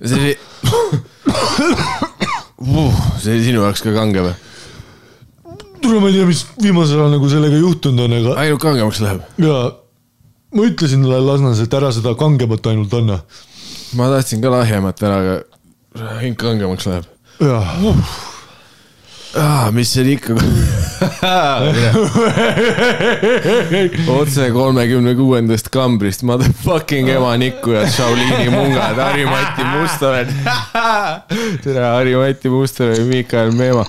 see oli sinu jaoks ka kange või? Tule ma ei tea, mis viimasel ajal nagu sellega juhtunud on, aga... Ainult kangemaks läheb? Jaa, ma ütlesin talle Lasnas, et ära seda kangemat ainult anna. Ma tahtsin ka lahjemat ära, aga hing kangemaks läheb. Jaa. Mis see ikka... Otse 36. kambrist motherfucking ema Nikku ja Shaolini mungad, Harri-Mati Mustonen. Tere, Harri-Mati Mustonen ja Mikael Meema.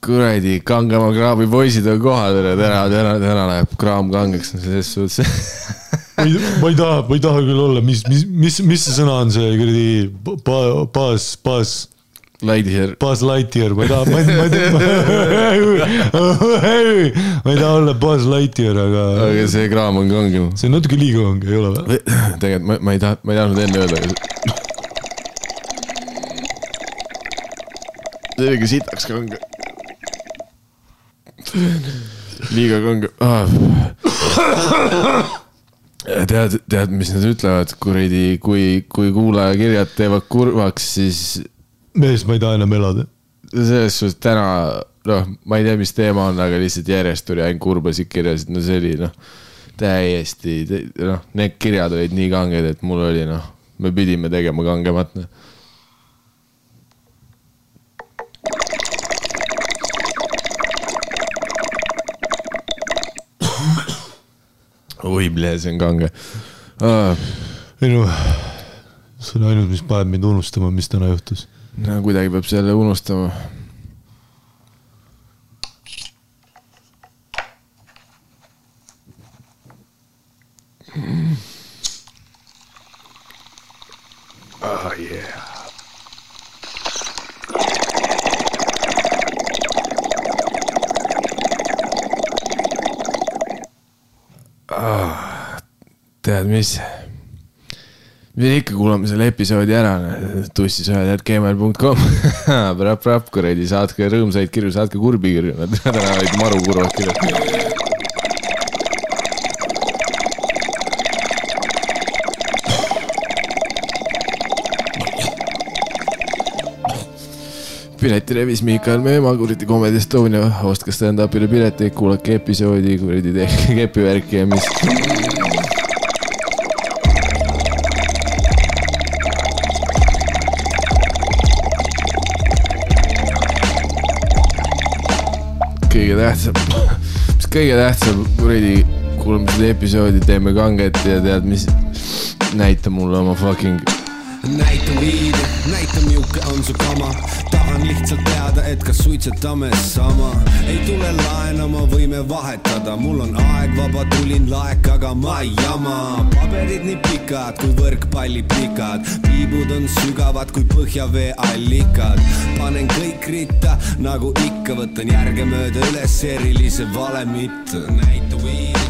Kuradi, kangema kraabi poisid on kohal, täna läheb kraam kangeks selles suhtes. Ma ei taha küll olla, mis see sõna on see Buzz Lightyear, ma ei taha olla Buzz Lightyear, aga see kraam on kangem. See on natuke liiga kange, ei ole või? Tegelikult ma ei tahtnud enne öelda, see oligi sitaks kange. Liiga kange. Tead, mis nad ütlevad, kui kuulaja kirjad teevad kurvaks, siis... Mees, ma ei taha enam elada. Selles suhtes täna, ma ei tea, mis teema on, aga lihtsalt järjest tuli ainult kurbasid kirjasid, see oli, täiesti, need kirjad olid nii kanged, et mul oli, me pidime tegema kangemat, Oi, ble, see on kange. Ei see on ainult, mis paneb mind unustama, mis täna juhtus. No, kuidagi peab selle unustama. Yeah. Tead, mis ikka kuulame selle episoodi ära, tussisööjad@gmail.com Prap, kuradi, saatke rõõmsaid kirju, saatke kurbi kirju, nad olid maru kurvad kirjad. Pileti revis Mikael Meema, kuradi Comedy Estonia, ostke stand-upile pileteid, kuulake episoodi, kuradi tehke kepivärki ja mis... kõige tähtsam, kuradi, kuulame seda episoodi, teeme kanget ja tead, mis näita mulle oma fucking... Näita viidi, näita miuke on su kama. Tahan lihtsalt teada, et kas suitsetame sama. Ei tule laenama, võime vahetada. Mul on aeg vaba, tulin laek, aga ma ei jama. Paberid nii pikad, kui võrkpalli pikad. Piibud on sügavad, kui põhjavee allikad. Panen kõik ritta, nagu ikka. Võtan järge mööda üles erilise valemit. Näita viidi.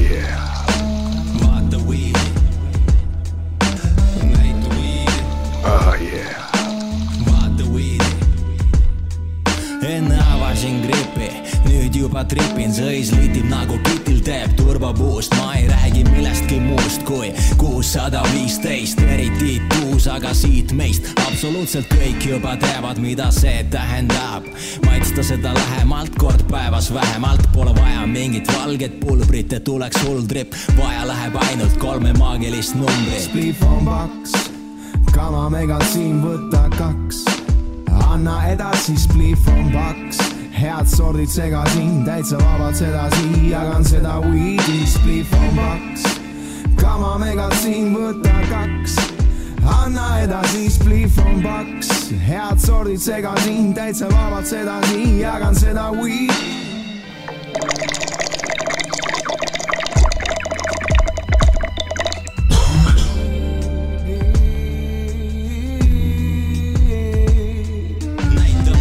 Yeah. Vaata viidi. Yeah. Vaata viidi. Enne avasin gripi, nüüd juba tripin, sõis litib nagu kitil teeb turbapuust. Ma ei räägi millestki muust kui 615, eriti tuus, aga siit meist absoluutselt kõik juba teavad, mida see tähendab. Maitsta seda lähemalt, kord päevas vähemalt, pole vaja mingit valget pulbrit, et tuleks hull trip, vaja läheb ainult 3 maagilist numbrit. Spliff on paks, kama megal siin võtta 2. Anna edasi, spliff on paks. Head sordid segasin, täitsa vabalt sedasi. Jagan seda weedi, spliff on paks. Kama megal siin võtta 2. Anna edasi, spliff on paks. Head sordid segasin, täitsa vabalt sedasi. Jagan seda weedi. Näita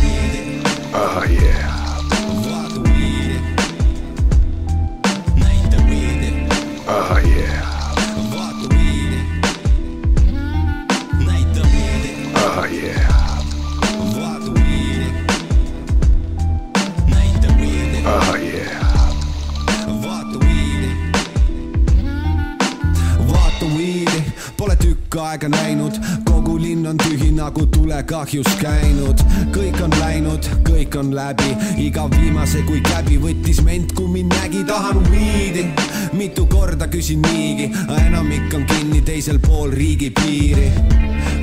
pikka aega näinud, kogu linn on tühi nagu tulekahjus käinud. Kõik on läinud, kõik on läbi, iga viimase kui käbi võttis ment, kui mind nägi, tahan viidi. Mitu korda küsin niigi, enamik on kinni teisel pool riigi piiri.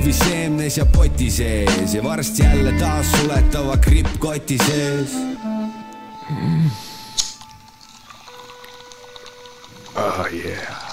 Või seemnes ja poti sees ja varsti jälle taas suletava gripp koti sees. Oh yeah.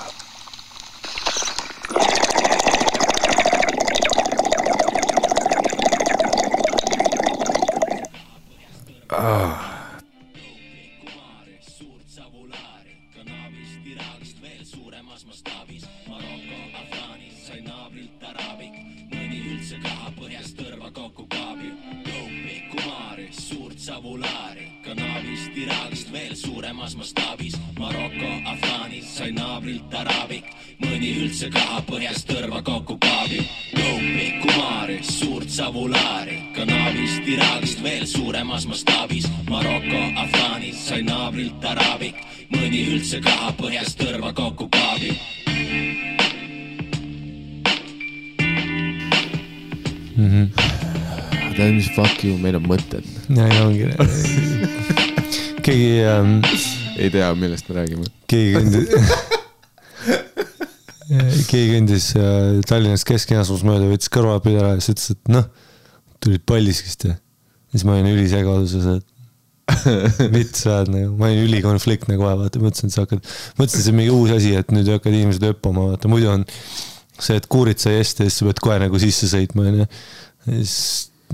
Mõni üldse kaha põhjast tõrva kokku kaabi. Loupi, Kumari, suurt savulaari, Kanavist, Iraagist veel suuremas mastaabis. Maroko, Afgaanis sai naabrilt araabik, mõni üldse kaha põhjast tõrva kokku kaabi. Tead mis fuck you, meil on mõtted. Ja ongi. Keegi ei tea, millest me räägime. Keegi kõndis Tallinnas Kesk-Jõesuus mööda, võttis kõrvapidi ära ja siis ütles, et noh, tulid Paldiskist ja siis ma olin ülisegaduses, et vits väed nagu, ma olin ülikonfliktne kohe, vaata, mõtlesin, et see on mingi uus asi, et nüüd hakkad inimesed öppama, vaata, muidu on see, et kuurid sai esti ja siis sa pead kohe nagu sisse sõitma ja siis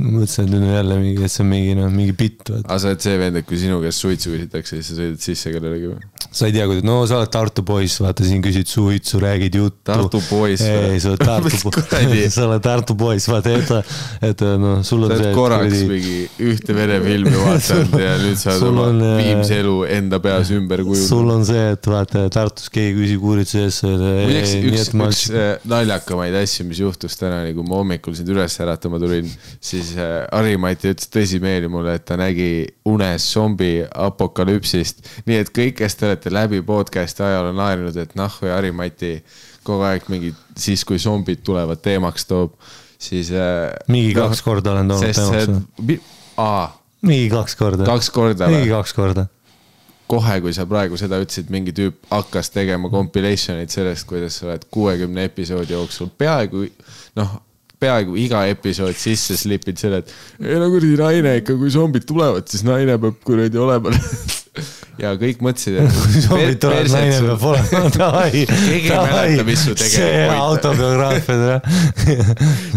mõtlesin, et nüüd on jälle mingi, et see on mingi bitt. Aga sa oled see vend, et kui sinu käest suitsu küsitakse, siis sa sõidad sisse kellelegi või? Sa ei tea, kuidas, no sa oled Tartu poiss, vaata siin küsid suitsu, räägid juttu. Tartu poiss või? Ei, sa oled Tartu poiss, vaata, et no sul on see... Sa oled korraks mingi ühte verefilmi vaatanud ja nüüd sa oled oma viimse elu enda peas ümber kujund. Sul on see, et vaata Tartus keegi küsib uurituse ees. Üks naljakamaid asju, mis juhtus täna, kui ma hommikul sind üles äratama tulin, siis Harimati ütles tõsimeeli mulle, et ta nägi unes zombi apokalüpsist. Nii et kõik, kes te olete läbi podcasti ajal on naerinud, et või Harimati kogu aeg mingi siis, kui zombid tulevad teemaks toob, siis... Mingi 2 korda olen toonud teemaks. Mingi 2 korda. 2 korda? Mingi 2 korda. Kohe, kui sa praegu seda ütlesid, mingi tüüp hakkas tegema compilation'id sellest, kuidas sa oled 60 episoodi jooksul peaaegu iga episood sisse slipid selle, et ei no kuradi naine ikka, kui zombid tulevad, siis naine peab kuradi olema. Ja kõik mõtlesid, et kui zombid tulevad, naine peab olema. Keegi ei mäleta, mis su tegema see autobiograafia.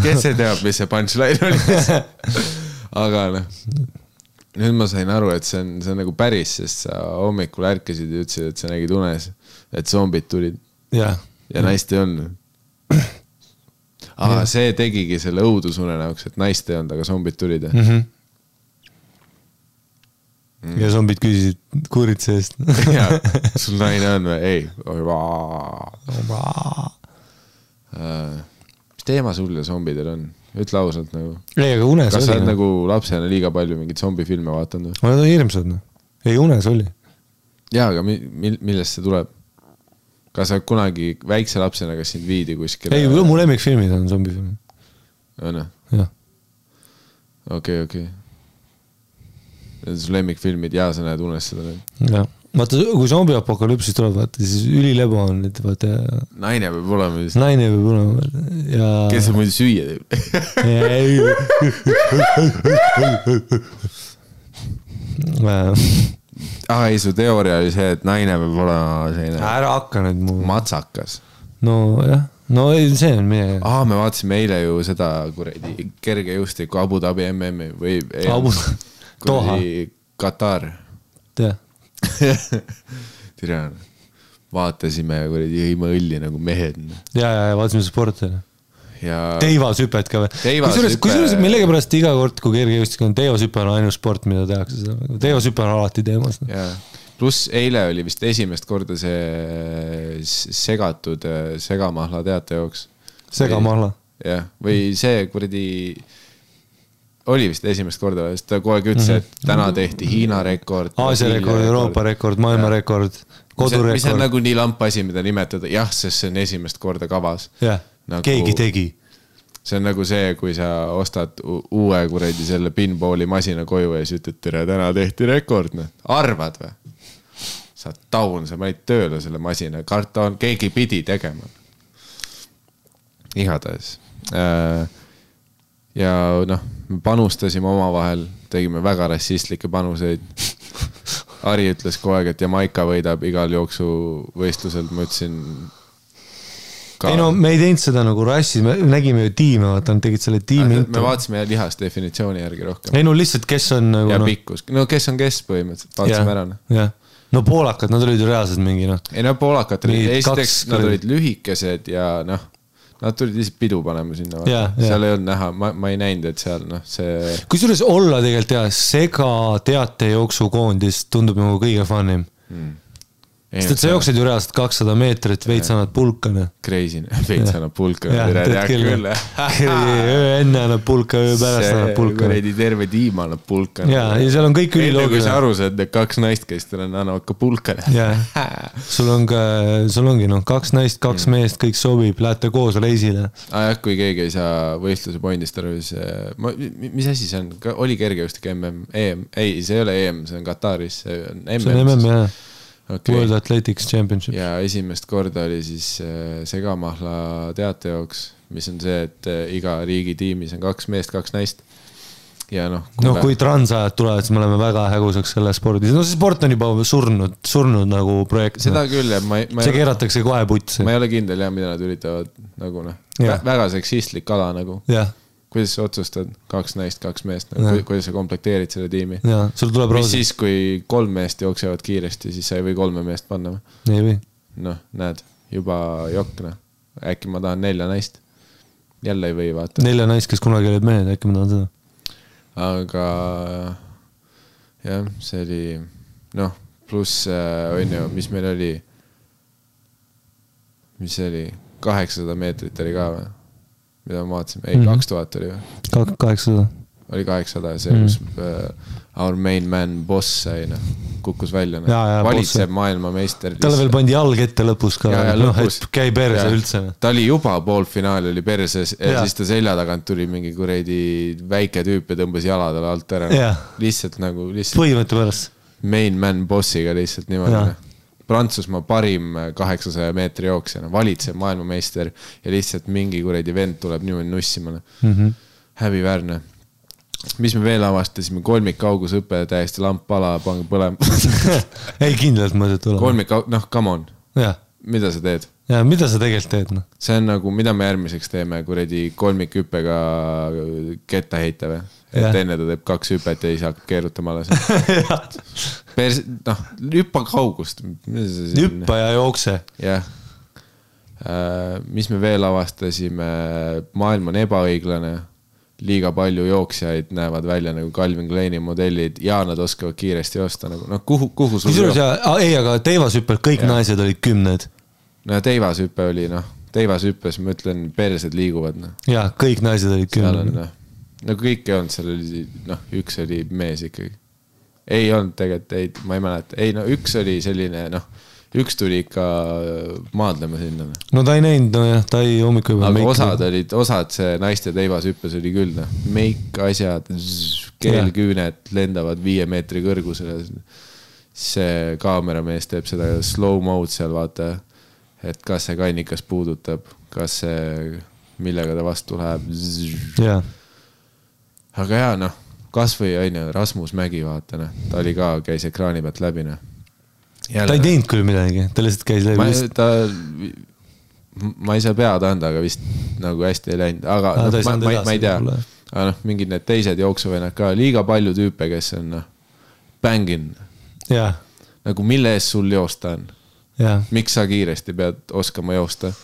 Kes see teab, mis see punchline oli? Aga nüüd ma sain aru, et see on nagu päris, sest sa hommikul ärkasid ja ütlesid, et sa nägid unes, et zombid tulid. Ja naist ei olnud. Aga see tegigi selle õudusune näoks, et naist ei olnud, aga zombid tulid. Ja zombid küsisid kuuritse eest. Ja, sul naine on või? Ei. Mis teema sul ja zombidel on? Ütle ausalt nagu. Ei, aga unes oli. Kas sa oled nagu lapsena liiga palju mingid zombifilme vaatanud? Ma olen hirmsad. Ei, unes oli. Jaa, aga millest see tuleb? Kas sa kunagi väikse lapsena, kas sind viidi kuskil? Ei, mu lemmikfilmid on zombifilmid. On? Jah. Okei. Need on su lemmikfilmid ja sa näed unes seda. Jah. Vaata, kui zombi apokalüpsis tuleb, vaata, siis ülilebo on. Naine peab olema. Naine peab olema. Ja... Kes sa muidu süüa teeb? Ei, su teooria oli see, et naine peab olema selline... Ära hakka nüüd mu... Matsakas. No jah. No see on meie... Me vaatasime eile ju seda kuredi kergejõustiku Abu Dhabi MM või... Doha. Katar. Tea. Tirjana. Vaatasime kuredi jõime õlli nagu mehed. Ja vaatasime sporti. Ja... Teivasüpet ka või? Kusjuures millegipärast iga kord, kui kergejõustik on teivasüpe on ainus sport, mida tehakse. Teivasüpe on alati teemas. Pluss eile oli vist esimest korda see segatud segamahla teate jooks. Segamahla? Jah, või see kuradi... Oli vist esimest korda, sest ta kogu aeg ütles, et täna tehti Hiina rekord. Aasia rekord, Euroopa rekord, maailma rekord, kodurekord. Mis on nagu nii lamp asi, mida nimetada. Jah, sest see on esimest korda kavas. nagu, keegi tegi. See on nagu see, kui sa ostad uue kuradi selle pinballi masina koju ja siis ütled, tere, täna tehti rekord. Arvad või? Sa taun, sa panid tööle selle masina. Karton, keegi pidi tegema. Igatahes. Ja noh, me panustasime oma vahel, tegime väga rassistlikke panuseid. Ari ütles kogu aeg, et Jamaica võidab igal jooksu võistlusel. Ma ütlesin ka... Ei no, me ei teinud seda nagu rassi, me nägime ju tiime, vaata, nad tegid selle tiimi. Me vaatasime lihast definitsiooni järgi rohkem. Ei no lihtsalt, kes on nagu... Ja pikkus. No kes on kes põhimõtteliselt, vaatasime ära. Jah. No poolakad, nad olid ju reaalselt mingi noh. Ei no poolakad olid, esiteks nad olid lühikesed ja noh, nad tulid lihtsalt pidu panema sinna. Seal ei olnud näha, ma ei näinud, et seal noh, see... Kusjuures olla tegelikult jah, sega teatejooksukoondis tundub nagu kõige funnim. Sest et sa jooksed ju reaalselt 200 meetrit, veits annad pulkane. Crazy, veits annab pulkane. Öö enne annab pulka, öö pärast annab pulkane. Terve tiim annab pulkane. Ja seal on kõik üliloogiline. Kui sa aru saad, et 2 naist, kes teil annavad ka pulkane. Sul ongi 2 naist, 2 meest, kõik sobib, lähete koos reisile. Kui keegi ei saa võistluse pointist aru, siis mis asi see on? Oli kergejõustik EM? Ei, see ei ole EM, see on Kataris. See on MM, jah. Okay. World Athletics Championship. Ja esimest korda oli siis segamahla teatejooks, mis on see, et iga riigi tiimis on 2 meest, 2 naist. Ja kui transajad tulevad, siis me oleme väga hägusaks selle spordis. No see sport on juba surnud nagu projekt. Seda küll, see keeratakse kohe putsi. Ma ei ole kindel, mida nad üritavad nagu väga seksistlik ala nagu. Jah. Kuidas sa otsustad 2 naist, 2 meest, kuidas sa komplekteerid selle tiimi? Ja, sul tuleb mis siis, kui 3 meest jooksevad kiiresti, siis sa ei või 3 meest panna? Ei või. Noh, näed, juba jokk. Äkki ma tahan 4 naist. Jälle ei või vaata. 4 naist, kes kunagi olid mehed, äkki ma tahan seda. Aga jah, see oli pluss on ju, mis meil oli 800 meetrit oli ka või? Mida ma vaatasin, 2000 oli või? 800. Oli 800 ja see, kus our main man boss sai, kukkus välja. Valitseb maailmameister. Talle veel pandi jalg ette lõpus ka, et käi perse üldse. Ta oli juba poolfinaal, oli perses ja siis ta selja tagant tuli mingi kuredi väike tüüp ja tõmbas jaladele alt ära. Lihtsalt nagu... Põhimõtte pärast. Main man bossiga lihtsalt niimoodi. Prantsusmaa parim 800 meetri jooksjana, valitseb maailmameister ja lihtsalt mingi kuredi vend tuleb niimoodi nussimale. Häbiväärne. Mis me veel avastasime? Kolmikaugusõpe, täiesti lamp pala, pange põlema. Ei kindlalt mõtet olema. Come on. Mida sa teed? Ja mida sa tegelikult teed? See on nagu, mida me järgmiseks teeme, kuredi kolmikhüppega ketta heita või? Et enne ta teeb 2 hüpet ja siis hakkab keerutama alles. Hüppa kaugust. Hüppa ja jookse. Jah. Mis me veel avastasime? Maailm on ebaõiglane. Liiga palju jooksjaid näevad välja nagu Calvin Kleini modellid ja nad oskavad kiiresti joosta. Kuhu sul ei, aga teivashüppel kõik naised olid 10. No teivashüppe oli, teivashüppes ma ütlen, persed liiguvad. Ja, kõik naised olid 10. Nagu kõik ei olnud, seal oli, üks oli mees ikkagi. Ei olnud tegelikult, ma ei mäleta. Ei, üks oli selline, üks tuli ikka maadlema sinna. No ta ei näinud, ta ei hommikul juba. Aga osad see naiste teivashüppes oli küll, meik, asjad, keelküünet lendavad 5 meetri kõrgusele. See kaameramees teeb seda slow mode seal, vaata, et kas see kannikas puudutab, kas see, millega ta vastu läheb. Jah. Aga jaa, kas või Rasmus Mägi, vaata, ta oli ka, käis ekraani pealt läbi. Ta ei teinud küll midagi, ta lihtsalt käis läbi. Ma ei saa pead anda, aga vist nagu hästi ei läinud. Aga ma ei tea, mingid need teised jooksuvennad ka, liiga palju tüüpe, kes on bängin. Nagu mille ees sul joosta on? Miks sa kiiresti pead oskama joosta?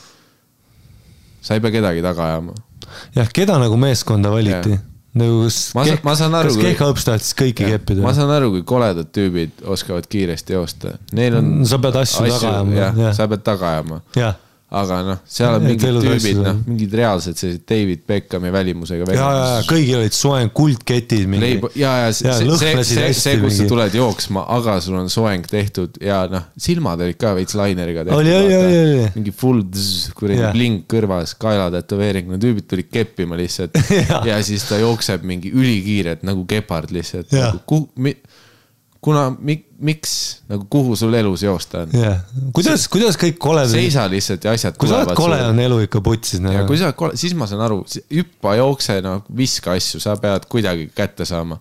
Sa ei pea kedagi taga ajama. Jah, keda nagu meeskonda valiti? Kas Kehhõps tahtis kõiki keppida? Ma saan aru, kui koledad tüübid oskavad kiiresti joosta. Sa pead asju taga ajama. Sa pead taga ajama. aga noh, seal on mingid tüübid, noh, mingid reaalsed sellised David Beckhami välimusega. Ja, kõigil olid soeng kuldketid. See, kus sa tuled jooksma, aga sul on soeng tehtud ja noh, silmad olid ka veits laineriga tehtud. Oli. Mingi full kuradi blink kõrvas, kaelatätoveering, no tüübid tulid keppima lihtsalt ja siis ta jookseb mingi ülikiiret nagu gepard lihtsalt. Miks, nagu kuhu sul elus joosta on? Kuidas kõik kole... Seisa lihtsalt ja asjad kui tulevad. Kui sa oled kole, on elu ikka putsis. Ja kui sa oled kole, siis ma saan aru, hüppa, jookse, no, viska asju, sa pead kuidagi kätte saama.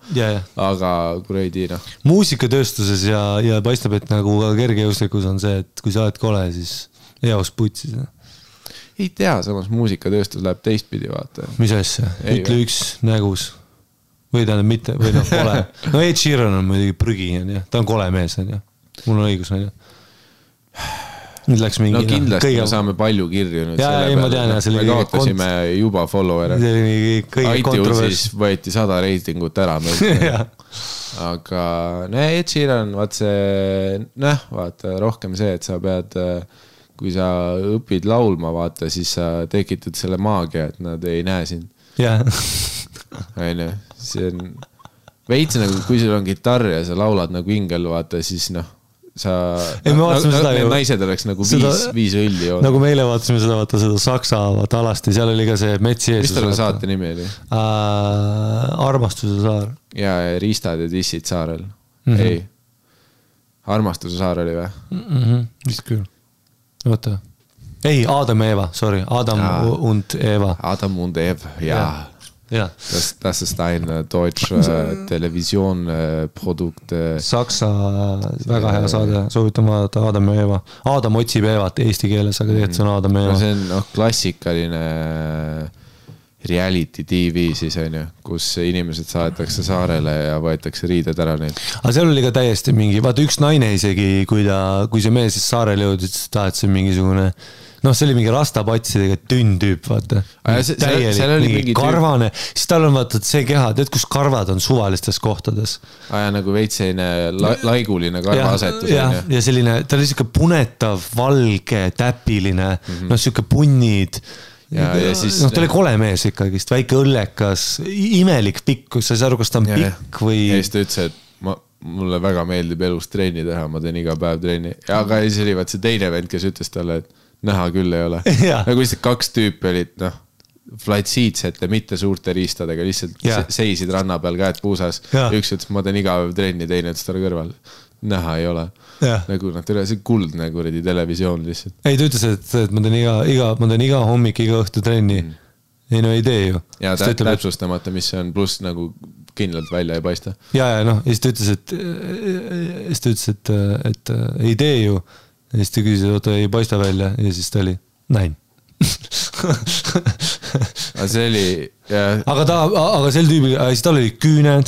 Aga kuradi, noh. Muusikatööstuses ja paistab, et nagu kergejõuslikus on see, et kui sa oled kole, siis eos putsis. Ei tea, samas muusikatööstus läheb teistpidi, vaata. Mis asja? Ütle üks nägus. Või tähendab mitte, või noh, kole. No Ed Sheeran on muidugi prügi, ta on kole mees, mul on õigus, nüüd läks mingi... No kindlasti me saame palju kirju nüüd selle peale. Me kaotasime juba follower'e. iTunesis võeti 100 reitingut ära. Aga Ed Sheeran, vaata, rohkem see, et sa pead, kui sa õpid laulma, vaata, siis sa tekitad selle maagia, et nad ei näe sind. See on veits nagu, kui sul on gitarr ja sa laulad nagu ingel, vaata, siis noh, need naised oleks nagu viis õlli. Nagu meile vaatasime seda Saksa alasti, seal oli ka see Metsi Jeesus. Mis tal saate nimi oli? Armastuse saar. Ja Riistad ja Tissid saarel. Ei. Armastuse saar oli või? Vist küll. Oota. Ei, Adam ja Eva, sorry. Adam und Eva. Adam und Eva, jaa. Das ist ein deutsch Televisioonprodukt. Saksa väga hea saade, soovitan vaadata Adam ja Eva. Adam otsib Evat eesti keeles, aga tegelikult see on Adam ja Eva. See on klassikaline reality TV siis on ju, kus inimesed saadetakse saarele ja võetakse riided ära neid. Aga seal oli ka täiesti mingi, vaata üks naine isegi, kui see mees siis saarele jõudis, ta et see mingisugune noh, see oli mingi rastapatsidega tünn tüüp, vaata. Täielik mingi karvane. Siis tal on vaata see keha, tead, kus karvad on suvalistes kohtades. Nagu veitseine laiguline karvaasetus. Ja selline, ta oli siuke punetav, valge, täpiline, noh, siuke punnid. Noh, ta oli kole mees ikkagist, väike õllekas, imelik pikk, sa ei saa aru, kas ta on pikk või... Ja siis ta ütles, et mulle väga meeldib elus trenni teha, ma teen iga päev trenni. Aga siis oli vaat see teine vend, kes ütles talle, et näha küll ei ole. Nagu lihtsalt kaks tüüpi olid, noh, flatsiidsete, mitte suurte riistadega, lihtsalt seisid ranna peal, käed puusas. Üks ütles, ma teen iga päev trenni, teine ütles talle kõrval. Näha ei ole. Nagu nad üle, see kuldne kuradi televisioon lihtsalt. Ei, ta ütles, et ma teen iga hommik, iga õhtu trenni. Ei, no ei tee ju. Ja täpsustamata, mis see on, pluss nagu kindlalt välja ei paista. Ja, noh, ja siis ta ütles, et ei tee ju. Ja siis ta küsis, et ei paista välja ja siis ta oli näin. See oli... Aga sel tüübil, siis tal oli küüned,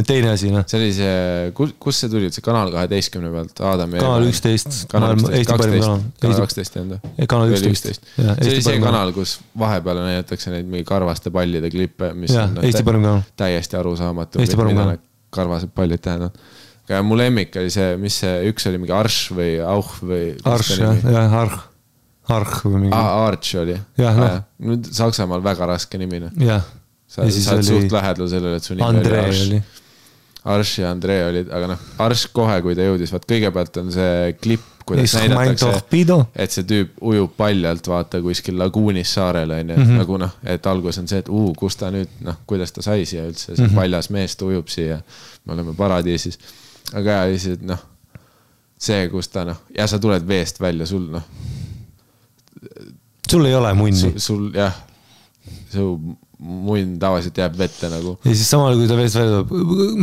teine asi. See oli see, kus see tuli, see Kanal 12 pealt? Kanal 11. Kanal 12 enda. Kanal 11. See oli see kanal, kus vahepeal näidatakse neid mingi karvaste pallide klippe, mis on täiesti arusaamatu. Mida karvased pallid tähendavad. Aga mu lemmik oli see, mis see üks oli mingi Arš või Auch või... Arš, Arch või mingi... Arch oli. Nüüd Saksamaal väga raske nimine. Sa oled suht lähedal sellele, et su nimi oli Arš. Arš ja Andrei olid, aga noh, Arš kohe, kui ta jõudis, vaat kõigepealt on see klipp, kuidas näidatakse, et see tüüp ujub paljalt, vaata kuskil laguunis saarele, nagu noh, et algus on see, et kus ta nüüd, noh, kuidas ta sai siia üldse, see paljas mees ta ujub siia, me oleme paradiisis. Aga lihtsalt, noh, see, kus ta, noh, ja sa tuled veest välja, sul, noh. Sul ei ole munni. Sul, jah, su munn tavaliselt jääb vette nagu. Ja siis samal, kui ta veest välja tuleb,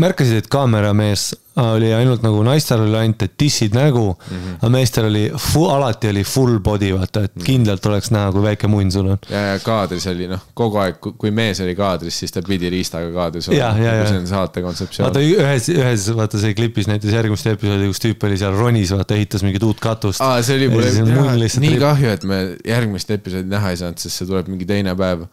märkasid, et kaameramees oli ainult nagu naistel oli ainult, et tissid nägu, aga meestel oli, alati oli full body, vaata, et kindlalt oleks näha, kui väike munn sul on. Ja kaadris oli, noh, kogu aeg, kui mees oli kaadris, siis ta pidi riistaga kaadris olla. See on saate kontseptsioon. Vaata, ühes, vaata, see klipis näiteks järgmist episoodi, kus tüüp oli seal ronis, vaata, ehitas mingit uut katust. See oli mulle nii kahju, et me järgmist episoodi näha ei saanud, sest see tuleb mingi teine päev.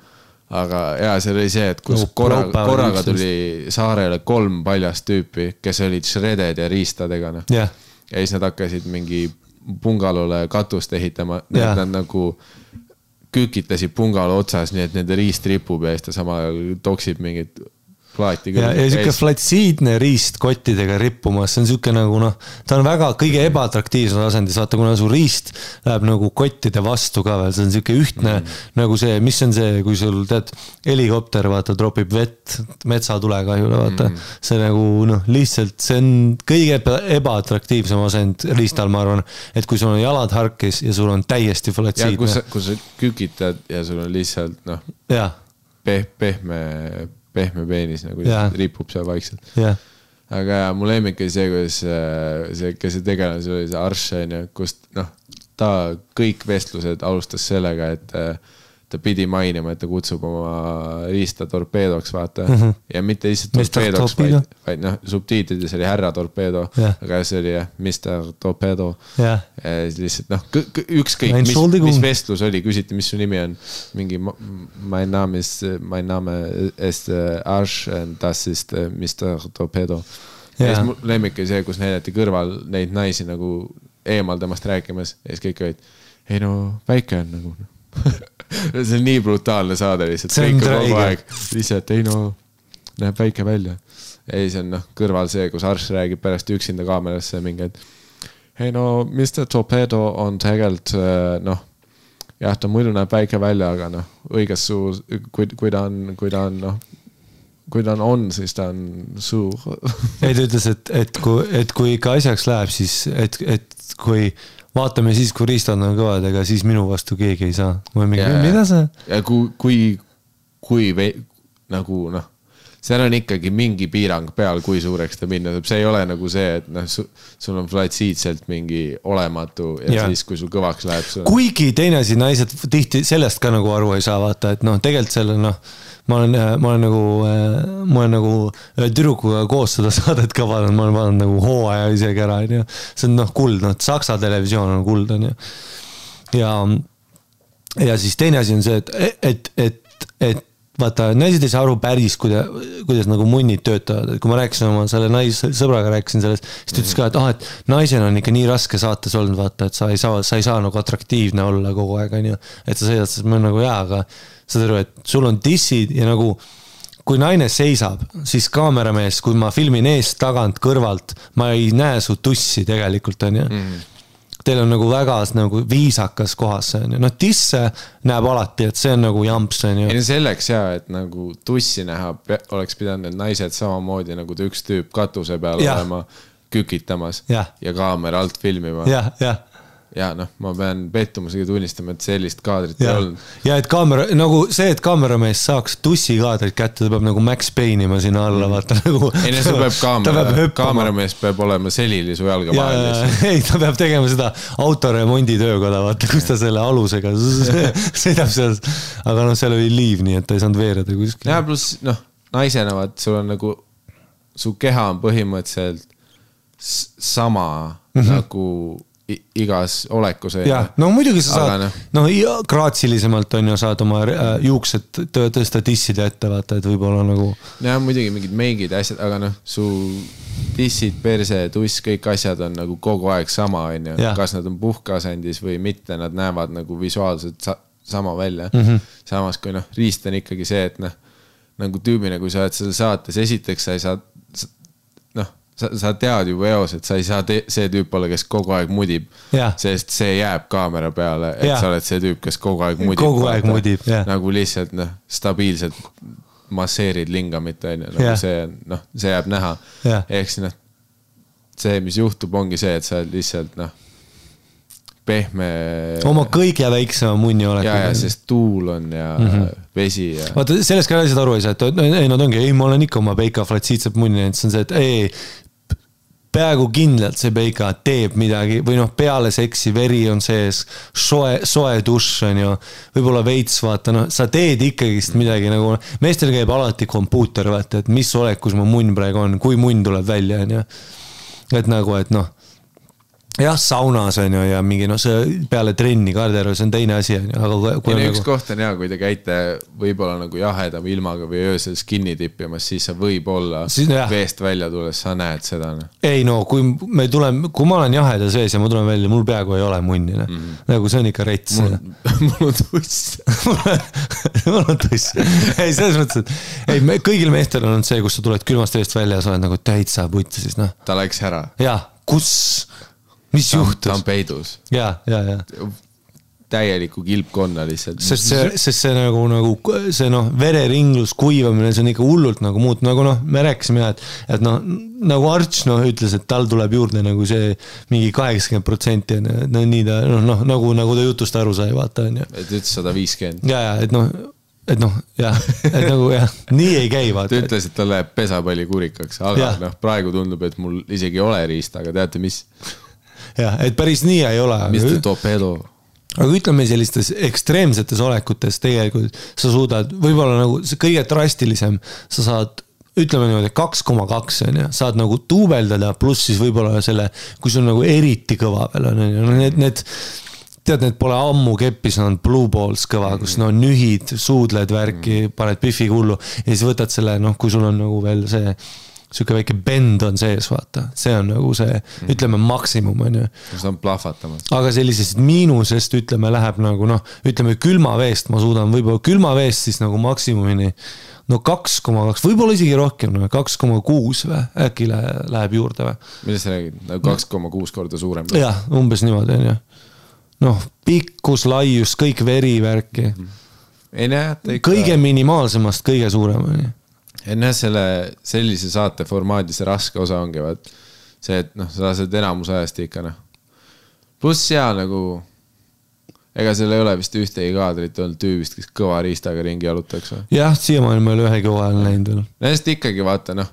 Aga jaa, see oli see, et kus korraga tuli saarele 3 paljast tüüpi, kes olid shredded ja riistadega. Ja siis nad hakkasid mingi pungalole katust ehitama, nad nagu kükitasid pungalo otsas, nii et nende riist ripub ja siis ta samal ajal toksib mingit plaati. Ja siuke flatsiidne riist kottidega rippumas, see on siuke nagu ta on väga kõige ebaatraktiivsem asendis, vaata kuna su riist läheb nagu kottide vastu ka veel, see on siuke ühtne nagu see, mis on see, kui sul tead, helikopter vaata tropib vett metsatulekahjule, vaata see nagu lihtsalt, see on kõige ebaatraktiivsem asend riistal, ma arvan, et kui sul on jalad harkis ja sul on täiesti flatsiidne. Ja kui sa kükitad ja sul on lihtsalt pehme peenis nagu ripub seal vaikselt. Aga mu lemmik oli see, kuidas kes see tegelane, see oli see Arsh, kust ta kõik vestlused alustas sellega, et ta pidi mainima, et ta kutsub oma riista torpeedoks, vaata. Ja mitte lihtsalt torpeedoks, vaid subtiitrides oli härra torpeedo, aga see oli Mr. Torpedo. Lihtsalt ükskõik, mis vestlus oli, küsiti, mis su nimi on. Mingi, my name is Arsh and das ist Mr. Torpedo. Ja siis mu lemmik oli see, kus näidati kõrval neid naisi nagu eemal temast rääkimas ja siis kõik olid, ei väike on nagu see on nii brutaalne saade lihtsalt. See on träige. Lihtsalt, ei näeb väike välja. Ei, see on kõrval see, kus Arsh räägib pärast üksinda kaamerasse mingi, et ei Mr. Torpedo on tegelikult jah, ta muidu näeb väike välja, aga õiges suur, kui ta on, siis ta on suur. Ei, ta ütles, et kui ikka asjaks läheb, siis et kui vaatame siis, kui riistad on kõvad, ega siis minu vastu keegi ei saa. Mida see? Ja kui nagu seal on ikkagi mingi piirang peal, kui suureks ta minna. See ei ole nagu see, et sul on flatsiidselt mingi olematu ja siis, kui sul kõvaks läheb. Kuigi teine asi, naised tihti sellest ka nagu aru ei saa vaata, et tegelikult selle ma olen nagu tüdrukuga koos seda saadet ka vaadanud, ma olen vaadanud nagu hooaja isegi ära, see on kuld, Saksa televisioon on kuld, ja siis teine asi on see, et vaata, naised ei saa aru päris, kuidas nagu munnid töötavad, et kui ma rääkisin oma selle naissõbraga rääkisin sellest, siis ta ütles ka, et naisena on ikka nii raske saates olnud, vaata, et sa ei saa nagu atraktiivne olla kogu aeg, et sa sõidad, siis ma olen nagu aga saad aru, et sul on dissid ja nagu kui naine seisab, siis kaameramees, kui ma filmin eest, tagant, kõrvalt, ma ei näe su tussi tegelikult, on ju. Teil on nagu väga nagu viisakas kohas, on ju. Tisse näeb alati, et see on nagu jamps, on ju. Ja selleks et nagu tussi näha, oleks pidanud need naised samamoodi nagu üks tüüp katuse peal olema kükitamas ja kaamera alt filmima. Ja ma pean pettumusega tunnistama, et sellist kaadrit ei olnud. Ja et et kaameramees saaks tussi kaadrit kätte, ta peab nagu Max Payne'ima sinna alla, vaata nagu. Ei, see peab kaameramees peab olema selili su jalga vahel. Ei, ta peab tegema seda autoremondi töökoda, vaata, kus ta selle alusega sõidab seal. Aga seal oli liiv, nii et ta ei saanud veereda kuskil. Ja pluss, naisena, vaat, sul on nagu, su keha on põhimõtteliselt sama nagu igas olekus. Ja, muidugi sa saad, kraatsilisemalt on ju saad oma juuksed tõsta tisside ette, vaata, et võib-olla nagu. Ja, muidugi mingid meigid asjad, aga su tissid, perse, tuss, kõik asjad on nagu kogu aeg sama, on ju. Kas nad on puhkasendis või mitte, nad näevad nagu visuaalselt sama välja. Samas, kui riist on ikkagi see, et nagu tüübina, kui sa oled selle saates, esiteks sa ei saa sa tead juba eos, et sa ei saa see tüüp olla, kes kogu aeg mudib, sest see jääb kaamera peale, et sa oled see tüüp, kes kogu aeg mudib. Kogu aeg mudib, jah. Nagu lihtsalt stabiilselt masseerid lingamit, nagu see jääb näha. Ehk see, mis juhtub, ongi see, et sa lihtsalt pehme. Oma kõige väiksema munni oled. Ja, sest tuul on ja vesi. Ja. Vaata, sellest ka asjad aru ei saa, et nad ongi, ma olen ikka oma peika flatsiitseb munni, et see on see, et peaaegu kindlalt see peika teeb midagi või peale seksi veri on sees, soe dušš on ju, võib-olla veits, vaata, sa teed ikkagist midagi nagu, meestel käib alati kompuuter, vaata, et mis olekus mu munn praegu on, kui munn tuleb välja, on ju. Et nagu, et jah, saunas on ju ja mingi see peale trenni Karderöö, see on teine asi on ju, aga kui üks koht on hea, kui te käite võib-olla nagu jahedam ilmaga või öösel skinni tippimas, siis sa võib-olla veest välja tulles, sa näed seda. Ei no, kui ma olen jaheda sees ja ma tulen välja, mul peaaegu ei ole munni, nagu see on ikka rets. Mul on tuss. Mul on tuss. Ei, selles mõttes, et kõigil meestel on see, kus sa tuled külmast veest välja ja sa oled nagu täitsa putti, siis noh. Ta läks ära. Jah, kus... Mis juhtus? Ta on peidus. Ja. Täieliku kilpkonna lihtsalt. Sest see nagu see vereringlus, kuivamine, see on ikka hullult nagu muut. Nagu me rääkisime, et nagu Arts ütles, et tal tuleb juurde nagu see mingi 80% nii ta, nagu ta jutust aru sai, vaata on ju. Et ütles 150. Ja, et nagu nii ei käi, vaata. Ta ütles, et ta läheb pesapalli kurikaks, aga praegu tundub, et mul isegi ei ole riista, aga teate mis? Ja, et päris nii ei ole. Mr. Torpedo. Aga ütleme sellistes ekstreemsetes olekutes tegelikult sa suudad, võib-olla nagu see kõige drastilisem, sa saad, ütleme niimoodi 2,2 on ja, saad nagu tuubeldada, pluss siis võib-olla selle, kui sul nagu eriti kõva veel on, need tead, need pole ammu keppis, on blue balls kõva, kus nühid, suudled värki, paned piffi hullu ja siis võtad selle, kui sul on nagu veel see siuke väike bend on sees, vaata. See on nagu see, ütleme, maksimum on ju. See on plahvatamas. Aga sellisest miinusest, ütleme, läheb nagu, ütleme, külmaveest ma suudan, võib-olla külmaveest siis nagu maksimumini, 2,2, võib-olla isegi rohkem, 2,6 või, äkki läheb juurde või? Millest sa räägid? 2,6 korda suurem? Jah, umbes niimoodi on ju. Pikkus, laius, kõik verivärki. Kõige minimaalsemast kõige suurem on ju. Enne sellise saate formaadis raske osa ongi, see, et sa saad enamus ajast ikka, Pluss seal nagu, ega seal ei ole vist ühtegi kaadrit olnud tüübist, kes kõva riistaga ringi jalutaks või? Jah, siiamaani me ei ole ühe kõva ajal näinud veel. Näest ikkagi vaata,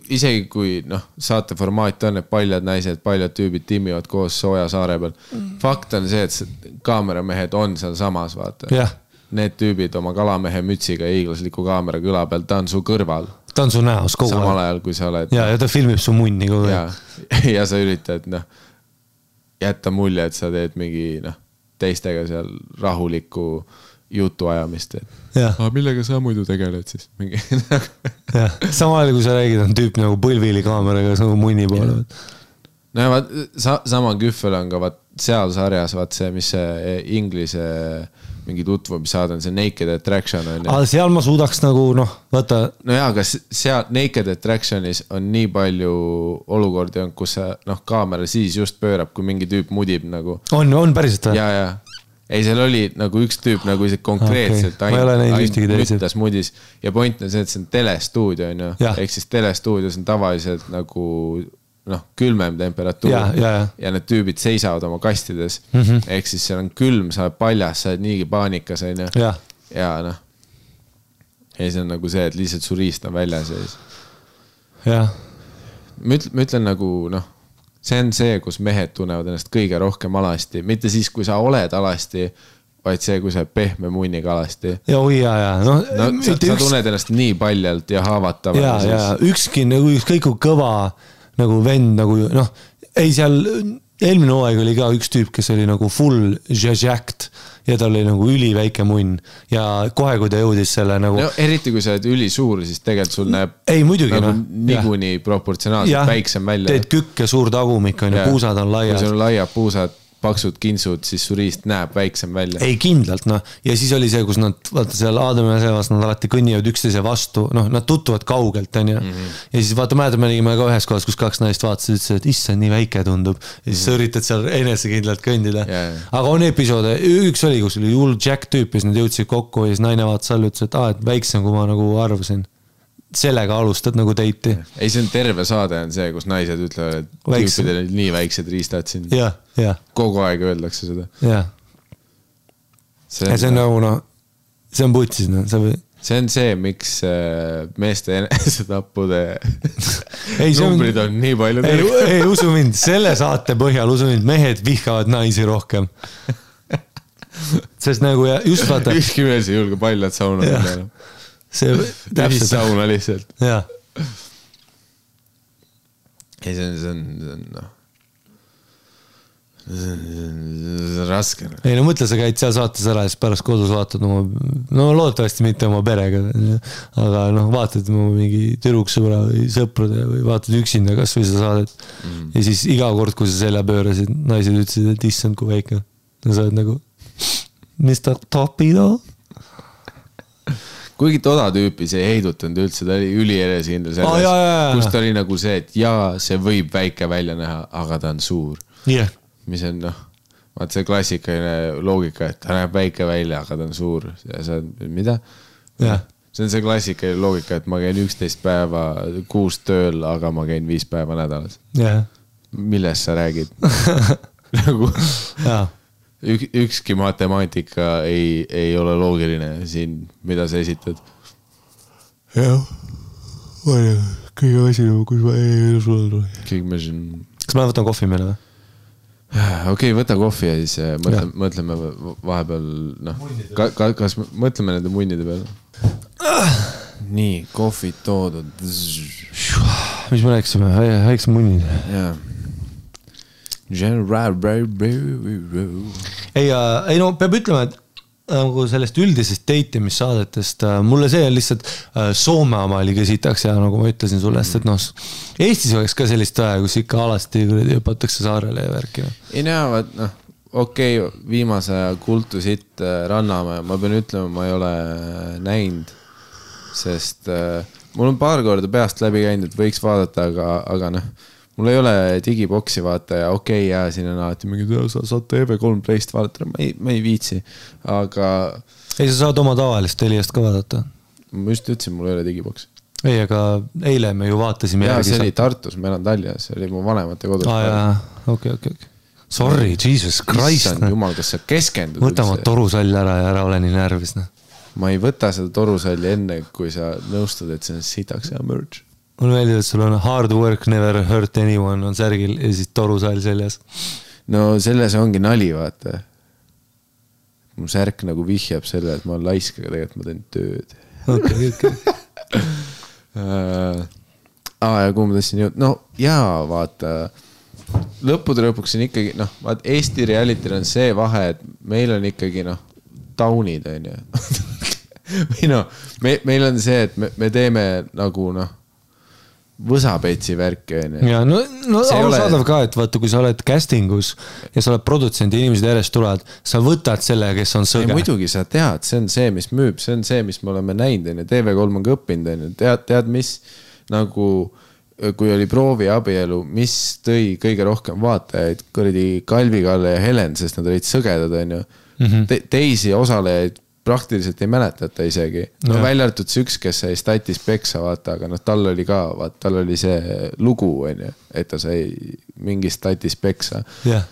isegi kui saate formaat on, et paljad naised, paljad tüübid timmivad koos sooja saare peal. Fakt on see, et kaameramehed on seal samas, vaata. Jah. Need tüübid oma kalamehe mütsiga ja hiiglasliku kaamera kõla peal, ta on su kõrval. Ta on su näos kogu aeg. Samal ajal, kui sa oled. Ja ta filmib su munni kogu aeg. Ja sa üritad jätta mulje, et sa teed mingi teistega seal rahulikku jutu ajamist. Aga millega sa muidu tegeled siis? Samal ajal, kui sa räägid, on tüüp nagu põlvili kaameraga nagu munni poole. Sama küffel on ka seal sarjas, see, mis see inglise mingi tutvumissaad on see Naked Attraction on. Aga seal ma suudaks nagu, vaata. Jaa, aga seal Naked Attractionis on nii palju olukordi on, kus kaamera siis just pöörab, kui mingi tüüp mudib nagu. On päriselt või? Jaa. Ei, seal oli nagu üks tüüp nagu ise konkreetselt ainult mudis. Ja point on see, et see on telestuudio on ju. Ehk siis telestuudios on tavaliselt nagu külmem temperatuur ja need tüübid seisavad oma kastides. Ehk siis seal on külm, sa oled paljas, sa oled niigi paanikas. Ja see on nagu see, et lihtsalt su riist on väljas. Ma ütlen nagu, see on see, kus mehed tunnevad ennast kõige rohkem alasti. Mitte siis, kui sa oled alasti, vaid see, kui sa oled pehme munniga alasti. Sa tunned ennast nii paljalt ja haavatavalt. Ükski kõik kõva nagu vend, nagu ei seal eelmine hooaeg oli ka üks tüüp, kes oli nagu full jacked ja tal oli nagu üliväike munn ja kohe, kui ta jõudis selle nagu... Eriti kui sa oled ülisuur, siis tegelikult sul näeb nagu niikuinii proportsionaalselt väiksem välja. Teed kükk ja suur tagumik on ja puusad on laiad. Kui sul on laiad puusad, paksud kinsud, siis su riist näeb väiksem välja. Ei, kindlalt, ja siis oli see, kus nad, vaata seal Aadami ja Sevas, nad alati kõnnivad üksteise vastu, nad tutvuvad kaugelt, on ju. Ja siis vaata, mäletame, me nägime ka ühes kohas, kus kaks naist vaatasid, ütlesid, et issa, nii väike tundub. Ja siis sa üritad seal enesekindlalt kõndida. Aga on episoode, üks oli, kus oli hull Jack tüüp, ja siis nad jõudsid kokku ja siis naine vaatas all, ütles, et väiksem, kui ma nagu arvasin. Sellega alustad nagu teiti. Ei, see on terve saade on see, kus naised ütlevad, et tüüpidel on nii väiksed riistad siin. Kogu aeg öeldakse seda. See on nagu, see on putsis. See on see, miks meeste enesetappude numbrid on nii palju. Ei, usu mind, selle saate põhjal, usu mind, mehed vihkavad naisi rohkem. Sest nagu just vaata. Ükski mees ei julge paljad sauna peale. See täpselt sauna lihtsalt. Jaa. Ei, see on raske. ei no mõtle, sa käid seal saates ära ja siis pärast kodus vaatad oma, no loodetavasti mitte oma perega, aga noh, vaatad oma mingi tüdruksõbra või sõprade või vaatad üksinda kas või seda saadet ja siis iga kord, kui sa selja pöörasid, naised ütlesid, et issand kui väike. Ja sa oled nagu Mr. Topido. Kuigi toda tüüpi see ei heidutanud üldse, ta oli ülienesekindel selles, kus ta oli nagu see, et jaa, see võib väike välja näha, aga ta on suur. Yeah. Mis on noh, vaat see klassikaline loogika, et ta näeb väike välja, aga ta on suur. Ja see on, mida? Yeah. See on see klassikaline loogika, et ma käin 11 päeva kuus tööl, aga ma käin 5 päeva nädalas. Yeah. Millest sa räägid? Nagu ükski matemaatika ei ole loogiline siin, mida sa esitad. Jah, kõige asi, kus ma ei sulle tuli. Kõik me siin... Kas ma võtan kohvi meile või? Okei, võta kohvi ja siis mõtleme vahepeal, noh, kas mõtleme nende munnide peale? Nii, kohvid toodud. Mis me rääksime? Häiks munnid. Jaa. Ei no, peab ütlema, et nagu sellest üldisest date'imissaadetest mulle see on lihtsalt Soome oma oli kesitaks ja nagu ma ütlesin sulle, et noh, Eestis oleks ka sellist vaja, kus ikka alasti õpatakse saarele ja värki. Ei näevad, noh, okei, viimase aja kultu sitt Rannamäe, ma pean ütlema, ma ei ole näinud, sest mul on paar korda peast läbi käinud, et võiks vaadata, aga noh, mul ei ole digiboksi vaata ja okei, ja siin on alati mingi, sa saad TV3 Playst vaadata, ma ei viitsi, aga... Ei, sa saad oma tavalist Teliast ka vaadata. Ma just ütlesin, mul ei ole digiboks. Ei, aga eile me ju vaatasime järgi. See oli Tartus, ma elan Tallinnas, see oli mu vanemate kodus. Okei. Sorry, Jesus Christ. Issand jumal, kas sa keskendud? Võta ma torusall ära ja ära ole nii närvis. Ma ei võta seda torusalli enne, kui sa nõustud, et see on sitaks ja merch. Mul meeldib, et sul on hard work, never hurt anyone on särgil ja siis torusall seljas. No selles ongi nali, vaata. Mu särk nagu vihjab selle, et ma olen laisk, aga tegelikult ma teen tööd. Okay. Ja kuhu ma tõstin jõud? No jaa, vaata, lõppude lõpuks on ikkagi, noh, vaat Eesti realityl on see vahe, et meil on ikkagi, noh, taunid, on ju. Või noh, meil on see, et me teeme nagu, noh, võsapetsi värki. Ja, no arusaadav ka, et vaata, kui sa oled castingus ja sa oled produtsent ja inimesed järjest tulevad, sa võtad selle, kes on sõge. Muidugi sa tead, see on see, mis müüb, see on see, mis me oleme näinud, TV3 on ka õppinud, tead, mis nagu, kui oli proovi abielu, mis tõi kõige rohkem vaatajaid, kuradi Kalvi, Kalle ja Helen, sest nad olid sõgedad, on ju. Teisi osalejaid praktiliselt ei mäletata isegi. No välja arvatud see üks, kes sai statis peksa, vaata, aga noh, tal oli ka, vaata, tal oli see lugu, on ju, et ta sai mingi statis peksa. Yeah.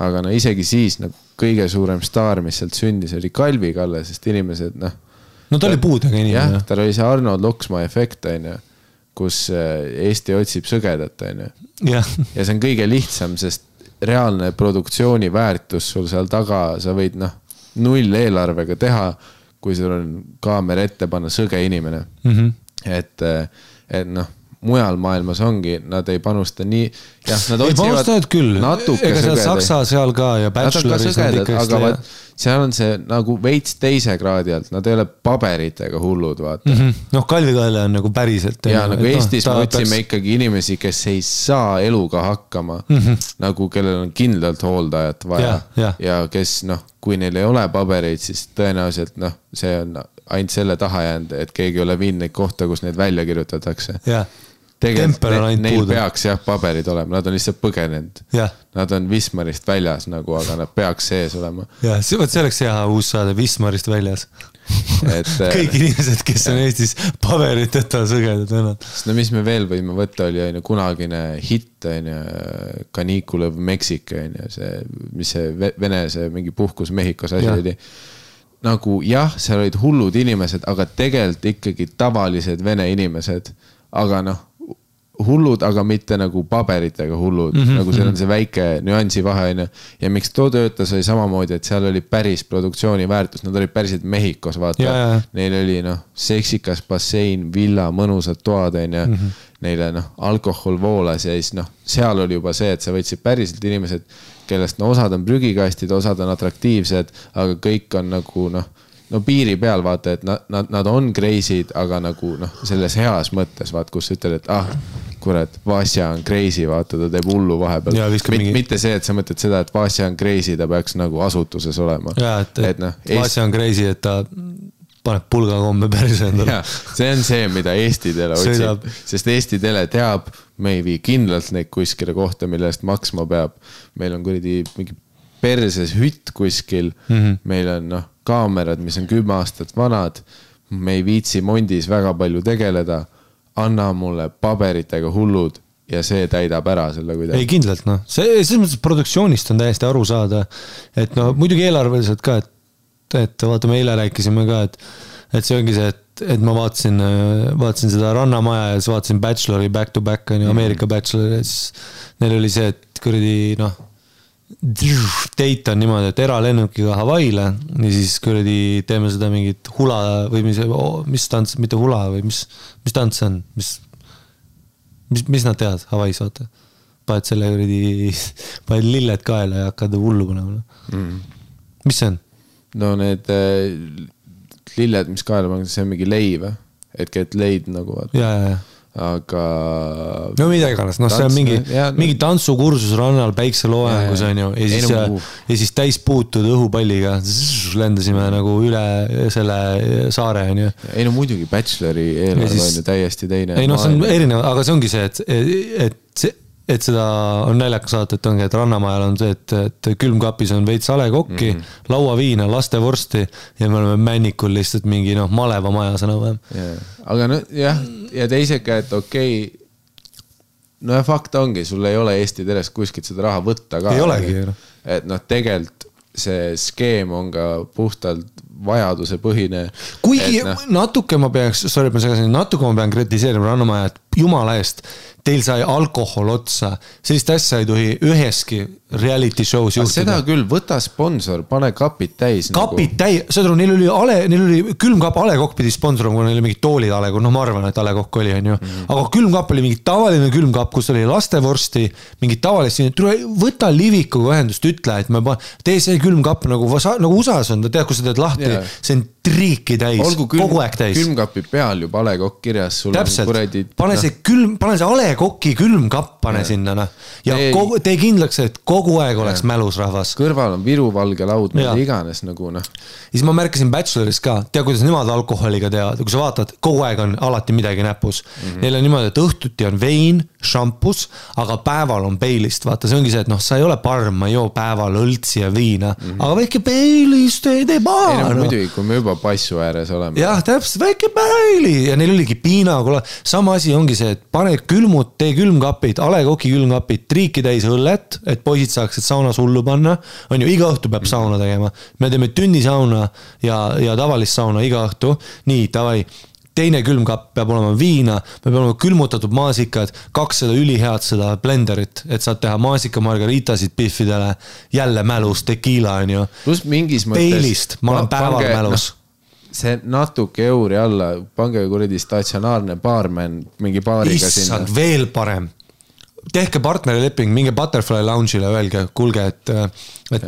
Aga no isegi siis no, kõige suurem staar, mis sealt sündis, oli Kalvi Kalle, sest inimesed, noh. No ta oli puudega inimene. Jah, tal oli see Arnold Loksma efekt, on ju, kus Eesti otsib sõgedat, on ju. Yeah. Ja see on kõige lihtsam, sest reaalne produktsiooni väärtus sul seal taga, sa võid, noh, 0 eelarvega teha, kui sul on kaamera ette panna sõge inimene. Et noh, mujal maailmas ongi, nad ei panusta nii, jah, nad otsivad natuke ega seal Saksa seal ka ja Bacheloris nad ikka aga seal on see nagu veits teise kraadi alt, nad ei ole paberitega hullud, vaata. Noh, Kalvi Kalle on nagu päriselt. Ja nagu Eestis me otsime ikkagi inimesi, kes ei saa eluga hakkama, nagu kellel on kindlalt hooldajat vaja ja kes, noh, kui neil ei ole pabereid, siis tõenäoliselt, noh, see on ainult selle taha jäänud, et keegi ei ole viinud neid kohta, kus neid välja kirjutatakse. Tegelikult neil peaks jah paberid olema, nad on lihtsalt põgenenud. Nad on Wismarist väljas nagu, aga nad peaks sees olema. Ja, see oleks hea uus saade Wismarist väljas. Kõik inimesed, kes on Eestis paberiteta sõgedad vennad. No mis me veel võime võtta, oli kunagine hitt, Kaniikulev Meksika, mis see Vene, see mingi puhkus Mehhikos asi oli. Nagu jah, seal olid hullud inimesed, aga tegelikult ikkagi tavalised vene inimesed, aga noh, hullud, aga mitte nagu paberitega hullud, nagu seal on see väike nüansi vahe, ja miks too töötas oli samamoodi, et seal oli päris produktsiooni väärtus, nad olid päriselt Mehhikos, vaata, neil oli noh, seksikas bassein, villa, mõnusad toad, neile noh, alkohol voolas ja siis noh, seal oli juba see, et sa võtsid päriselt inimesed, kellest osad on prügikastid, osad on atraktiivsed, aga kõik on nagu no piiri peal vaata, et nad on crazy'd, aga nagu selles heas mõttes vaat, kus ütled, et kurat, Vasja on crazy, vaata, ta teeb hullu vahepeal. Mitte see, et sa mõtled seda, et Vasja on crazy, ta peaks nagu asutuses olema. Jaa, et Vasja on crazy, et ta paneb pulgakombe päris endale. See on see, mida Eesti Tele otsib, sest Eesti Tele teab, me ei vii kindlalt neid kuskile kohta, mille eest maksma peab. Meil on kuradi mingi perses hütt kuskil, meil on kaamerad, mis on 10 aastat vanad, me ei viitsi Mondis väga palju tegeleda, anna mulle paberitega hullud ja see täidab ära selle kuidagi. Ei kindlalt, selles mõttes produktsioonist on täiesti aru saada, et muidugi eelarveliselt ka, et vaata, me eile rääkisime ka, et see ongi see, et ma vaatasin seda Rannamaja ja siis vaatasin Bachelori back to back, Ameerika Bachelor, ja siis neil oli see, et kuradi date on niimoodi, et eralennukiga Hawaiile ja siis kuradi teeme seda mingit hula või mis tants, mitte hula või mis tants on, mis nad teavad Hawaiis, vaata. Paned selle kuradi, paned lilled kaela ja hakkad hullu panema. Mis see on? No need lilled, mis kaela paned, see on mingi leib, et leid nagu vaata. Ja. Aga no midagi iganes, see on mingi tantsukursus rannal päikseloojangus on ju ja siis täis puutud õhupalliga lendasime nagu üle selle saare on ju. Ei no muidugi Bachelori eelarve on ju täiesti teine. Ei no see on erinev, aga see ongi see, et seda on näljakas saata, et ongi, et Rannamajal on see, et külmkapis on veits alekokki, lauaviina, lastevorsti ja me oleme männikul lihtsalt mingi maleva maja sõna vähem. Aga ja teisega, et okei, ja fakt ongi, sul ei ole Eesti Teles kuskilt seda raha võtta ka. Ei olegi. Et tegelikult see skeem on ka puhtalt vajaduse põhine. Kuigi natuke ma pean kritiseerima Rannamaja, et jumala eest, teil sai alkohol otsa, sellist asja ei tohi üheski reality show's juhtuda. Seda küll, võta sponsor, pane kapid täis. Kapid täis, seda neil oli külmkapp alekokk pidi sponsorum, kui neil oli mingid toolid alekokk, ma arvan, et alekokk oli, on ju. Aga külmkapp oli mingi tavaline külmkapp, kus oli lastevorsti, mingid tavalist, võta Livikuga ühendust, ütle, et tee see külmkapp nagu USA-s on, tead, kus sa teed lahti, see on triiki täis, kogu aeg täis. Külmkapi peal juba alekokk kirjas, sul täpselt, on kuradi... pane see alekokki külmkapp, pane sinna, ja tee kindlaks, et kogu aeg oleks mälus rahvas. Kõrval on viruvalge laud, mida iganes nagu Ja siis ma märkasin Bacheloris ka, tea, kuidas nemad alkoholiga teavad, kui sa vaatad, kogu aeg on alati midagi näpus. Neil on niimoodi, et õhtuti on vein, šampus, aga päeval on peilist. Vaata, see ongi see, et sa ei ole parm, ma ei joo päeval õltsi ja viina, aga väike peilist ei tee paar. Ei muidugi, kui me juba passu ääres oleme. Jah, täpselt, väike peili ja neil oligi piina, sama asi ongi see, et pane tee külmkapid, alekoki külmkapid, triiki täis õllet, et poisid saaksid saunas hullu panna, on ju, iga õhtu peab sauna tegema. Me teeme tünnisauna ja tavalist sauna iga õhtu. Nii, tavai, teine külmkapp peab olema viina, me peab olema külmutatud maasikad, 200 ülihead seda blenderit, et saad teha maasika margaritasid biffidele, jälle mälus, tekiila on ju. Plus mingis mõttes... Peilist, ma olen päeval mälus. See natuke euri alla, pange kuradi statsionaarne baarmen mingi baariga sinna. Issand, veel parem. Tehke partnerileping, minge Butterfly Lounge'ile, öelge, kuulge, et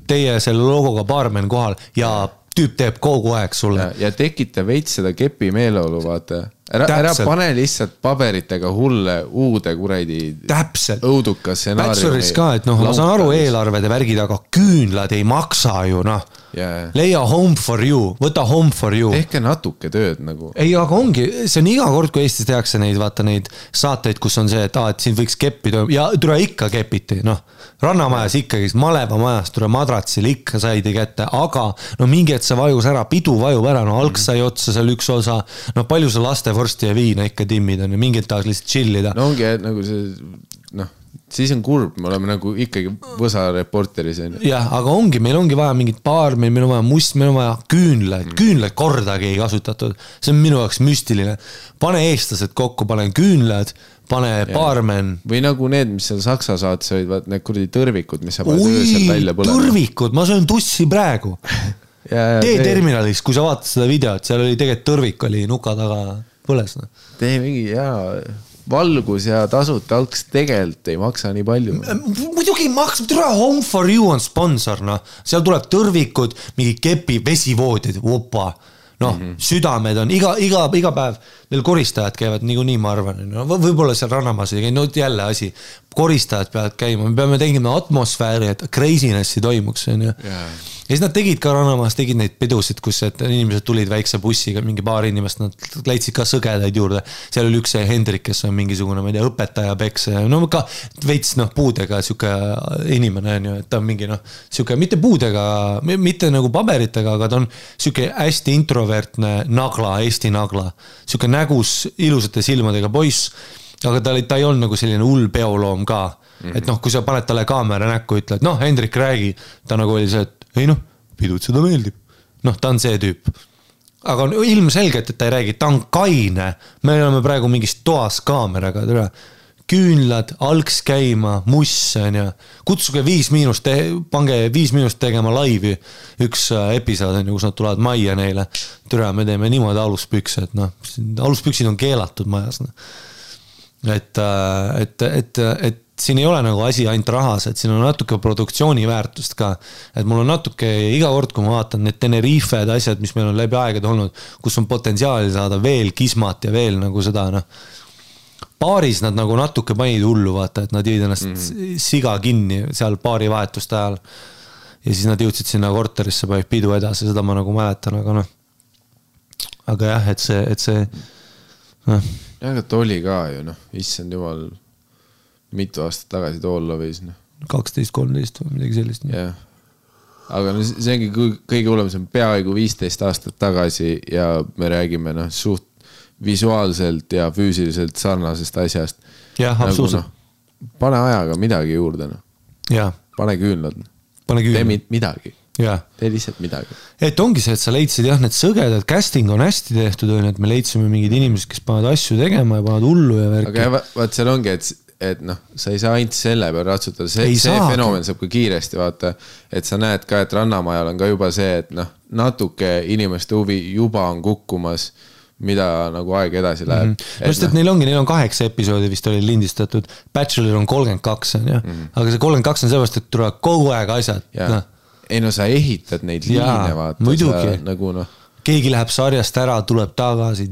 teie selle logoga baarmen kohal ja tüüp teeb kogu aeg sulle. Ja tekita veits seda kepi meeleolu, vaata. Ära pane lihtsalt paberitega hulle uude kuradi õuduka stsenaariumi. Bacheloris ka, et ma saan aru eelarved ja värgid, aga küünlad ei maksa ju, Leia home for you, võta home for you. Tehke natuke tööd nagu. Ei, aga ongi, see on iga kord, kui Eestis tehakse neid, vaata neid saateid, kus on see, et siin võiks keppida ja tule ikka kepiti, Rannamajas ikkagi, Maleva majas tule madratsil ikka saidi kätte, aga mingi, et see vajus ära, pidu vajub ära, alg sai otsa seal üks osa, palju see lastevorsti ja viina ikka timmid on ja mingid tahaks lihtsalt chillida. No ongi, et nagu see, siis on kurb, me oleme nagu ikkagi võsa reporteris. Jah, aga ongi, meil ongi vaja mingit paar, meil on vaja must, meil on vaja küünlad kordagi ei kasutatud. See on minu jaoks müstiline. Pane eestlased kokku, pane küünlad, pane baarmen. Või nagu need, mis seal Saksa saates olid, vaat need kuradi tõrvikud, mis sa paned öösel välja põlema. Tõrvikud, ma söön tussi praegu. T-terminalis, kui sa vaatad seda videot, seal oli tegelikult tõrvik oli nuka taga põles. Tee mingi, valgus ja tasuta alks tegelikult ei maksa nii palju. Muidugi ei maksa, Home for You on sponsor, noh. Seal tuleb tõrvikud, mingi kepi, vesivoodid, opa. Noh, südamed on, iga päev neil koristajad käivad nii ma arvan, no, võib-olla seal Rannamaas ei käi, no jälle asi, koristajad peavad käima, me peame tegema atmosfääri, et crazinessi toimuks, on ju. Ja siis nad tegid ka Rannamaas, tegid neid pidusid, kus inimesed tulid väikse bussiga, mingi paar inimest, nad leidsid ka sõgedaid juurde. Seal oli üks Hendrik, kes on mingisugune, ma ei tea, õpetaja peks, no ka veits puudega siuke inimene, on ju, et ta on mingi, siuke mitte puudega, mitte nagu paberitega, aga ta on siuke hästi introvertne nagla, Eesti nagla. Siuke nägus ilusate silmadega poiss, aga ta ei olnud nagu selline hull peoloom ka. Et kui sa paned talle kaamera näkku, ütled, Hendrik räägi, ta nagu oli see, et ei pidud seda meeldib. Ta on see tüüp. Aga on ilmselgelt, et ta ei räägi, ta on kaine. Me oleme praegu mingis toas kaameraga, küünlad, alks käima, muss, kutsuge 5 pange 5 minust tegema laivi. Üks episood, kus nad tulevad majja neile. Me teeme niimoodi aluspükse, et aluspüksid on keelatud majas. Et siin ei ole nagu asi ainult rahas, et siin on natuke produktsiooni väärtust ka, et mul on natuke iga kord, kui ma vaatan need Tenerifed asjad, mis meil on läbi aegade olnud, kus on potentsiaali saada veel kismat ja veel nagu seda, paaris nad nagu natuke panid hullu, vaata, et nad jõid ennast siga kinni seal paari vahetuste ajal ja siis nad jõudsid sinna korterisse, panid pidu edasi, seda ma nagu mäletan, aga jah, et see jah, aga ta oli ka ju, issand jumal mitu aastat tagasi toolla võis. 12-13 või midagi sellist. Jah. Aga see ongi kõige hullem, see on peaaegu 15 aastat tagasi ja me räägime suht visuaalselt ja füüsiliselt sarnasest asjast. Jah, absoluutselt. Pane ajaga midagi juurde. Pane küünlad. Tee midagi. Tee lihtsalt midagi. Et ongi see, et sa leidsid need sõgedad, casting on hästi tehtud, et me leidsime mingid inimesed, kes panevad asju tegema ja panevad hullu ja värki. Aga vaat seal ongi, et sa ei saa ainult selle peal ratsutada, see fenomen saab ka kiiresti vaata, et sa näed ka, et Rannamajal on ka juba see, et natuke inimeste huvi juba on kukkumas, mida nagu aeg edasi läheb. Just, et neil on 8 episoodi vist oli lindistatud, Bachelor on 32, aga see 32 on sellepärast, et tuleb kogu aeg asjad. Ei sa ehitad neid liine vaata. Muidugi. Nagu keegi läheb sarjast ära, tuleb tagasi.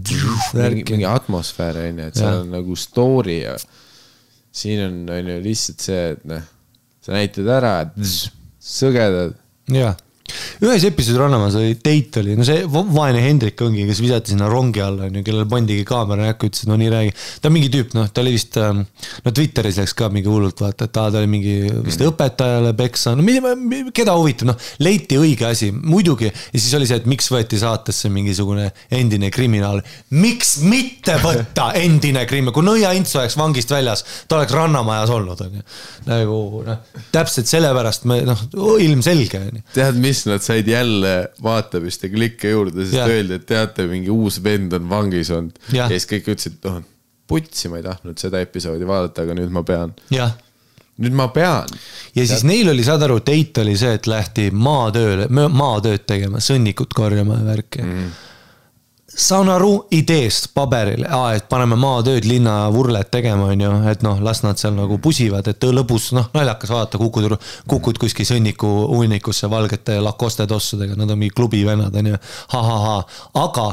Mingi atmosfäär, et seal on nagu story ja siin on ju lihtsalt see, et sa näitad ära, et sõgedad. Jaa. Ühes episoodi Rannamaas oli date oli, see vaene Hendrik ongi, kes visati sinna rongi alla, kellel pandigi kaamera näkku, ütles, nii räägi. Ta on mingi tüüp, ta oli vist, Twitteris läks ka mingi hullult vaata, et ta oli mingi vist õpetajale peksa, keda huvitab, leiti õige asi, muidugi, ja siis oli see, et miks võeti saatesse mingisugune endine kriminaal, miks mitte võtta endine kriminaal, kui Nõia Ints oleks vangist väljas, ta oleks Rannamajas olnud, nagu, täpselt sellepärast me, ilmselge. Tead, mis nad said jälle vaatamist ja klikke juurde, sest öeldi, et teate, mingi uus vend on vangis olnud. Ja siis kõik ütlesid, putsi, ma ei tahtnud seda episoodi vaadata, aga nüüd ma pean. Nüüd ma pean. Ja siis neil oli, saad aru, teit oli see, et lähti maatööd tegema, sõnnikut korjama ja värki. Saan aru ideest paberile, et paneme maatööd linna vurlet tegema, on ju, et las nad seal nagu pusivad, et lõbus, naljakas vaadata, kukud kuskil sõnniku unnikusse valgete Lacoste tossudega, nad on mingi klubi vennad, on ju, aga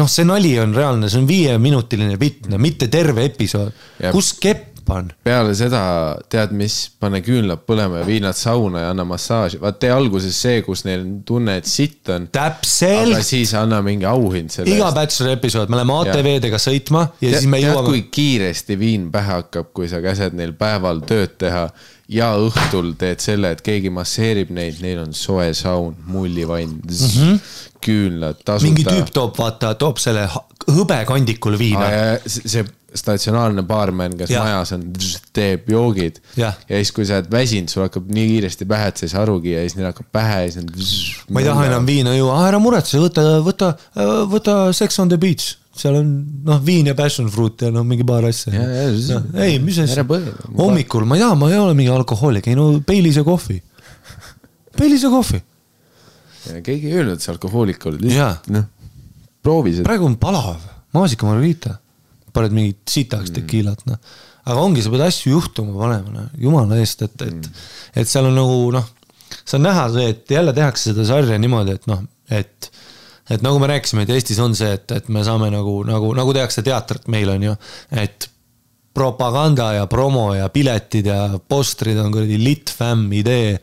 see nali on reaalne, see on 5-minutiline vitne, mitte terve episood, kus kepp on. Peale seda, tead mis, pane küünlad põlema ja vii nad sauna ja anna massaaži. Vaat tee alguses see, kus neil tunne, et sitt on. Täpselt. Aga siis anna mingi auhind selle. Iga Bachelor episood, me oleme ATV-dega sõitma ja siis me jõuame. Tead, kui kiiresti viin pähe hakkab, kui sa käsed neil päeval tööd teha ja õhtul teed selle, et keegi masseerib neid, neil on soe saun, mullivann, küünlad, tasuta. Mingi tüüp toob selle hõbekandikul viina. See statsionaarne baarmen, kes majas on, teeb joogid ja siis kui sa oled väsinud, sul hakkab nii kiiresti pähe, et sa ei saa arugi ja siis neil hakkab pähe ja siis ma ei taha enam viina juua, ära muretse, võta Sex on the Beach, seal on viin ja passion fruit ja mingi paar asja. Ei, mis asja? Hommikul, ma ei ole mingi alkohoolik, ei Peilise kohvi. Keegi ei öelnud, et see alkohoolik oli. Proovi seda. Praegu on palav, maasika margarita. paned mingit sitaks tekiilat, noh. Aga ongi, sa pead asju juhtuma panema, jumala eest, et seal on nagu, see on näha see, et jälle tehakse seda sarja niimoodi, et et nagu me rääkisime, et Eestis on see, et me saame nagu tehakse teatrit meil on ju, et propaganda ja promo ja piletid ja postrid on kuradi litfam idee,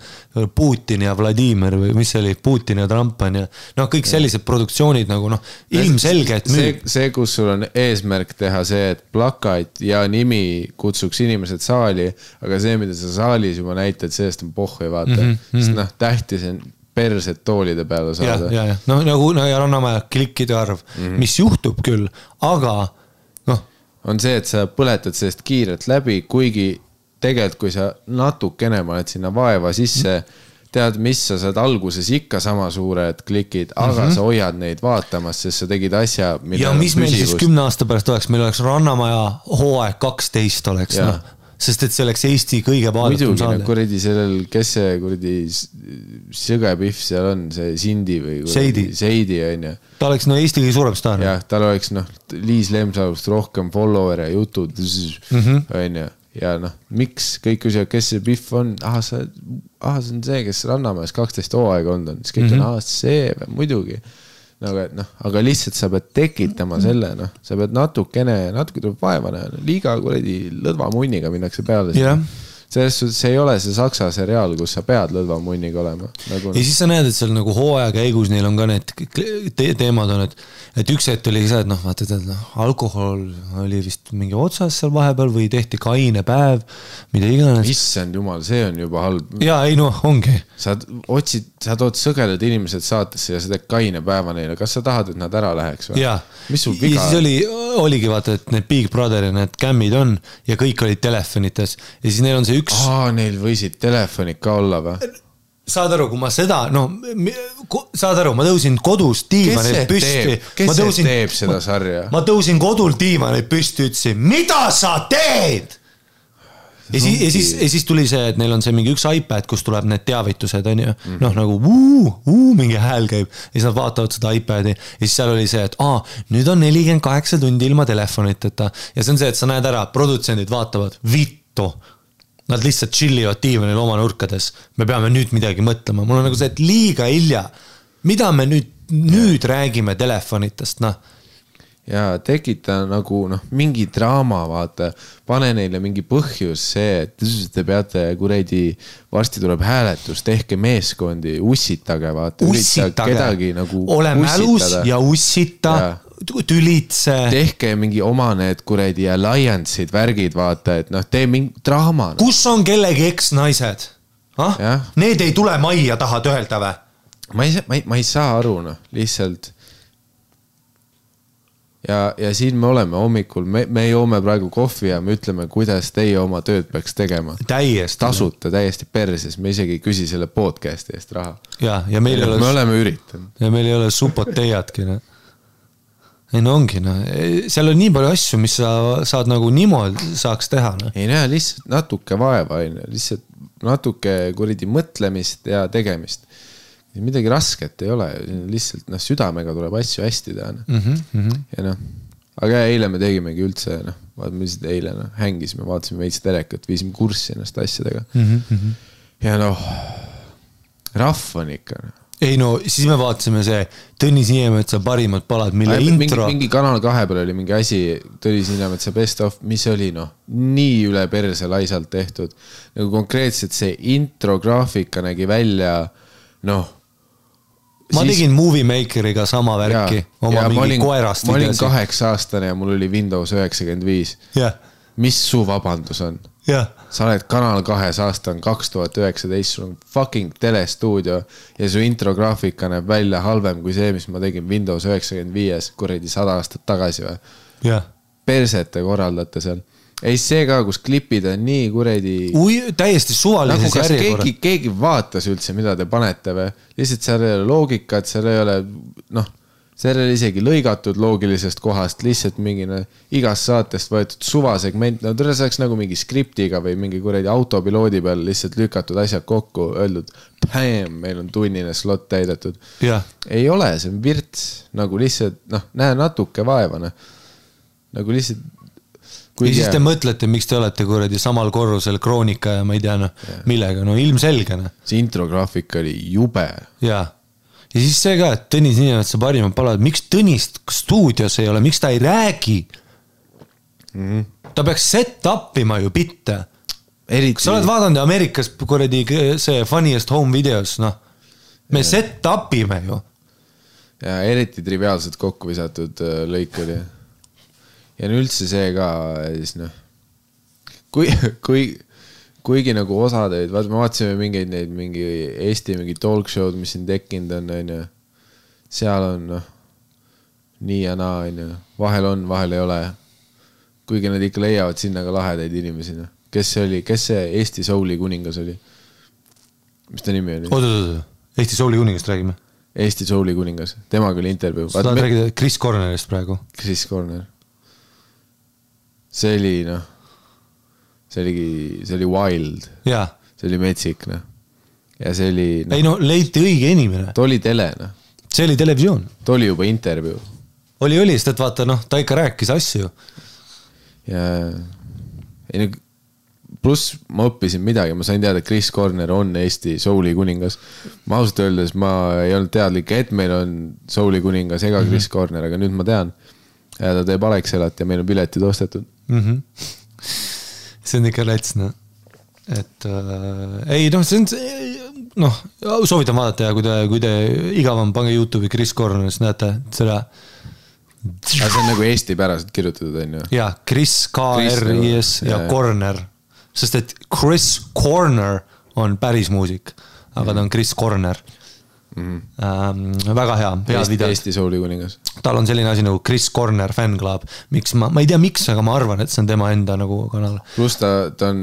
Putin ja Vladimir või mis see oli, Putin ja Trump on ja kõik sellised produktsioonid nagu ilmselge, et müüb. See, kus sul on eesmärk teha see, et plakat ja nimi kutsuks inimesed saali, aga see, mida sa saalis juba näitad, sellest on pohhu ei vaata. Sest tähtis on perset toolide peale saada. Ja. Nagu Rannamäe klikkide arv, mis juhtub küll, aga on see, et sa põletad sellest kiirelt läbi, kuigi tegelikult, kui sa natukene paned sinna vaeva sisse, tead, mis sa saad alguses ikka sama suured klikid, aga sa hoiad neid vaatamas, sest sa tegid asja, ja mis meil siis 10 aasta pärast oleks, meil oleks Rannamaja hooaeg 12 oleks, sest et see oleks Eesti kõige vaadatum saade. Muidugi, kuradi sellel, kes see kuradi sõgepihv seal on, see Sindi või Seidi on ju. Ta oleks Eesti kõige suurem staar. Jah, tal oleks Liis Lemsalust rohkem follower ja jutud on ju. Ja miks kõik küsivad, kes see Pihv on? See on see, kes Rannamäes 12 hooaega on. Siis kõik on, see muidugi. Aga lihtsalt sa pead tekitama selle, sa pead natuke tuleb vaevane, liiga kuradi lõdva munniga minnakse peale. Selles suhtes see ei ole see saksa seriaal, kus sa pead lõdva munniga olema. Ja siis sa näed, et seal nagu hooaja käigus neil on ka need teemad on, et üks hetk oli see, et vaata, alkohol oli vist mingi otsas seal vahepeal või tehti kaine päev, mida iganes. Issand jumal, see on juba halb. Jaa, ei ongi. Sa tood sõgelad inimesed saatesse ja sa teed kaine päeva neile. Kas sa tahad, et nad ära läheks või? Jaa. Mis sul viga? Ja siis oligi vaata, et need Big Brother ja need kämmid on ja kõik olid telefonites ja siis neil on see üks... neil võisid telefonid ka olla või? Saad aru, kui ma seda, saad aru, ma tõusin kodus diivanil püsti. Kes see teeb seda sarja? Ma tõusin kodul diivanil püsti, ütlesin, mida sa teed? Ja siis tuli see, et neil on see mingi üks iPad, kus tuleb need teavitused, on ju, nagu mingi hääl käib ja siis nad vaatavad seda iPadi ja siis seal oli see, et nüüd on 48 tundi ilma telefoniteta ja see on see, et sa näed ära, produtsendid vaatavad vittu. Nad lihtsalt chillivad diivanil oma nurkades. Me peame nüüd midagi mõtlema. Mul on nagu see, et liiga hilja. Mida me nüüd räägime telefonitest, Ja tekita nagu mingi draama, vaata. Pane neile mingi põhjus see, et te peate kuredi, varsti tuleb hääletus, tehke meeskondi, ussitage, vaata. Ussitage. Ole mälus ja ussita. Tülitse. Tehke mingi oma need kuredi alliance'id, värgid, vaata, et tee mingi draama. Kus on kellegi eks-naised? Need ei tule majja tahad öelda või? Ma ei saa aru, lihtsalt. Ja siin me oleme hommikul, me joome praegu kohvi ja me ütleme, kuidas teie oma tööd peaks tegema. Täiesti. Tasuta, täiesti perses, me isegi ei küsi selle podcasti eest raha. Ja meil me oleme üritanud. Ja meil ei ole supot teiatki, Ei ongi, seal on nii palju asju, mis sa saad nagu niimoodi saaks teha. Ei näe, lihtsalt natuke vaeva, lihtsalt natuke kuridi mõtlemist ja tegemist. Midagi rasket ei ole, lihtsalt südamega tuleb asju hästi teha. Ja aga eile me tegimegi üldse, me lihtsalt eile hängisime, vaatasime veits telekat, viisime kurssi ennast asjadega. Ja rahv on ikka. Ei siis me vaatasime see Tõnis Niemetsa parimad palad, mille intro... Mingi Kanal 2 peal oli mingi asi, Tõnis Niemetsa best of, mis oli nii üle perse laisalt tehtud. Nagu konkreetselt see intro graafika nägi välja, Ma tegin Movie Makeriga sama värki, oma mingi koerast. Ma olin 8-aastane ja mul oli Windows 95. Mis su vabandus on? Sa oled Kanal 2 aasta on 2019, sul on fucking telestuudio ja su intrograafika näeb välja halvem kui see, mis ma tegin Windows 95 kuradi 100 aastat tagasi või? Persete korraldate seal. Ei see ka, kus klipid on nii kuradi... täiesti suvalises järjekorra. Keegi vaatas üldse, mida te panete või? Lihtsalt seal ei ole loogikat, seal ei ole... seal ei ole isegi lõigatud loogilisest kohast, lihtsalt mingi igast saatest võetud suvasegment, tõle saaks nagu mingi skriptiga või mingi kuradi autopiloodi peal lihtsalt lükatud asjad kokku, öeldud, meil on tunnine slot täidetud. Ei ole, see on virts, nagu lihtsalt, näe natuke vaevane. Nagu lihtsalt ja siis te mõtlete, miks te olete kuradi samal korrusel Kroonika ja ma ei tea, noh, millega, no ilmselge. See intrograafik oli jube. Jaa. Ja siis see ka, et Tõnis Niinemetsa parimad palad, miks Tõnist stuudios ei ole, miks ta ei räägi? Ta peaks set upima ju bitte. Kas sa oled vaadanud Ameerikas kuradi see Funniest Home Videos, noh, me set upime ju. Ja eriti triviaalselt kokku visatud lõik oli. Ja üldse see ka, siis noh, kuigi nagu osad olid, me vaatasime mingi Eesti mingi talk show'd, mis siin tekkinud on, seal on noh, nii ja naa, vahel on, vahel ei ole. Kuigi nad ikka leiavad sinna ka lahedaid inimesi. Kes see Eesti Souli kuningas oli? Mis ta nimi oli? Oot, Eesti Souli kuningast räägime. Eesti Souli kuningas, temaga oli intervjuu. Sa tahad räägida Chris Cornerist praegu? Chris Corner. See oli, noh, see oli wild. Jaa. See oli metsik, noh. Ja see oli... No, ei, no, leiti õige inimene. Ta oli tele, noh. See oli televisioon. Ta oli juba intervjuu. Oli, sest et vaata, noh, ta ikka rääkis asju. Ja... Ei, pluss ma õppisin midagi, ma sain teada, et Chris Corner on Eesti Souli kuningas. Ma ausalt öeldes, ma ei olnud teadlik, et meil on Souli kuningas ega Chris Corner, aga nüüd ma tean. Ja ta teeb Alexelat ja meil on piletid ostetud. See on ikka läts, noh. Et ei, noh, see on, noh, soovitan vaadata ja kui te igavam pange YouTube'i Chris Corner, siis näete seda. See on nagu Eesti päraselt kirjutatud, on ju? Jaa, Chris, K-R-I-S ja Corner. Sest et Chris Corner on päris muusik, aga ta on Chris Corner. Väga hea video. Eesti Souli kuningas. Tal on selline asi nagu Chris Corner fan club. Ma ei tea miks, aga ma arvan, et see on tema enda nagu kanal. Plus ta on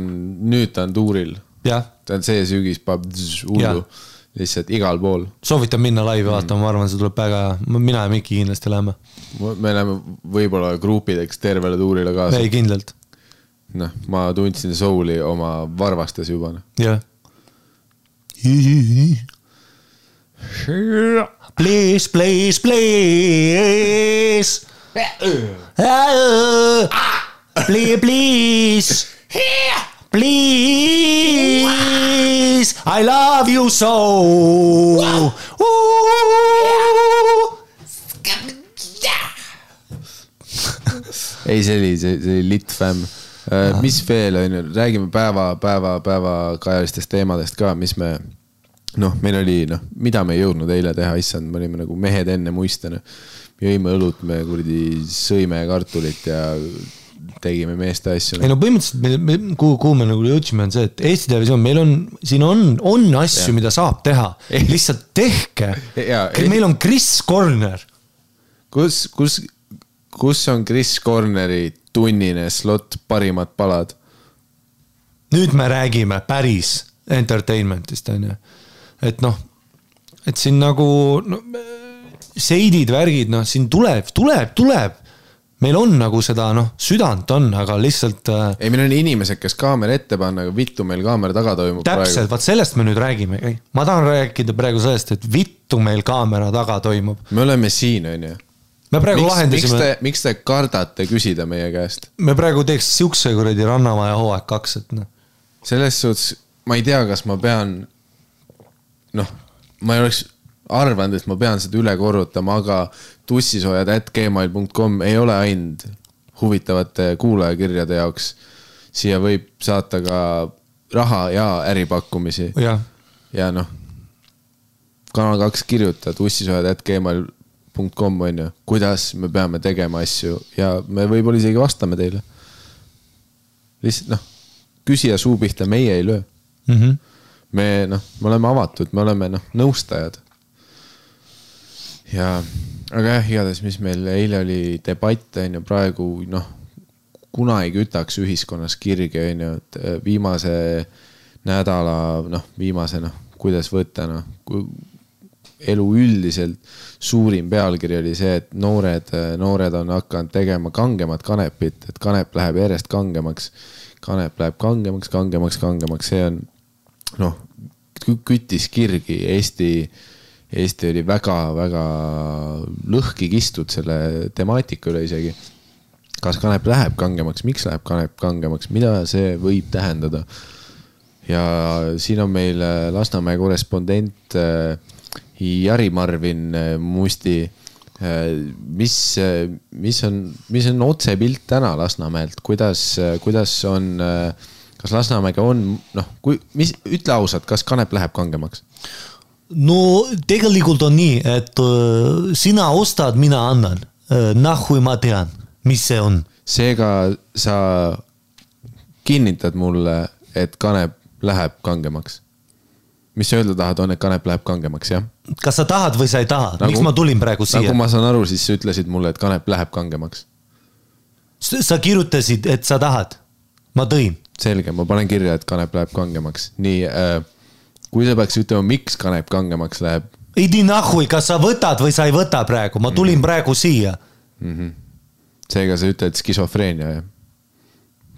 tuuril. Ja. Ta on see sügis hullu. Lihtsalt igal pool. Soovitan minna laivi vaatama, ma arvan, see tuleb väga, mina ja Mikki kindlasti läheme. Me läheme võib-olla gruupideks tervele tuurile kaasa. Ei, kindlalt. Noh, ma tundsin Souli oma varvastes juba. Jah. Please, please, please. Please, please. Please. I love you so. Ei, see oli lit fämm. Mis veel on, räägime päeva kajalistest teemadest ka, mis me, noh, meil oli, noh, mida me ei jõudnud eile teha, issand, me olime nagu mehed enne muistena. Me jõime õlut, me kuradi sõime kartulit ja tegime meeste asju. Ei no põhimõtteliselt, kuhu me nagu jõudsime on see, et Eesti televisioon, meil on, siin on asju, mida saab teha. Lihtsalt tehke. Meil on Chris Corner. Kus on Chris Corneri tunnine slot parimad palad? Nüüd me räägime päris entertainmentist, on ju. Et noh, et siin nagu no, seidid, värgid, noh, siin tuleb. Meil on nagu seda, noh, südant on, aga lihtsalt... Ei, meil on inimesed, kes kaamera ette panna, aga vittu meil kaamera taga toimub täpselt, praegu. Vaat sellest me nüüd räägime. Ma tahan rääkida praegu sellest, et vittu meil kaamera taga toimub. Me oleme siin, on ju. Me praegu lahendasime... Miks te kardate küsida meie käest? Me praegu teeks siukse kuradi Rannamaja hooaeg 2, et noh. Selles suhtes, ma ei tea, kas ma pean... Noh, ma ei oleks arvanud, et ma pean seda üle korrutama, aga tussisoojad@gmail.com ei ole ainult huvitavate kuulajakirjade jaoks. Siia võib saata ka raha ja äripakkumisi. Ja noh, Kanal 2 kirjuta tussisoojad@gmail.com on ju, kuidas me peame tegema asju ja me võib-olla isegi vastame teile. Lihtsalt noh, küsija suu pihta meie ei löö. Me oleme avatud, me oleme nõustajad. Ja, aga jah, igatahes, mis meil eile oli debatt, on ju, praegu kuna ei kütaks ühiskonnas kirge, on ju, et viimase nädala, kuidas võtta, elu üldiselt suurim pealkiri oli see, et noored on hakanud tegema kangemat kanepit, et kanep läheb järjest kangemaks. Kanep läheb kangemaks. See on, küttis kirgi. Eesti oli väga lõhki kistud selle temaatika üle isegi. kas kanep läheb kangemaks, miks läheb kanep kangemaks, mida see võib tähendada? Ja siin on meil Lasnamäe korrespondent Jari Marvin Musti. Mis on otsepilt täna Lasnamäelt? Kuidas on, kas Lasnamäega on, ütle ausalt, kas kanep läheb kangemaks? No tegelikult on nii, et sina ostad, mina annan. Nahui ma tean, mis see on. Seega sa kinnitad mulle, et kanep läheb kangemaks. Mis sa öelda tahad on, et kanep läheb kangemaks, jah? Kas sa tahad või sa ei taha? Miks ma tulin praegu siia? Nagu ma saan aru, siis sa ütlesid mulle, et kanep läheb kangemaks. Sa kirjutasid, et sa tahad. Ma tõin. Selge, ma panen kirja, et kanep läheb kangemaks. Nii, kui sa peaks ütlema, miks kanep kangemaks läheb? Idi nahui, kas sa võtad või sa ei võta praegu? Ma tulin praegu siia. Seega sa ütled skisofreenia, jah?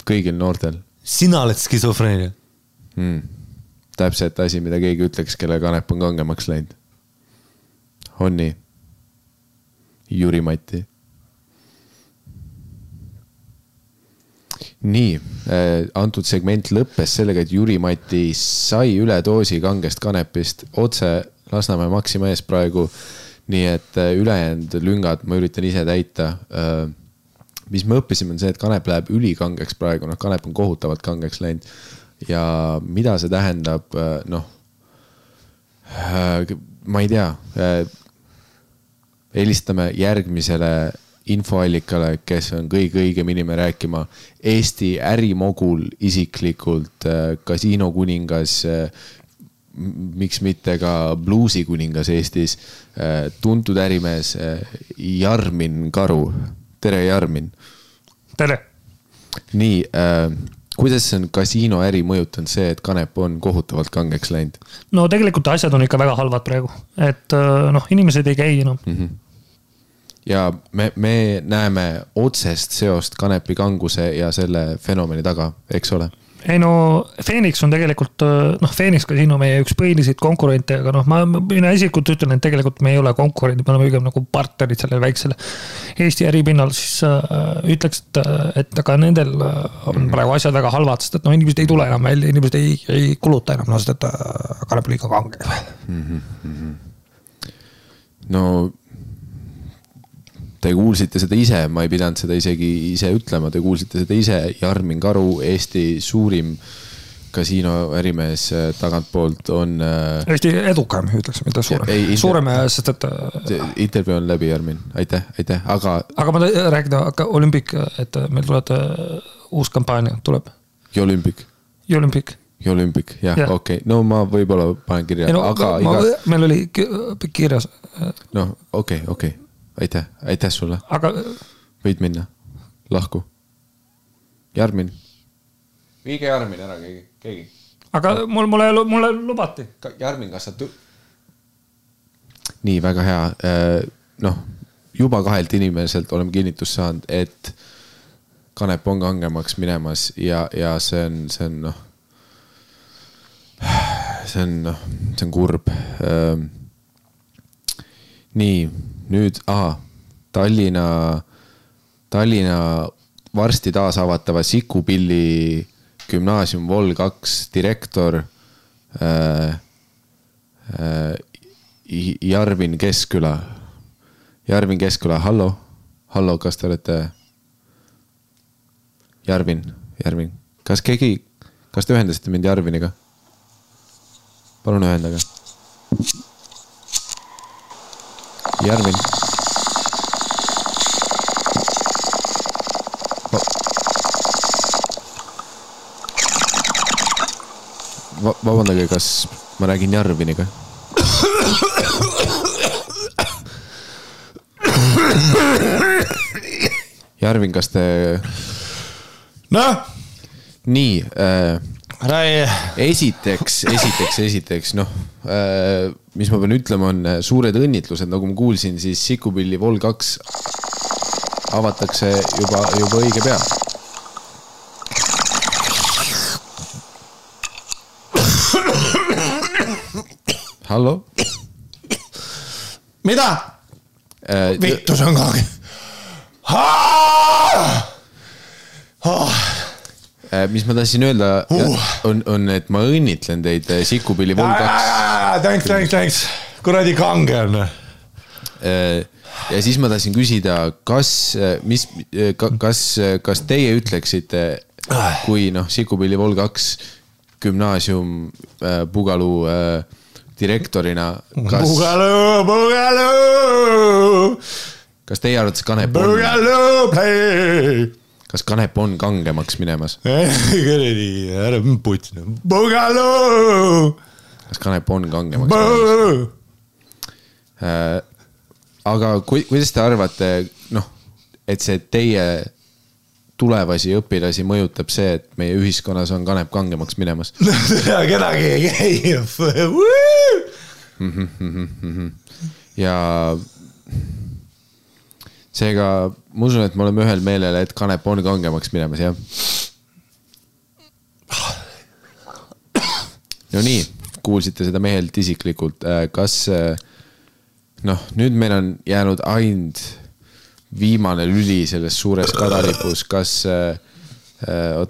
Kõigil noortel. Sina oled skisofreenia. Täpselt asi, mida keegi ütleks, kelle kanep on kangemaks läinud. On nii? Jüri Mati. Nii, antud segment lõppes sellega, et Jüri Mati sai üle doosi kangest kanepist otse Lasnamäe Maxima ees praegu. Nii et ülejäänud lüngad ma üritan ise täita. Mis me õppisime on see, et kanep läheb ülikangeks praegu. Kanep on kohutavalt kangeks läinud. Ja mida see tähendab, ma ei tea, helistame järgmisele infoallikale, kes on kõige õigem inimene rääkima Eesti ärimogul isiklikult, kasiinokuningas, miks mitte ka bluusikuningas Eestis, tuntud ärimees Jarmin Karu. Tere, Jarmin. Tere. Nii, kuidas on kasiinoäri mõjutanud see, et kanep on kohutavalt kangeks läinud? No tegelikult asjad on ikka väga halvad praegu, et inimesed ei käi enam. Ja me näeme otsest seost kanepi kanguse ja selle fenomeni taga, eks ole? Ei Phoenix on tegelikult, Phoenix kasiino meie üks põhilised konkurente, aga mina isikut ütlen, et tegelikult me ei ole konkurendid, me oleme õigem nagu partnerid sellele väiksele Eesti äripinnal, siis ütleks, et aga nendel on praegu asjad väga halvad, sest et inimesed ei tule enam välja, inimesed ei kuluta enam, sest et kanep liiga kange. Te kuulsite seda ise, ma ei pidanud seda isegi ise ütlema, te kuulsite seda ise, Jarmin Karu, Eesti suurim kasiinoärimees tagantpoolt on... Eesti edukam, ütleks, mida suurem, sest et... Intervjuu on läbi, Jarmin, aitäh, aga... Aga ma rääkida, Olümpik, et meil tuleb uus kampaania, tuleb. Jolümpik, jah, okei. No ma võib-olla panen kirja, aga... Meil oli kirjas... Okei. Aitäh sulle. Aga... Võid minna. Lahku. Jarmin. Viige Jarmin ära keegi. Aga mulle lubati. Jarmin, kas sa... Nii, väga hea. Juba 2 inimeselt oleme kinnitust saanud, et kanep on kangemaks minemas ja see on see on kurb. Nii, nüüd, Tallinna varsti taas avatava Sikupilli gümnaasium Vol 2 direktor Jarvin Keskküla. Hallo, kas te olete? Jarvin. Kas te ühendasite mind Jarviniga? Palun ühendaga. Jarvin. Vabandage, kas ma räägin Jarviniga? Jarvin, kas te... Nii, esiteks, mis ma pean ütlema, on suured õnnitlused, nagu ma kuulsin, siis Sikupilli Vol 2 avatakse juba õige pea. Hallo? Mida? Vittu, see on kage. mis ma tahtsin öelda on, et ma õnnitlen teid Sikupilli Vol 2. Thanks. Kuradi kange on. Ja siis ma tahtsin küsida, kas teie ütleksite, kui Sikupilli Vol 2 gümnaasium Pugalu direktorina, kas teie arvates kas kanep on kangemaks minemas? Ära putina. Kas kanep on kangemaks minemas? Aga kuidas te arvate, et see teie tulevasi õpilasi mõjutab see, et meie ühiskonnas on kanep kangemaks minemas? Kedagi ei käi. Ja seega ma usun, et me oleme ühel meelel, et kanep on kangemaks minemas, jah? No nii, kuulsite seda mehelt isiklikult. Kas, nüüd meil on jäänud ainult viimane lüli selles suures kadalipus. Kas,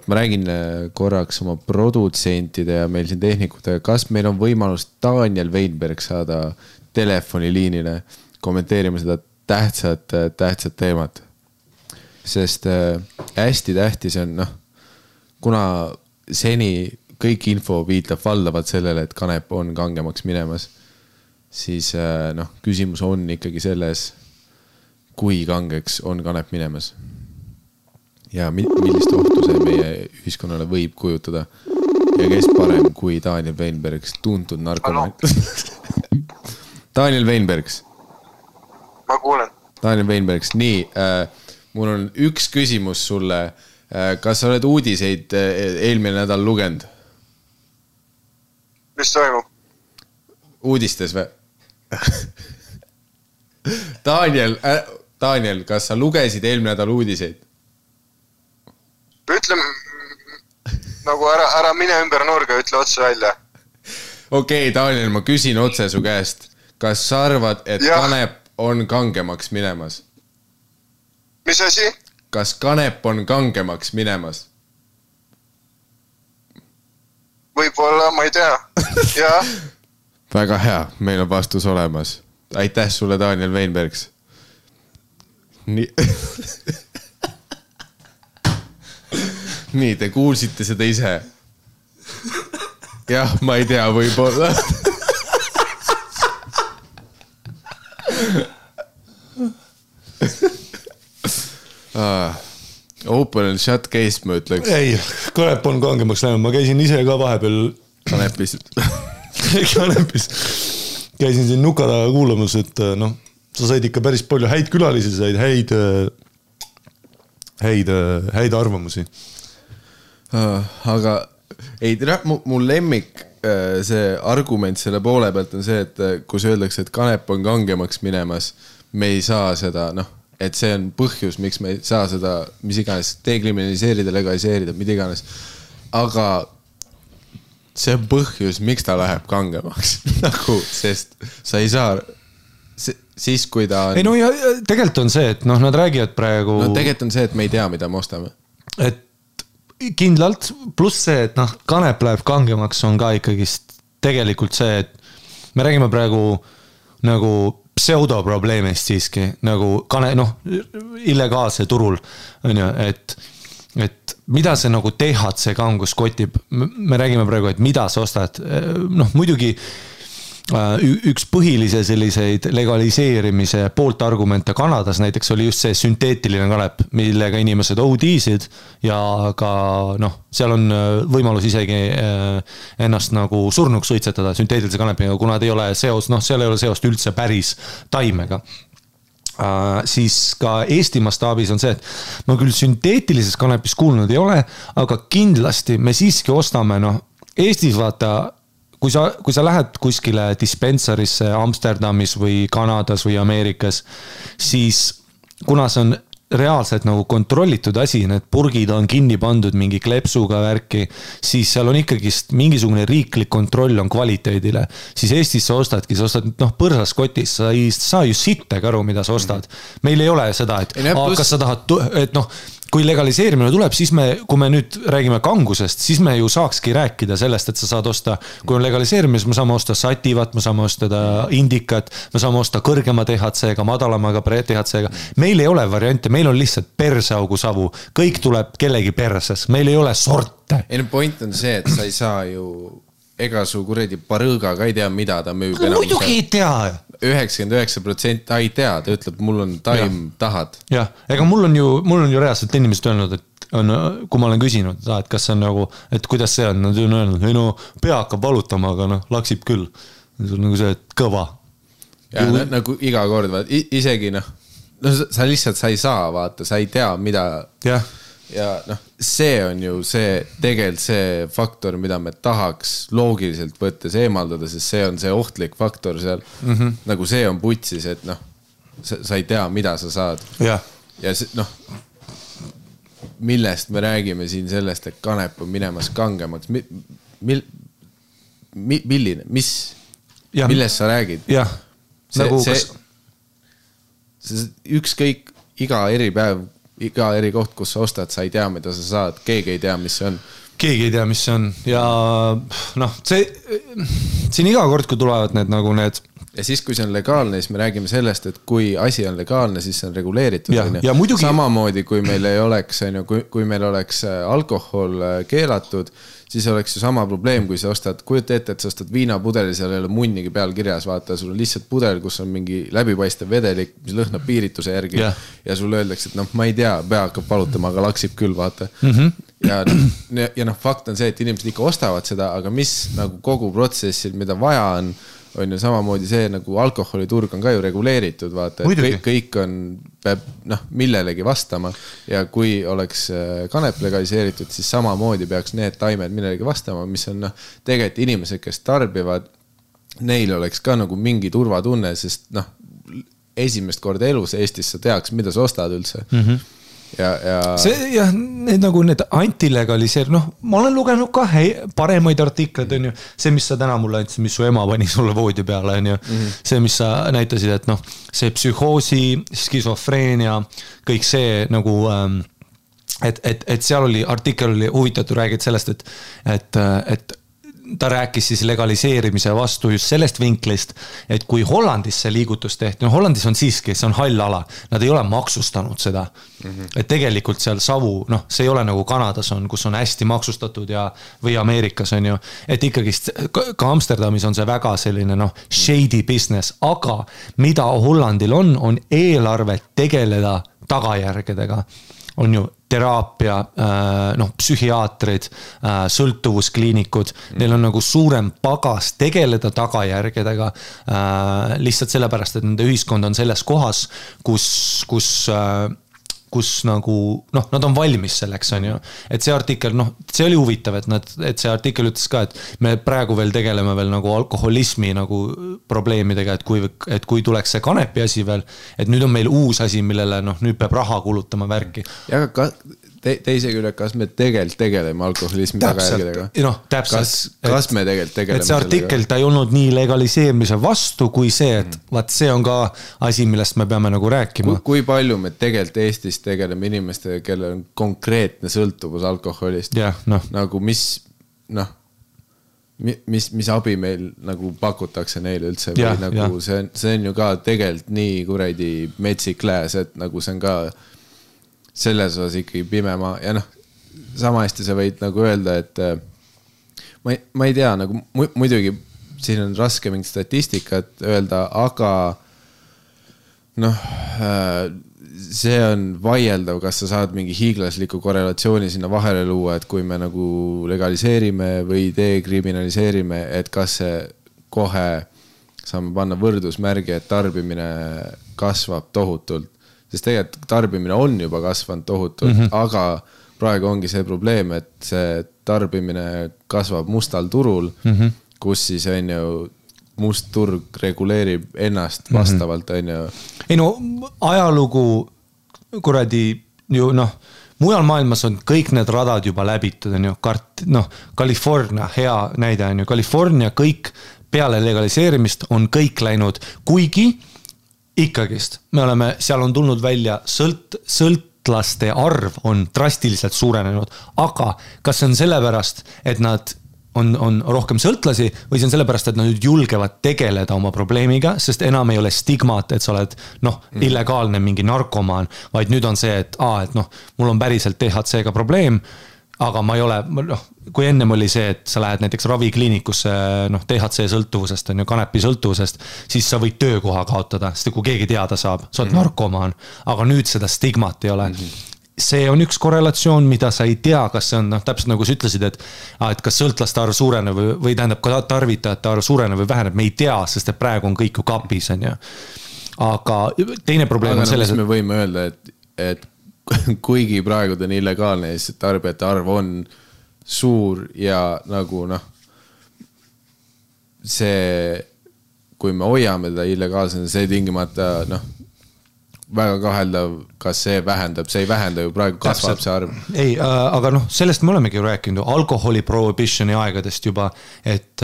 ma räägin korraks oma produtsentide ja meil siin tehnikutega, kas meil on võimalus Daniel Weinberg saada telefoniliinile kommenteerima seda tähtsat teemat. Sest hästi tähtis on, kuna seni kõik info viitab valdavalt sellele, et kanep on kangemaks minemas, siis küsimus on ikkagi selles, kui kangeks on kanep minemas. Ja millist ohtu see meie ühiskonnale võib kujutada. Ja kes parem kui Daniel Weinbergs, tuntud narkomaan. Daniel Weinbergs. Ma kuulen. Daniel Weinbergs, nii, mul on üks küsimus sulle. Kas sa oled uudiseid eelmine nädal lugenud? Mis toimub? Uudistes või? Daniel, kas sa lugesid eelmine nädal uudiseid? Ütleme, nagu ära mine ümber nurga, ütle otse välja. Okei, Daniel, ma küsin otse su käest. Kas sa arvad, et kanep on kangemaks minemas? Mis asi? Kas kanep on kangemaks minemas? Võib-olla, ma ei tea. Ja? Väga hea, meil on vastus olemas. Aitäh sulle, Daniel Weinbergs. Nii. Nii, te kuulsite seda ise. Jah, ma ei tea, võib-olla. Open and shut case, ma ütleks. Ei, kanep on kangemaks läinud. Ma käisin ise ka vahepeal kanepis. Käisin siin nuka taga kuulamas, et sa said ikka päris palju häid külalisi, said häid arvamusi. Aga ei, mul lemmik see argument selle poole pealt on see, et kus öeldakse, et kanep on kangemaks minemas, me ei saa seda, et see on põhjus, miks me ei saa seda, mis iganes, dekriminaliseerida, legaliseerida, mida iganes. Aga see on põhjus, miks ta läheb kangemaks. Sest sa ei saa, siis kui ta on... Ei no ja tegelikult on see, et nad räägivad praegu... No tegelikult on see, et me ei tea, mida me ostame. Et kindlalt, pluss see, et kanep läheb kangemaks on ka ikkagist tegelikult see, et me räägime praegu nagu pseudoprobleemist siiski, nagu illegaalse turul, et mida see nagu THC kangus kotib, me räägime praegu, et mida sa ostad, muidugi üks põhilise selliseid legaliseerimise poolt argumente Kanadas näiteks oli just see sünteetiline kanep, millega inimesed OD-sid ja ka seal on võimalus isegi ennast nagu surnuks suitsetada sünteetilise kanepiga, kuna ei ole seos, seal ei ole seost üldse päris taimega. Siis ka Eesti mastaabis on see, et ma küll sünteetilises kanepis kuulnud ei ole, aga kindlasti me siiski ostame, Eestis vaata kui sa lähed kuskile dispensarisse Amsterdamis või Kanadas või Ameerikas, siis kuna see on reaalselt nagu kontrollitud asi, need purgid on kinni pandud mingi klepsuga värki, siis seal on ikkagist mingisugune riiklik kontroll on kvaliteedile. Siis Eestis sa ostadki, sa ostad põrsas kotis, sa ei saa ju sittega aru, mida sa ostad. Meil ei ole seda, et kas sa tahad, et kui legaliseerimine tuleb, siis kui me nüüd räägime kangusest, siis me ju saakski rääkida sellest, et sa saad osta, kui on legaliseerimine, siis me saame osta sativat, me saame osta indikat, me saame osta kõrgema THC-ga, madalamaga THC-ga. Meil ei ole variante, meil on lihtsalt perseaugu savu. Kõik tuleb kellegi perses, meil ei ole sorte. Ei, point on see, et sa ei saa ju ega su kuredi parõõga ka ei tea, mida ta müüb. Muidugi ei tea. 99% ta ei tea, ta ütleb, mul on taim, tahad. Jah, ega mul on ju reaalselt inimesed öelnud, et kui ma olen küsinud, et kas see on nagu, et kuidas see on, nad on öelnud, ei no pea hakkab valutama, aga laksib küll. See on nagu see, et kõva. Ja nagu iga kord, isegi sa lihtsalt sa ei saa, vaata, sa ei tea, mida. Jah. Ja see on ju see tegelikult see faktor, mida me tahaks loogiliselt võttes eemaldada, sest see on see ohtlik faktor seal. Nagu see on putsis, et sa ei tea, mida sa saad. Ja see, millest me räägime siin sellest, et kanep on minemas kangemaks. Milline, millest sa räägid? Jah. Ükskõik iga eripäev, iga eri koht, kus sa ostad, sa ei tea, mida sa saad. Keegi ei tea, mis see on. Keegi ei tea, mis see on. Ja siin iga kord, kui tulevad need ja siis, kui see on legaalne, siis me räägime sellest, et kui asi on legaalne, siis see on reguleeritud. Ja muidugi... Samamoodi, kui meil ei oleks, kui meil oleks alkohol keelatud, siis oleks ju sama probleem, kui sa ostad, kujuta ette, et sa ostad viinapudeli, seal ei ole munnigi peal kirjas, vaata, sul on lihtsalt pudel, kus on mingi läbipaistev vedelik, mis lõhnab piirituse järgi ja sul öeldakse, et ma ei tea, pea hakkab palutama, aga laksib küll, vaata. Ja fakt on see, et inimesed ikka ostavad seda, aga mis nagu kogu protsessil, mida vaja on ju samamoodi see, nagu alkoholiturg on ka ju reguleeritud, vaata, et kõik on, peab millelegi vastama ja kui oleks kanep legaliseeritud, siis samamoodi peaks need taimed millelegi vastama, mis on tegelikult inimesed, kes tarbivad, neil oleks ka nagu mingi turvatunne, sest esimest korda elus Eestis sa teaks, mida sa ostad üldse. Need antilegaliseer, ma olen lugenud ka paremaid artikleid, on ju, see, mis sa täna mulle andsid, mis su ema pani sulle voodi peale, on ju, see, mis sa näitasid, et see psühhoosi, skisofreenia, kõik see nagu, et seal oli, artikkel oli huvitatud, räägid sellest, et ta rääkis siis legaliseerimise vastu just sellest vinklist, et kui Hollandis see liigutus tehti, Hollandis on siiski, see on hall ala, nad ei ole maksustanud seda, et tegelikult seal savu, see ei ole nagu Kanadas on, kus on hästi maksustatud või Ameerikas on ju, et ikkagi ka Amsterdamis on see väga selline shady business, aga mida Hollandil on eelarve tegeleda tagajärgedega, on ju teraapia, psühhiaatrid, sõltuvuskliinikud, neil on nagu suurem pagas tegeleda tagajärgedega lihtsalt sellepärast, et nende ühiskond on selles kohas, kus nagu, nad on valmis selleks, on ju. Et see artikkel, see oli huvitav, et see artikkel ütles ka, et me praegu veel tegeleme veel nagu alkoholismi nagu probleemidega, et kui tuleks see kanepi asi veel, et nüüd on meil uus asi, millele nüüd peab raha kulutama värki. Ja aga teise küll, kas me tegelikult tegeleme alkoholismi tagajärgedega? Kas me tegelikult tegeleme? Et see artikkel, ta ei olnud nii legaliseerimise vastu, kui see, et see on ka asi, millest me peame nagu rääkima. Kui palju me tegelikult Eestis tegeleme inimestega, kellel on konkreetne sõltuvus alkoholist? Nagu mis abi meil nagu pakutakse neile üldse? Nagu see on ju ka tegelikult nii kuradi metsik lääs, et nagu see on ka selles osas ikkagi pimema ja sama hästi sa võid nagu öelda, et ma ei tea, nagu muidugi siin on raske mingit statistikat öelda, aga see on vaieldav, kas sa saad mingi hiiglasliku korrelatsiooni sinna vahele luua, et kui me nagu legaliseerime või dekriminaliseerime, et kas see kohe saame panna võrdusmärgi, et tarbimine kasvab tohutult. Sest tegelikult tarbimine on juba kasvanud tohutult, aga praegu ongi see probleem, et see tarbimine kasvab mustal turul, kus siis on ju must turg reguleerib ennast vastavalt, on ju. Ei ajalugu kuradi ju mujal maailmas on kõik need radad juba läbitud, on ju, California hea näide on ju, California kõik peale legaliseerimist on kõik läinud, kuigi ikkagist, me oleme, seal on tulnud välja sõltlaste arv on drastiliselt suurenenud, aga kas see on sellepärast, et nad on rohkem sõltlasi või see on sellepärast, et nad julgevad tegeleda oma probleemiga, sest enam ei ole stigmat, et sa oled illegaalne mingi narkomaan, vaid nüüd on see, et mul on päriselt THC-ga probleem, aga ma ei ole, kui ennem oli see, et sa lähed näiteks ravikliinikusse THC sõltuvusest, on ju kanepi sõltuvusest, siis sa võid töökoha kaotada, sest kui keegi teada saab, sa oled narkomaan, aga nüüd seda stigmat ei ole. See on üks korrelatsioon, mida sa ei tea, kas see on, täpselt nagu sa ütlesid, et kas sõltlaste arv suureneb või tähendab ka tarvitajate arv suureneb või väheneb, me ei tea, sest et praegu on kõik ju kapis, on ju. Aga teine probleem on selles, et me võime öelda, et kuigi praegu ta on illegaalne, siis tarbijate arv on suur ja nagu see, kui me hoiame ta illegaalsena, see tingimata väga kaheldav, kas see vähendab, see ei vähenda ju praegu kasvab see arv. Ei, aga sellest me olemegi ju rääkinud alkoholi prohibitioni aegadest juba, et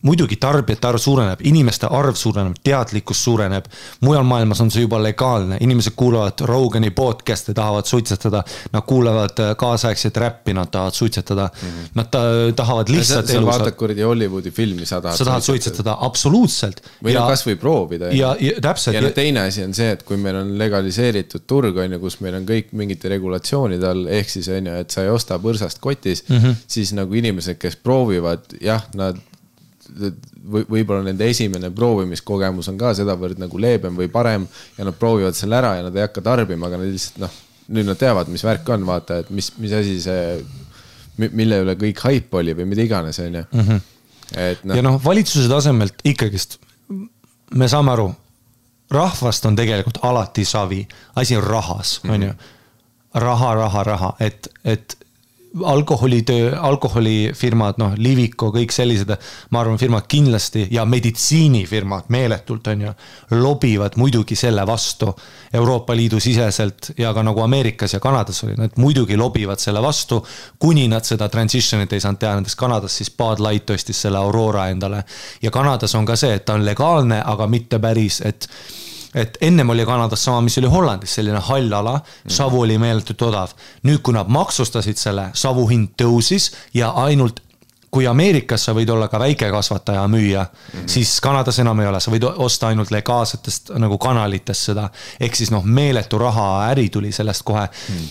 muidugi tarbijate arv suureneb, inimeste arv suureneb, teadlikkus suureneb, mujal maailmas on see juba legaalne, inimesed kuulavad Rogani podcast'e, tahavad suitsetada, nad kuulavad kaasaegset räppi, nad tahavad suitsetada, nad tahavad lihtsalt sa vaatad kuradi Hollywoodi filmi, sa tahad suitsetada, absoluutselt. Või kas või proovida. Ja täpselt. Ja teine asi on see, et kui meil on legaliseeritud turg, kus meil on kõik mingite regulatsioonid all, ehk siis on ju, et sa ei osta põrsast kotis, siis nagu inimesed, kes proovivad, jah, nad võib-olla nende esimene proovimiskogemus on ka sedavõrd nagu leebem või parem ja nad proovivad selle ära ja nad ei hakka tarbima, aga nad lihtsalt nüüd nad teavad, mis värk on, vaata, et mis asi see, mille üle kõik haip oli või mida iganes, on ju. Ja valitsuse tasemelt ikkagist me saame aru, rahvast on tegelikult alati savi, asi on rahas, on ju. Raha, et alkoholifirmad, Liviko, kõik sellised, ma arvan, firmad kindlasti ja meditsiinifirmad meeletult on ju, lobivad muidugi selle vastu Euroopa Liidu siseselt ja ka nagu Ameerikas ja Kanadas oli, nad muidugi lobivad selle vastu, kuni nad seda transitionit ei saanud teha, nendes Kanadas siis Bud Light ostis selle Aurora endale ja Kanadas on ka see, et ta on legaalne, aga mitte päris, et ennem oli Kanadas sama, mis oli Hollandis, selline hall ala, savu oli meeletult odav. Nüüd, kui nad maksustasid selle, savu hind tõusis ja ainult kui Ameerikas sa võid olla ka väikekasvataja müüa, siis Kanadas enam ei ole, sa võid osta ainult legaalsetest nagu kanalitest seda, ehk siis meeletu raha äri tuli sellest kohe.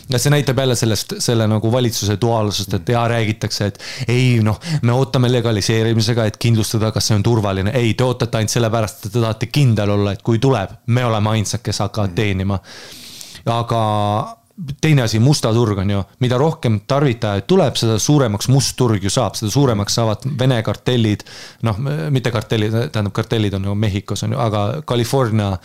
Ja see näitab jälle selle nagu valitsuse duaalsust, et räägitakse, et ei, me ootame legaliseerimisega, et kindlustada, kas see on turvaline. Ei, te ootate ainult sellepärast, et te tahate kindel olla, et kui tuleb, me oleme ainsad, kes hakkavad teenima. Aga teine asi, musta turg on ju, mida rohkem tarvitajaid tuleb, seda suuremaks must turg ju saab, seda suuremaks saavad Vene kartellid, mitte kartellid, tähendab kartellid on ju Mehhikos on ju, aga California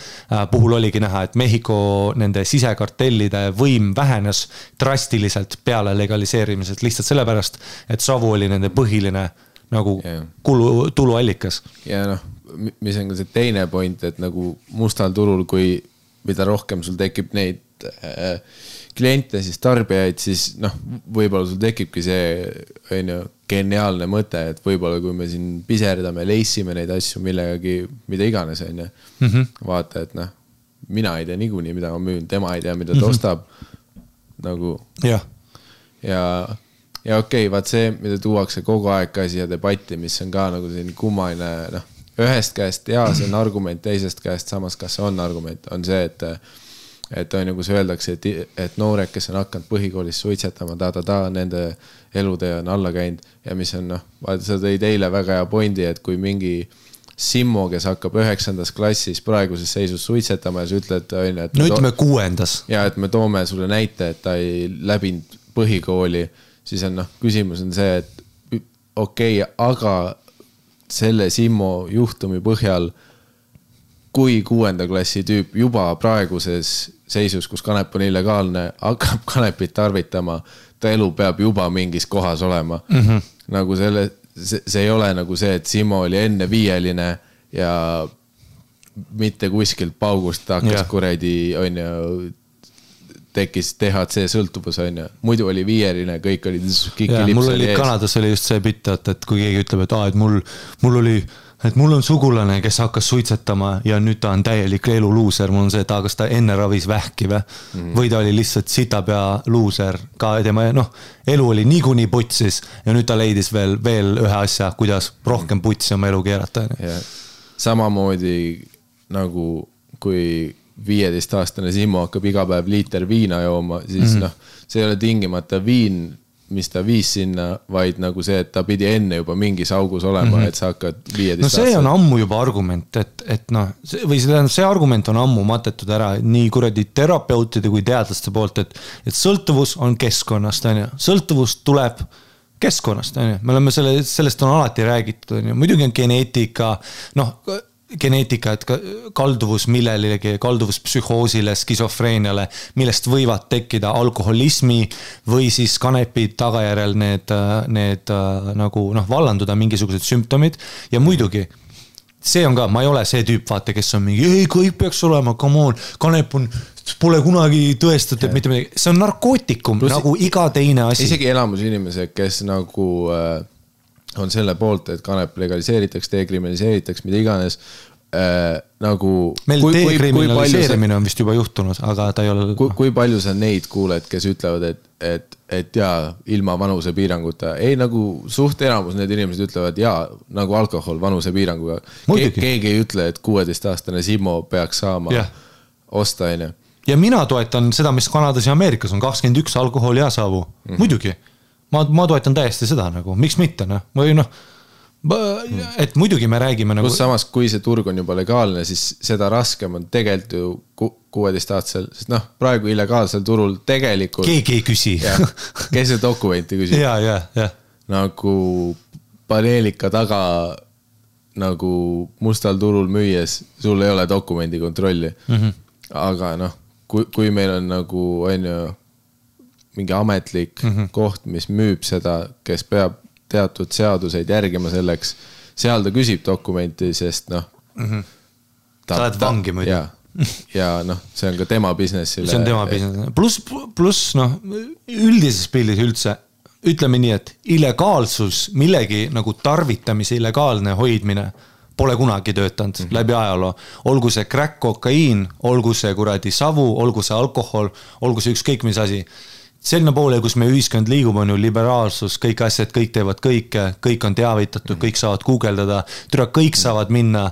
puhul oligi näha, et Mehhiko nende sisekartellide võim vähenes drastiliselt peale legaliseerimisest, lihtsalt sellepärast, et savu oli nende põhiline nagu tuluallikas. Ja mis on ka see teine point, et nagu mustal turul, kui mida rohkem sul tekib neid kliente, siis tarbijaid, siis võib-olla sul tekibki see geniaalne mõte, et võib-olla kui me siin piserdame, leissime neid asju millegagi, mida iganes on ju. Vaata, et mina ei tea niikuinii, mida ma müün, tema ei tea, mida ta ostab nagu ja okei, vaat see, mida tuuakse kogu aeg ka siia debatti, mis on ka nagu selline kummaline, ühest käest see on argument, teisest käest samas, kas see on argument, on see, et on nagu see öeldakse, et noored, kes on hakanud põhikoolis suitsetama, nende elutee on alla käinud ja mis on, vaata, sa tõid eile väga hea pointi, et kui mingi Simmo, kes hakkab 9. klassis praeguses seisus suitsetama ja sa ütled, et no ütleme 6. ja et me toome sulle näite, et ta ei läbinud põhikooli, siis on küsimus on see, et okei, aga selle Simmo juhtumi põhjal, kui 6. klassi tüüp juba praeguses seisus, kus kanep on illegaalne, hakkab kanepit tarvitama, ta elu peab juba mingis kohas olema. Nagu see ei ole nagu see, et Simmo oli enne 5 ja mitte kuskilt paugust hakkas kuradi, on ju, tekkis THC sõltuvus, on ju. Muidu oli 5, kõik olid mul oli Kanadas oli just see bitt, et kui keegi ütleb, et mul oli et mul on sugulane, kes hakkas suitsetama ja nüüd ta on täielik eluluuser, mul on see, et kas ta enne ravis vähki või ta oli lihtsalt sitapea luuser ka tema, elu oli niikuinii putsis ja nüüd ta leidis veel ühe asja, kuidas rohkem putsi oma elu keerata. Samamoodi nagu kui 15-aastane Simmo hakkab iga päev liiter viina jooma, siis see ei ole tingimata viin, mis ta viis sinna, vaid nagu see, et ta pidi enne juba mingis augus olema, et sa hakkad 15 aastat. See on ammu juba argument, või see argument on ammu matetud ära nii kuradi terapeutide kui teadlaste poolt, et sõltuvus on keskkonnast, sõltuvus tuleb keskkonnast, me oleme sellest on alati räägitud, muidugi on geneetika, et kalduvus millelegi, kalduvus psühhoosile, skisofreeniale, millest võivad tekkida alkoholismi või siis kanepi tagajärjel need nagu vallanduda mingisugused sümptomid ja muidugi see on ka, ma ei ole see tüüp, vaata, kes on mingi, ei, kõik peaks olema, come on, kanep pole kunagi tõestatud, mitte midagi, see on narkootikum, nagu iga teine asi. Isegi elamus inimesed, kes nagu on selle poolt, et kanep legaliseeritakse, dekriminaliseeritakse, mida iganes, nagu meil dekriminaliseerimine on vist juba juhtunud, aga ta ei ole kui palju sa neid kuuled, kes ütlevad, et jaa, ilma vanusepiiranguta ei nagu suht enamus need inimesed ütlevad jaa, nagu alkohol vanusepiiranguga keegi ei ütle, et 16-aastane Simmo peaks saama osta enne. Ja mina toetan seda, mis Kanadas ja Ameerikas on 21 alkohol ja savu, muidugi ma toetan täiesti seda nagu, miks mitte, või et muidugi me räägime nagu... Plus samas, kui see turg on juba legaalne, siis seda raskem on tegelikult ju 16-aastasel, sest praegu illegaalsel turul tegelikult... Keegi ei küsi. Kes see dokumenti küsib? Ja. Nagu paneelika taga nagu mustal turul müües, sul ei ole dokumendi kontrolli. Aga kui meil on nagu mingi ametlik koht, mis müüb seda, kes peab teatud seaduseid järgima selleks, seal ta küsib dokumenti, sest sa oled vangi muidu. Ja see on ka tema businessile. See on tema business. Plus üldises pildis üldse, ütleme nii, et illegaalsus, millegi nagu tarvitamise illegaalne hoidmine pole kunagi töötanud läbi ajaloo. Olgu see crack, kokaiin, olgu see kuradi savu, olgu see alkohol, olgu see ükskõik mis asi. Selline poole, kus me ühiskond liigub, on ju liberaalsus, kõik asjad, kõik teevad kõike, kõik on teavitatud, kõik saavad guugeldada, kõik saavad minna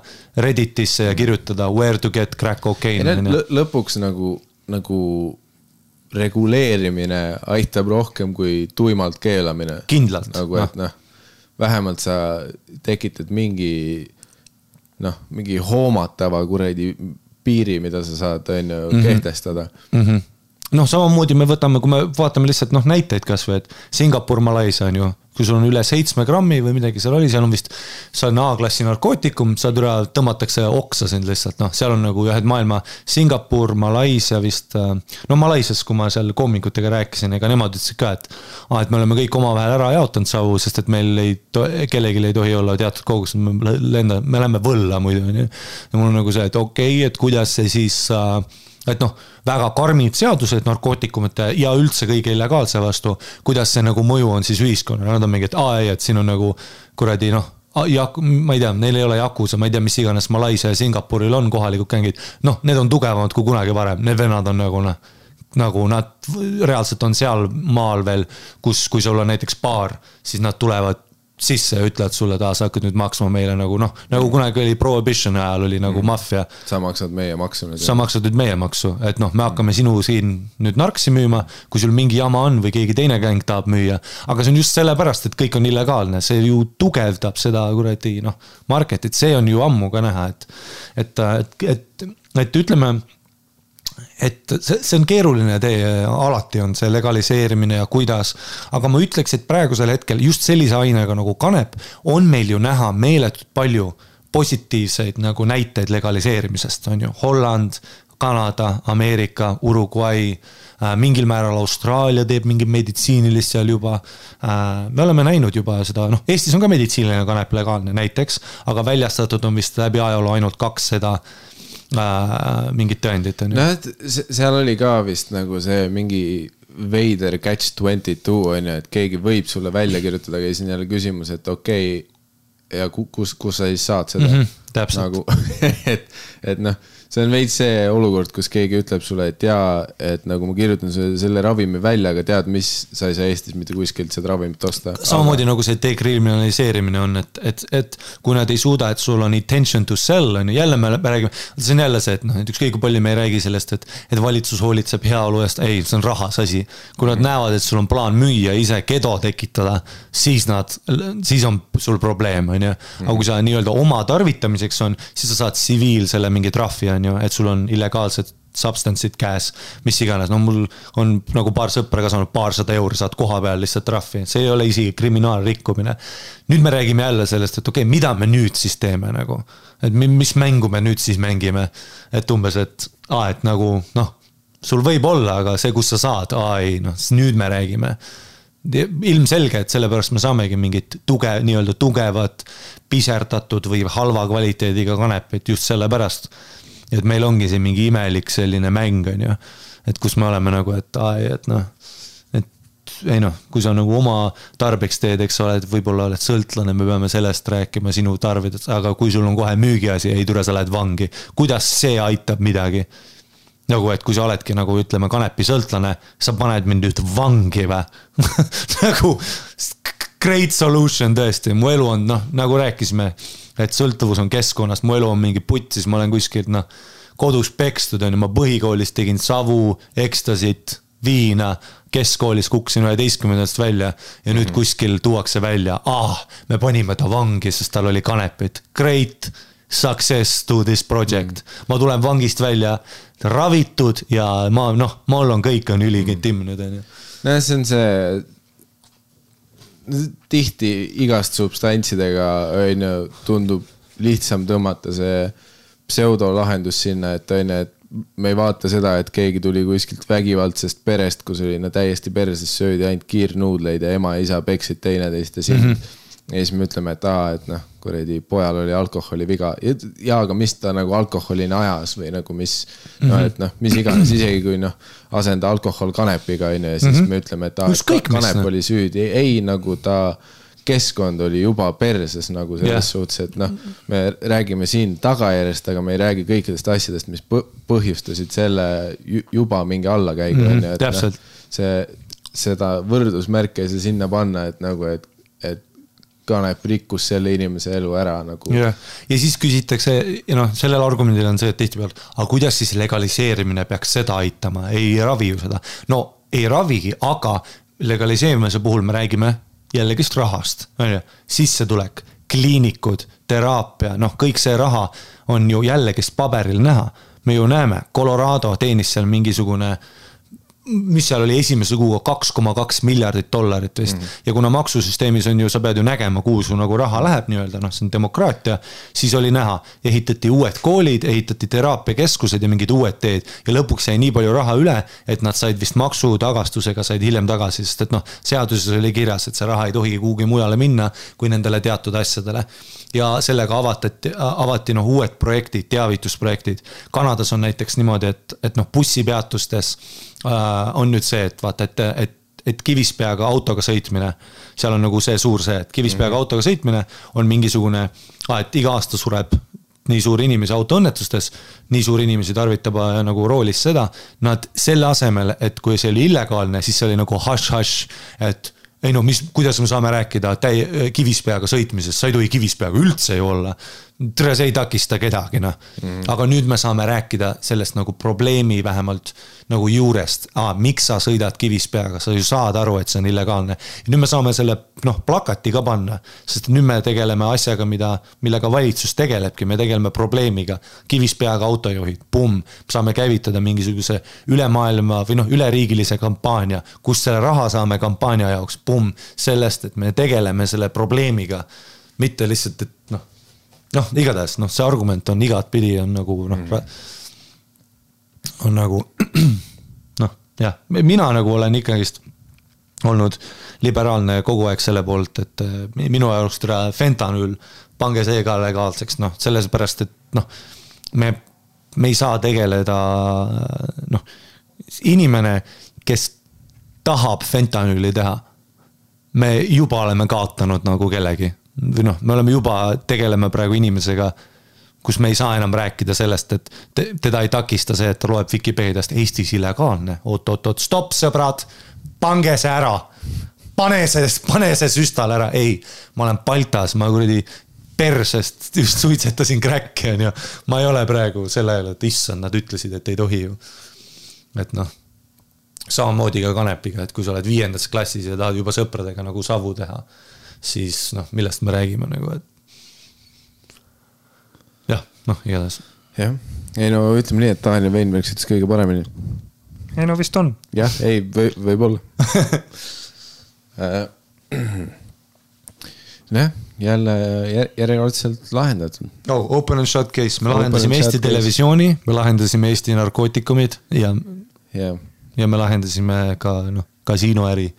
Redditisse ja kirjutada where to get crack cocaine. Lõpuks nagu reguleerimine aitab rohkem kui tuimalt keelamine. Kindlalt. Nagu, et vähemalt sa tekitad mingi hoomatava kuradi piiri, mida sa saad kehtestada. Samamoodi me võtame, kui me vaatame lihtsalt näiteid kas või, et Singapur, Malaisia on ju, kui sul on üle 7 grammi või midagi seal oli, seal on vist, see on A-klassi narkootikum, tõmmatakse oksa sind lihtsalt, seal on nagu ühed maailma Singapur, Malaisia vist, Malaisias, kui ma seal koomikutega rääkisin, ega nemad ütlesid ka, et me oleme kõik omavahel ära jaotanud savu, sest et meil kellelgi ei tohi olla teatud kogus, me läheme võlla muidu, ja mul on nagu see, et okei, et kuidas see siis... et väga karmid seadused narkootikumite ja üldse kõige illegaalse vastu, kuidas see nagu mõju on siis ühiskonna, nad on mingi, et siin on nagu kuradi, ma ei tea, neil ei ole jakusa, ma ei tea, mis iganes Malaisia ja Singapuril on kohalikud gängid, need on tugevamad kui kunagi varem, need vennad on nagu nad reaalselt on seal maal veel, kui sul on näiteks baar, siis nad tulevad sisse ja ütlevad sulle, sa hakkad nüüd maksma meile nagu kunagi oli prohibition ajal oli nagu maffia. Sa maksad meie maksu. Sa maksad nüüd meie maksu, et me hakkame sinu siin nüüd narksi müüma, kui sul mingi jama on või keegi teine gäng tahab müüa. Aga see on just sellepärast, et kõik on illegaalne, see ju tugevdab seda kuradi marketit, see on ju ammu ka näha, et ütleme, et see on keeruline tee, alati on see legaliseerimine ja kuidas, aga ma ütleks, et praegusel hetkel just sellise ainega nagu kanep on meil ju näha meeletult palju positiivseid nagu näiteid legaliseerimisest, on ju Holland, Kanada, Ameerika, Uruguay, mingil määral Austraalia teeb mingi meditsiinilist seal juba, me oleme näinud juba seda, Eestis on ka meditsiiniline kanep legaalne näiteks, aga väljastatud on vist läbi ajaloo ainult 2 seda mingit tõendit on ju. Seal oli ka vist nagu see mingi veider catch 22 on ju, et keegi võib sulle välja kirjutada, aga siin jälle küsimus, et okei, ja kus sa siis saad seda täpselt. nagu, et noh, see on veits see olukord, kus keegi ütleb sulle, et jaa, et nagu ma kirjutan selle ravimi välja, aga tead, mis sa ei saa Eestis mitte kuskilt seda ravimit osta. Samamoodi nagu see dekriminaliseerimine on, et kui nad ei suuda, et sul on intention to sell, on ju, jälle me räägime, see on jälle see, et noh, et ükskõik kui palju me ei räägi sellest, et valitsus hoolitseb heaolu eest, ei, see on rahas asi. Kui nad näevad, et sul on plaan müüa, ise kedo tekitada, siis on sul probleem, on ju. Aga kui sa nii-öelda oma tarvitamiseks on, siis sa saad tsiviil selle mingi trahvi, on ju, et sul on illegaalsed substance'id käes, mis iganes. No mul on nagu paar sõpra ka saanud €200, saad koha peal lihtsalt trahvi. See ei ole isegi kriminaalrikkumine. Nüüd me räägime jälle sellest, et okei, mida me nüüd siis teeme nagu? Et mis mängu me nüüd siis mängime? Et umbes, et nagu, noh, sul võib olla, aga see, kus sa saad, ei, noh, nüüd me räägime. Ilmselge, et sellepärast me saamegi mingit nii-öelda tugevat, piserdatud või halva kvaliteediga kanepit just sellepärast. Et meil ongi see mingi imelik selline mäng, on ju. Et kus me oleme nagu, et noh, ei noh, kui sa nagu oma tarbeks teed, eks ole, et võib-olla oled sõltlane, me peame sellest rääkima sinu tarvidest, aga kui sul on kohe müügiasi, ei tule, sa lähed vangi. Kuidas see aitab midagi? Nagu, et kui sa oledki nagu, ütleme, kanepi sõltlane, sa paned mind nüüd vangi või? Nagu great solution tõesti, mu elu on, noh, nagu rääkisime, et sõltuvus on keskkonnast, mu elu on mingi putsis, ma olen kuskilt, noh, kodus pekstud, on ju, ma põhikoolis tegin savu, ekstasit, viina, keskkoolis kuksin 11. välja ja nüüd kuskil tuuakse välja, me panime ta vangi, sest tal oli kanepit. Great success to this project. Ma tulen vangist välja ravitud ja mul on kõik on üligetimnud. No see on see tihti igast substantsidega tundub lihtsam tõmmata see pseudolahendus sinna, et me ei vaata seda, et keegi tuli kuskilt vägivaldsest perest, kus oli täiesti perses söödi ainult kiirnuudleid ja ema ja isa peksid teineteist ja siis me ütleme, et noh, kuredi pojal oli alkoholi viga ja aga mis ta nagu alkoholini ajas või nagu mis iganes, isegi kui asenda alkohol kanepiga ja siis me ütleme, et kanep oli süüdi, ei nagu ta keskkond oli juba perses nagu selles suhtes, et me räägime siin tagajärjest, aga me ei räägi kõikidest asjadest, mis põhjustasid selle juba mingi allakäigu. Täpselt. Seda võrdusmärke ei saa sinna panna, et nagu, et kanep rikkus selle inimese elu ära nagu. Ja siis küsitakse, ja sellel argumendil on see, et tihti peal, aga kuidas siis legaliseerimine peaks seda aitama, ei ravi ju seda. No ei ravigi, aga legaliseerimise puhul me räägime jällegist rahast, sissetulek, kliinikud, teraapia, kõik see raha on ju jällegist paberil näha. Me ju näeme, Colorado teenis seal mingisugune, mis seal oli esimese kuuga $2,2 miljardit vist. Ja kuna maksusüsteemis on ju, sa pead ju nägema, kuhu su nagu raha läheb nii-öelda, see on demokraatia, siis oli näha, ehitati uued koolid, ehitati teraapiakeskused ja mingid uued teed ja lõpuks jäi nii palju raha üle, et nad said vist maksutagastusega said hiljem tagasi, sest et seaduses oli kirjas, et see raha ei tohi kuhugi mujale minna kui nendele teatud asjadele. Ja sellega avati uued projektid, teavitusprojektid. Kanadas on näiteks niimoodi, et bussipeatustes on nüüd see, et vaata, et Kivispeaga autoga sõitmine, seal on nagu see suur see, et Kivispeaga autoga sõitmine on mingisugune, et iga aasta sureb nii suur inimesi autoõnnetustes, nii suur inimesi tarvitab nagu roolis seda, nad selle asemel, et kui see oli illegaalne, siis see oli nagu hush, et ei kuidas me saame rääkida Kivispeaga sõitmisest, sa ei tohi Kivispeaga üldse ju olla. See ei takista kedagi, Aga nüüd me saame rääkida sellest nagu probleemi vähemalt nagu juurest. Miks sa sõidad Kivispeaga? Sa ju saad aru, et see on illegaalne. Ja nüüd me saame selle plakati ka panna, sest nüüd me tegeleme asjaga, millega valitsus tegelebki. Me tegeleme probleemiga. Kivispeaga autojuhid, saame käivitada mingisuguse ülemaailma või üleriigilise kampaania, kus selle raha saame kampaania jaoks, sellest, et me tegeleme selle probleemiga. Mitte lihtsalt, et igatahes, see argument on igat pidi, on nagu, on nagu, mina nagu olen ikkagist olnud liberaalne kogu aeg selle poolt, et minu jaoks fentanüül, pange see ka legaalseks, selles pärast, et me ei saa tegeleda, inimene, kes tahab fentanüüli teha, me juba oleme kaotanud nagu kellegi. või noh, me oleme juba, tegeleme praegu inimesega, kus me ei saa enam rääkida sellest, et teda ei takista see, et ta loeb Vikipeediast Eestis illegaalne. Oot, stopp sõbrad, pange see ära. Pane see süstal ära. Ei, ma olen Baltas, ma kuradi persest just suitsetasin kräkki, on ju. Ma ei ole praegu selle ajal, et issand, nad ütlesid, et ei tohi ju. Et noh, samamoodi ka kanepiga, et kui sa oled 5. klassis ja tahad juba sõpradega nagu savu teha, siis noh, millest me räägime nagu, et jah, noh, igatahes. Jah, ei no ütleme nii, et Daniel Weinberg ütles kõige paremini. Ei no vist on. Jah, ei, võib olla. Jälle järjekordselt lahendatud. Open and shut case, me lahendasime Eesti televisiooni, me lahendasime Eesti narkootikumid ja me lahendasime ka kasiinoäri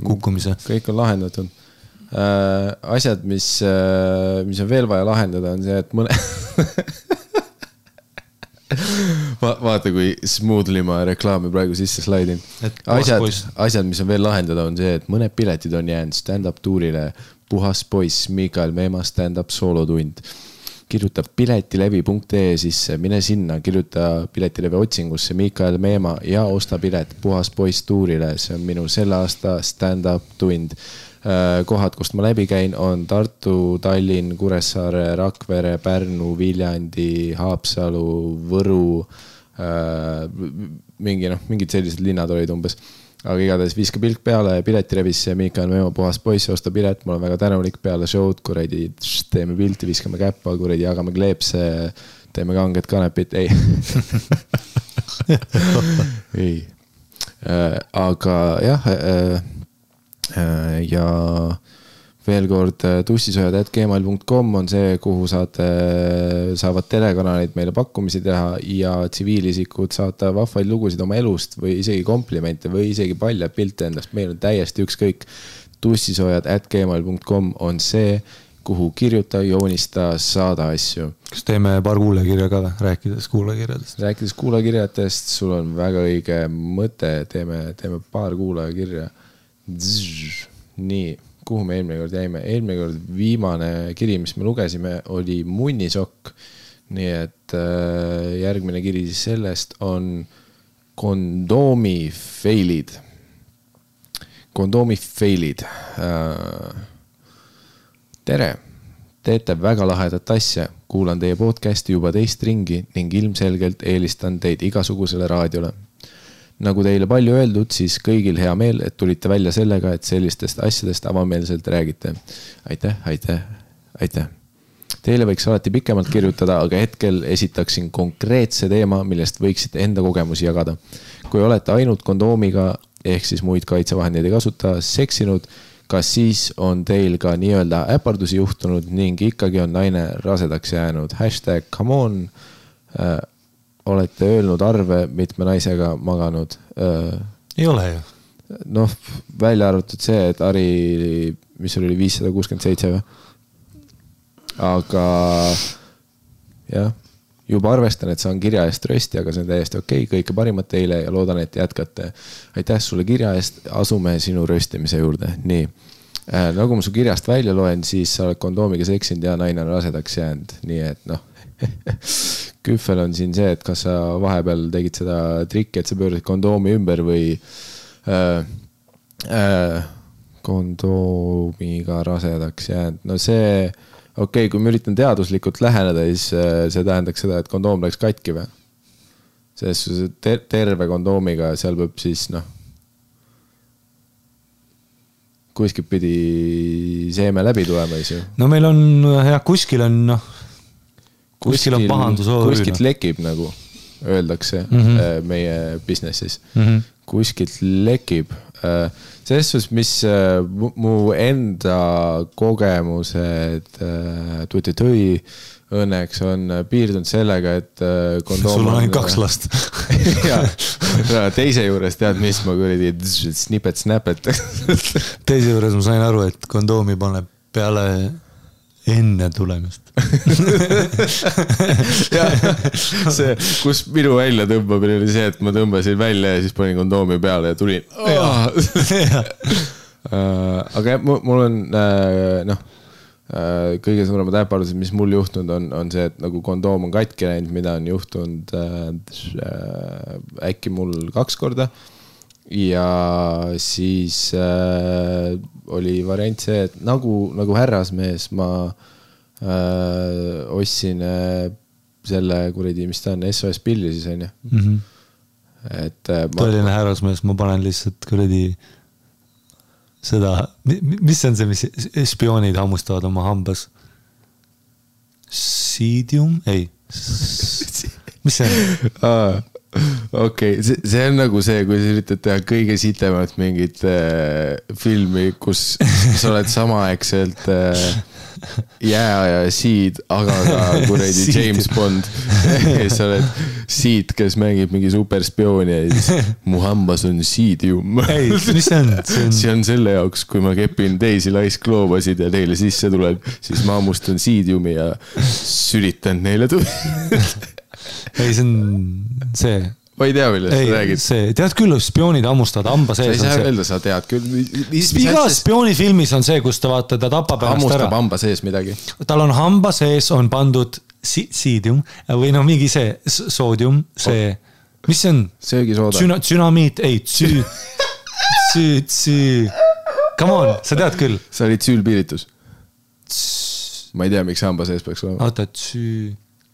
kukkumise. Kõik on lahendatud. Asjad, mis on veel vaja lahendada, on see, et mõne... Vaata, kui smoothly ma reklaami praegu sisse slaidin. Asjad, mis on veel lahendada, on see, et mõned piletid on jäänud stand-up tuurile Puhas poiss, Mikael Meema stand-up soolotund. Kirjuta piletilevi.ee sisse, mine sinna, kirjuta piletilevi otsingusse Mikael Meema ja osta pilet Puhas poiss tuurile. See on minu selle aasta stand-up tund. Kohad, kust ma läbi käin, on Tartu, Tallinn, Kuressaare, Rakvere, Pärnu, Viljandi, Haapsalu, Võru, mingid sellised linnad olid umbes. Aga igatahes viska pilk peale piletirevisse, Mikael Meema Puhas poiss, osta pilet, mul on väga tänulik peale show'd, kuradi teeme pilti, viskame käppa, kuradi jagame kleepse, teeme kanged kanepit, ei. ei. Aga jah, ja veel kord tussisojad@gmail.com on see, kuhu saavad telekanalid meile pakkumisi teha ja tsiviilisikud saata vahvaid lugusid oma elust või isegi komplimente või isegi paljad pilte endast. Meil on täiesti ükskõik. tussisojad@gmail.com on see, kuhu kirjuta, joonista, saada asju. Kas teeme paar kuulekirja ka või? Rääkides kuulekirjadest, sul on väga õige mõte, teeme paar kuulekirja. Nii, kuhu me eelmine kord jäime? Eelmine kord viimane kiri, mis me lugesime, oli munnisokk. Nii et järgmine kiri sellest on kondoomi failid. Tere, teete väga lahedat asja. Kuulan teie podcasti juba teist ringi ning ilmselgelt eelistan teid igasugusele raadiole. Nagu teile palju öeldud, siis kõigil hea meel, et tulite välja sellega, et sellistest asjadest avameelselt räägite. Aitäh. Teile võiks alati pikemalt kirjutada, aga hetkel esitaksin konkreetse teema, millest võiksite enda kogemusi jagada. Kui olete ainult kondoomiga, ehk siis muid kaitsevahendeid ei kasuta, seksinud, kas siis on teil ka nii-öelda äpardusi juhtunud ning ikkagi on naine rasedaks jäänud? #come on. Olete öelnud arve mitme naisega maganud? Ei ole ju. Noh, välja arvatud see, et Ari, mis oli 567 või? Aga jah, juba arvestan, et saan kirja eest rösti, aga see on täiesti okei. Kõike parimat teile ja loodan, et jätkate. Aitäh sulle kirja eest, asume sinu röstimise juurde. Nii, nagu ma su kirjast välja loen, siis sa oled kondoomiga seksinud ja naine on rasedaks jäänud. Nii et noh, küffel on siin see, et kas sa vahepeal tegid seda trikki, et sa pöörasid kondoomi ümber või kondoomiga rasedaks jäänud. No see, okei, kui ma üritan teaduslikult läheneda, siis see tähendaks seda, et kondoom läks katki või? Selles terve kondoomiga, seal peab siis kuskilt pidi seeme läbi tulema, siis ju. No meil on, jah, kuskil on pahandus. Kuskilt lekib, nagu öeldakse meie businessis. Kuskilt lekib. Selles suhtes, mis mu enda kogemused tõi õnneks on piirdunud sellega, et kondoom sul on ainult 2 last. Ja teise juures tead, mis ma kuradi snipet. Teise juures ma sain aru, et kondoomi paneb peale enne tulemist. Ja, see, kus minu välja tõmbamine oli see, et ma tõmbasin välja ja siis panin kondoomi peale ja tulin. Aga mul on kõige suuremad äpardused, mis mul juhtunud on see, et nagu kondoom on katki läinud, mida on juhtunud äkki mul 2 korda. Ja siis oli variant see, et nagu härrasmees ma ostsin selle kuradi, mis ta on, SOS pilli siis on ju. Tõeline härrasmees, ma panen lihtsalt kuradi seda, mis on see, mis spioonid hammustavad oma hambas? Siidium? Ei. Mis see on? Okei, see on nagu see, kui sa üritad teha kõige sitemat mingit filmi, kus sa oled samaaegselt ja Seed, aga ka kuradi James Bond. Sa oled Seed, kes mängib mingi superspiooni ja siis mu hambas on Seedium. Ei, mis see on? See on selle jaoks, kui ma kepin teisi laiskloobasid ja teile sisse tuleb, siis ma hammustan Seediumi ja sülitan neile Ei, see on see. Ma ei tea, millest sa räägid. Tead küll, spioonid hammustavad hamba sees. Sa ei saa öelda, sa tead küll. Iga spioonifilmis on see, kus ta vaata, ta tapab ennast ära. Hammustab hamba sees midagi. Tal on hamba sees, on pandud siidium või no mingi see soodium, see, mis see on? Söögisooda. Tsünamiit, ei, come on, sa tead küll. Sa olid süülpiiritus. Ma ei tea, miks hamba sees peaks olema. Oota,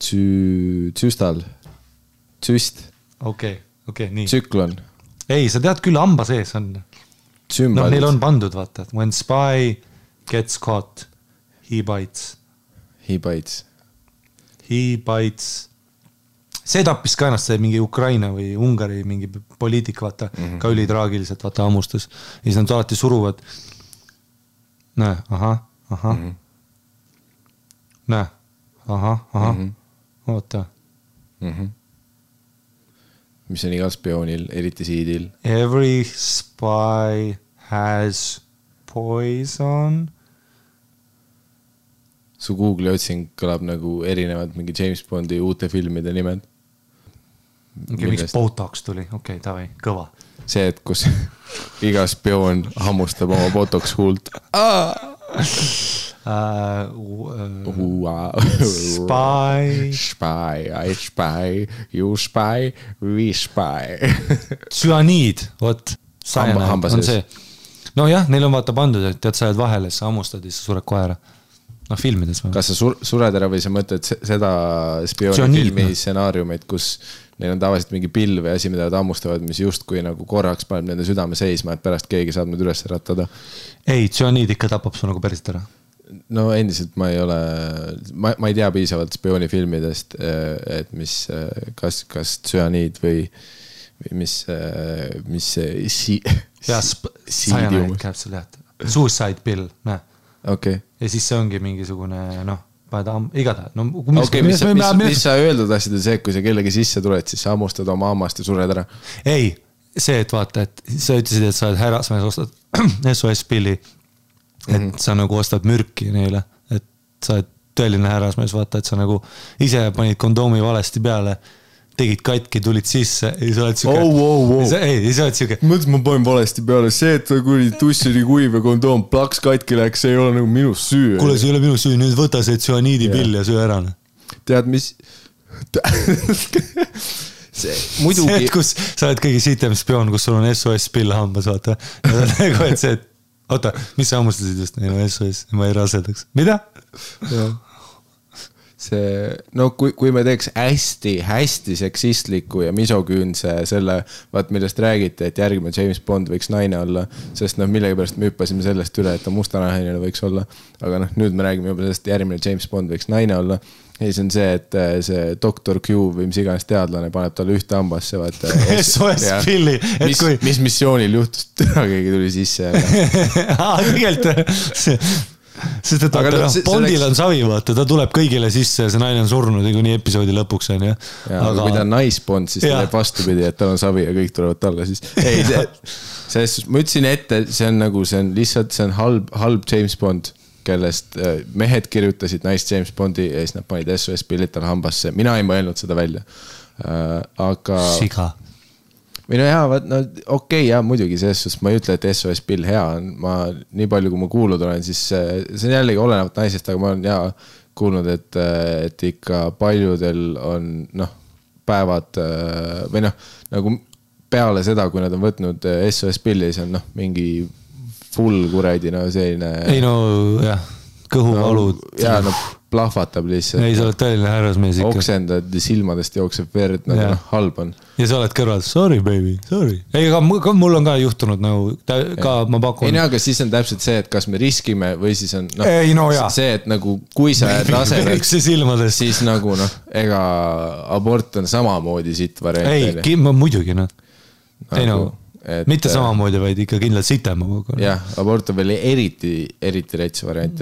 Tsüstal. Tsüst. Okei, nii. Tsüklon. Ei, sa tead küll, hamba sees on. No, neil on pandud, vaata. When spy gets caught, he bites. He bites. See tappis ka ennast see mingi Ukraina või Ungari mingi poliitik, vaata, ka ülitraagiliselt, vaata, hammustas. Ja siis nad alati suruvad. Näe, aha. Näe, aha. Oota. Mis on igal spioonil, eriti Seedil. Every spy has poison. Su Google'i otsing kõlab nagu erinevad mingi James Bondi uute filmide nimed. Miks Botox tuli? Okei, davai, kõva. See, et kus iga spioon hammustab oma Botox huult. Spy, I spy, you spy, we spy. Tsüaniid, vot, hamba on see. No jah, neil on vaata pandud, et tead, sa jääd vahele, sa hammustad ja sa sured kohe ära. No filmides. Kas sa sured ära või sa mõtled seda spioonifilmi stsenaariumit, kus neil on tavaliselt mingi pill või asi, mida nad hammustavad, mis justkui nagu korraks paneb nende südame seisma, et pärast keegi saab nüüd üles ratada? Ei, tsüaniid ikka tapab su nagu päriselt ära. No endiselt ma ei ole, ma ei tea piisavalt spioonifilmidest, et mis, kas tsüaniid või mis Cyanide käib seal jah. Suicide pill, näe. Okay. Ja siis see ongi mingisugune, noh, igatahes. No, mis sa öelda tahtsid, see, kui sa kellegi sisse tuled, siis sa hammustad oma hammast ja sured ära? Ei, see, et vaata, et sa ütlesid, et sa oled härrasmees, ostad SOS pilli, et sa nagu ostad mürki neile, et sa oled tõeline härrasmees, vaata, et sa nagu ise panid kondoomi valesti peale, tegid katki, tulid sisse ja sa oled siuke... Ei, sa oled siuke... Mõttes ma panen valesti peale, see, et kui tuss oli kuiv ja kondoom plaks katki läks, see ei ole nagu minu süü. Kuule, see ei ole minu süü, nüüd võta see tsüaniidi pill ja süü ära. Tead, mis... Muidugi... See, et kus sa oled kõige sitem spioon, kus sul on SOS pill hambas, vaata. Ja nagu, et see, et... Oota, mis sa hammustasid just? Ei, no SOS, ma ei rasedaks. Mida? See, no kui me teeks hästi seksistliku ja misoküünse selle, vaat millest räägiti, et järgmine James Bond võiks naine olla, sest millegi pärast me hüppasime sellest üle, et ta mustanahaline võiks olla, aga nüüd me räägime juba sellest, järgmine James Bond võiks naine olla ja siis on see, et see Dr. Q või mis iganes teadlane paneb talle ühte hambasse, vaata SOS pilli mis missioonil juhtus, keegi tuli sisse tegelikult sest et Bondil on savi, vaata, ta tuleb kõigile sisse ja see naine on surnud kuni episoodi lõpuks on, jah. Aga kui ta on naisbond, siis ta teeb vastupidi, et tal on savi ja kõik tulevad talle siis. Ei, ma ütlesin ette, see on nagu, see on lihtsalt, see on halb James Bond, kellest mehed kirjutasid naist James Bondi ja siis nad panid SOS pillit tal hambasse. Mina ei mõelnud seda välja. Aga... Siga. või no jaa, no okei, jaa, muidugi selles suhtes ma ei ütle, et SOS pill hea on, ma nii palju, kui ma kuulnud olen, siis see on jällegi olenevat naisest, aga ma olen jaa kuulnud, et ikka paljudel on päevad või nagu peale seda, kui nad on võtnud SOS pilli, siis on mingi full kuradi, selline ei jah, kõhuvalud jaa, plahvatab lihtsalt. ei, sa oled tõeline härrasmees ikka. Oksendad silmadest jookseb verd, halb on. Ja sa oled kõrval, sorry baby, sorry. Ei, aga mul on ka juhtunud ka ma pakun. Ei, aga siis on täpselt see, et kas me riskime või siis on see, et nagu kui sa tasemel, siis nagu ega abort on samamoodi sitt variant. Ei, muidugi ei mitte samamoodi, vaid ikka kindlalt sitema. Jah, abort on veel eriti rets variant.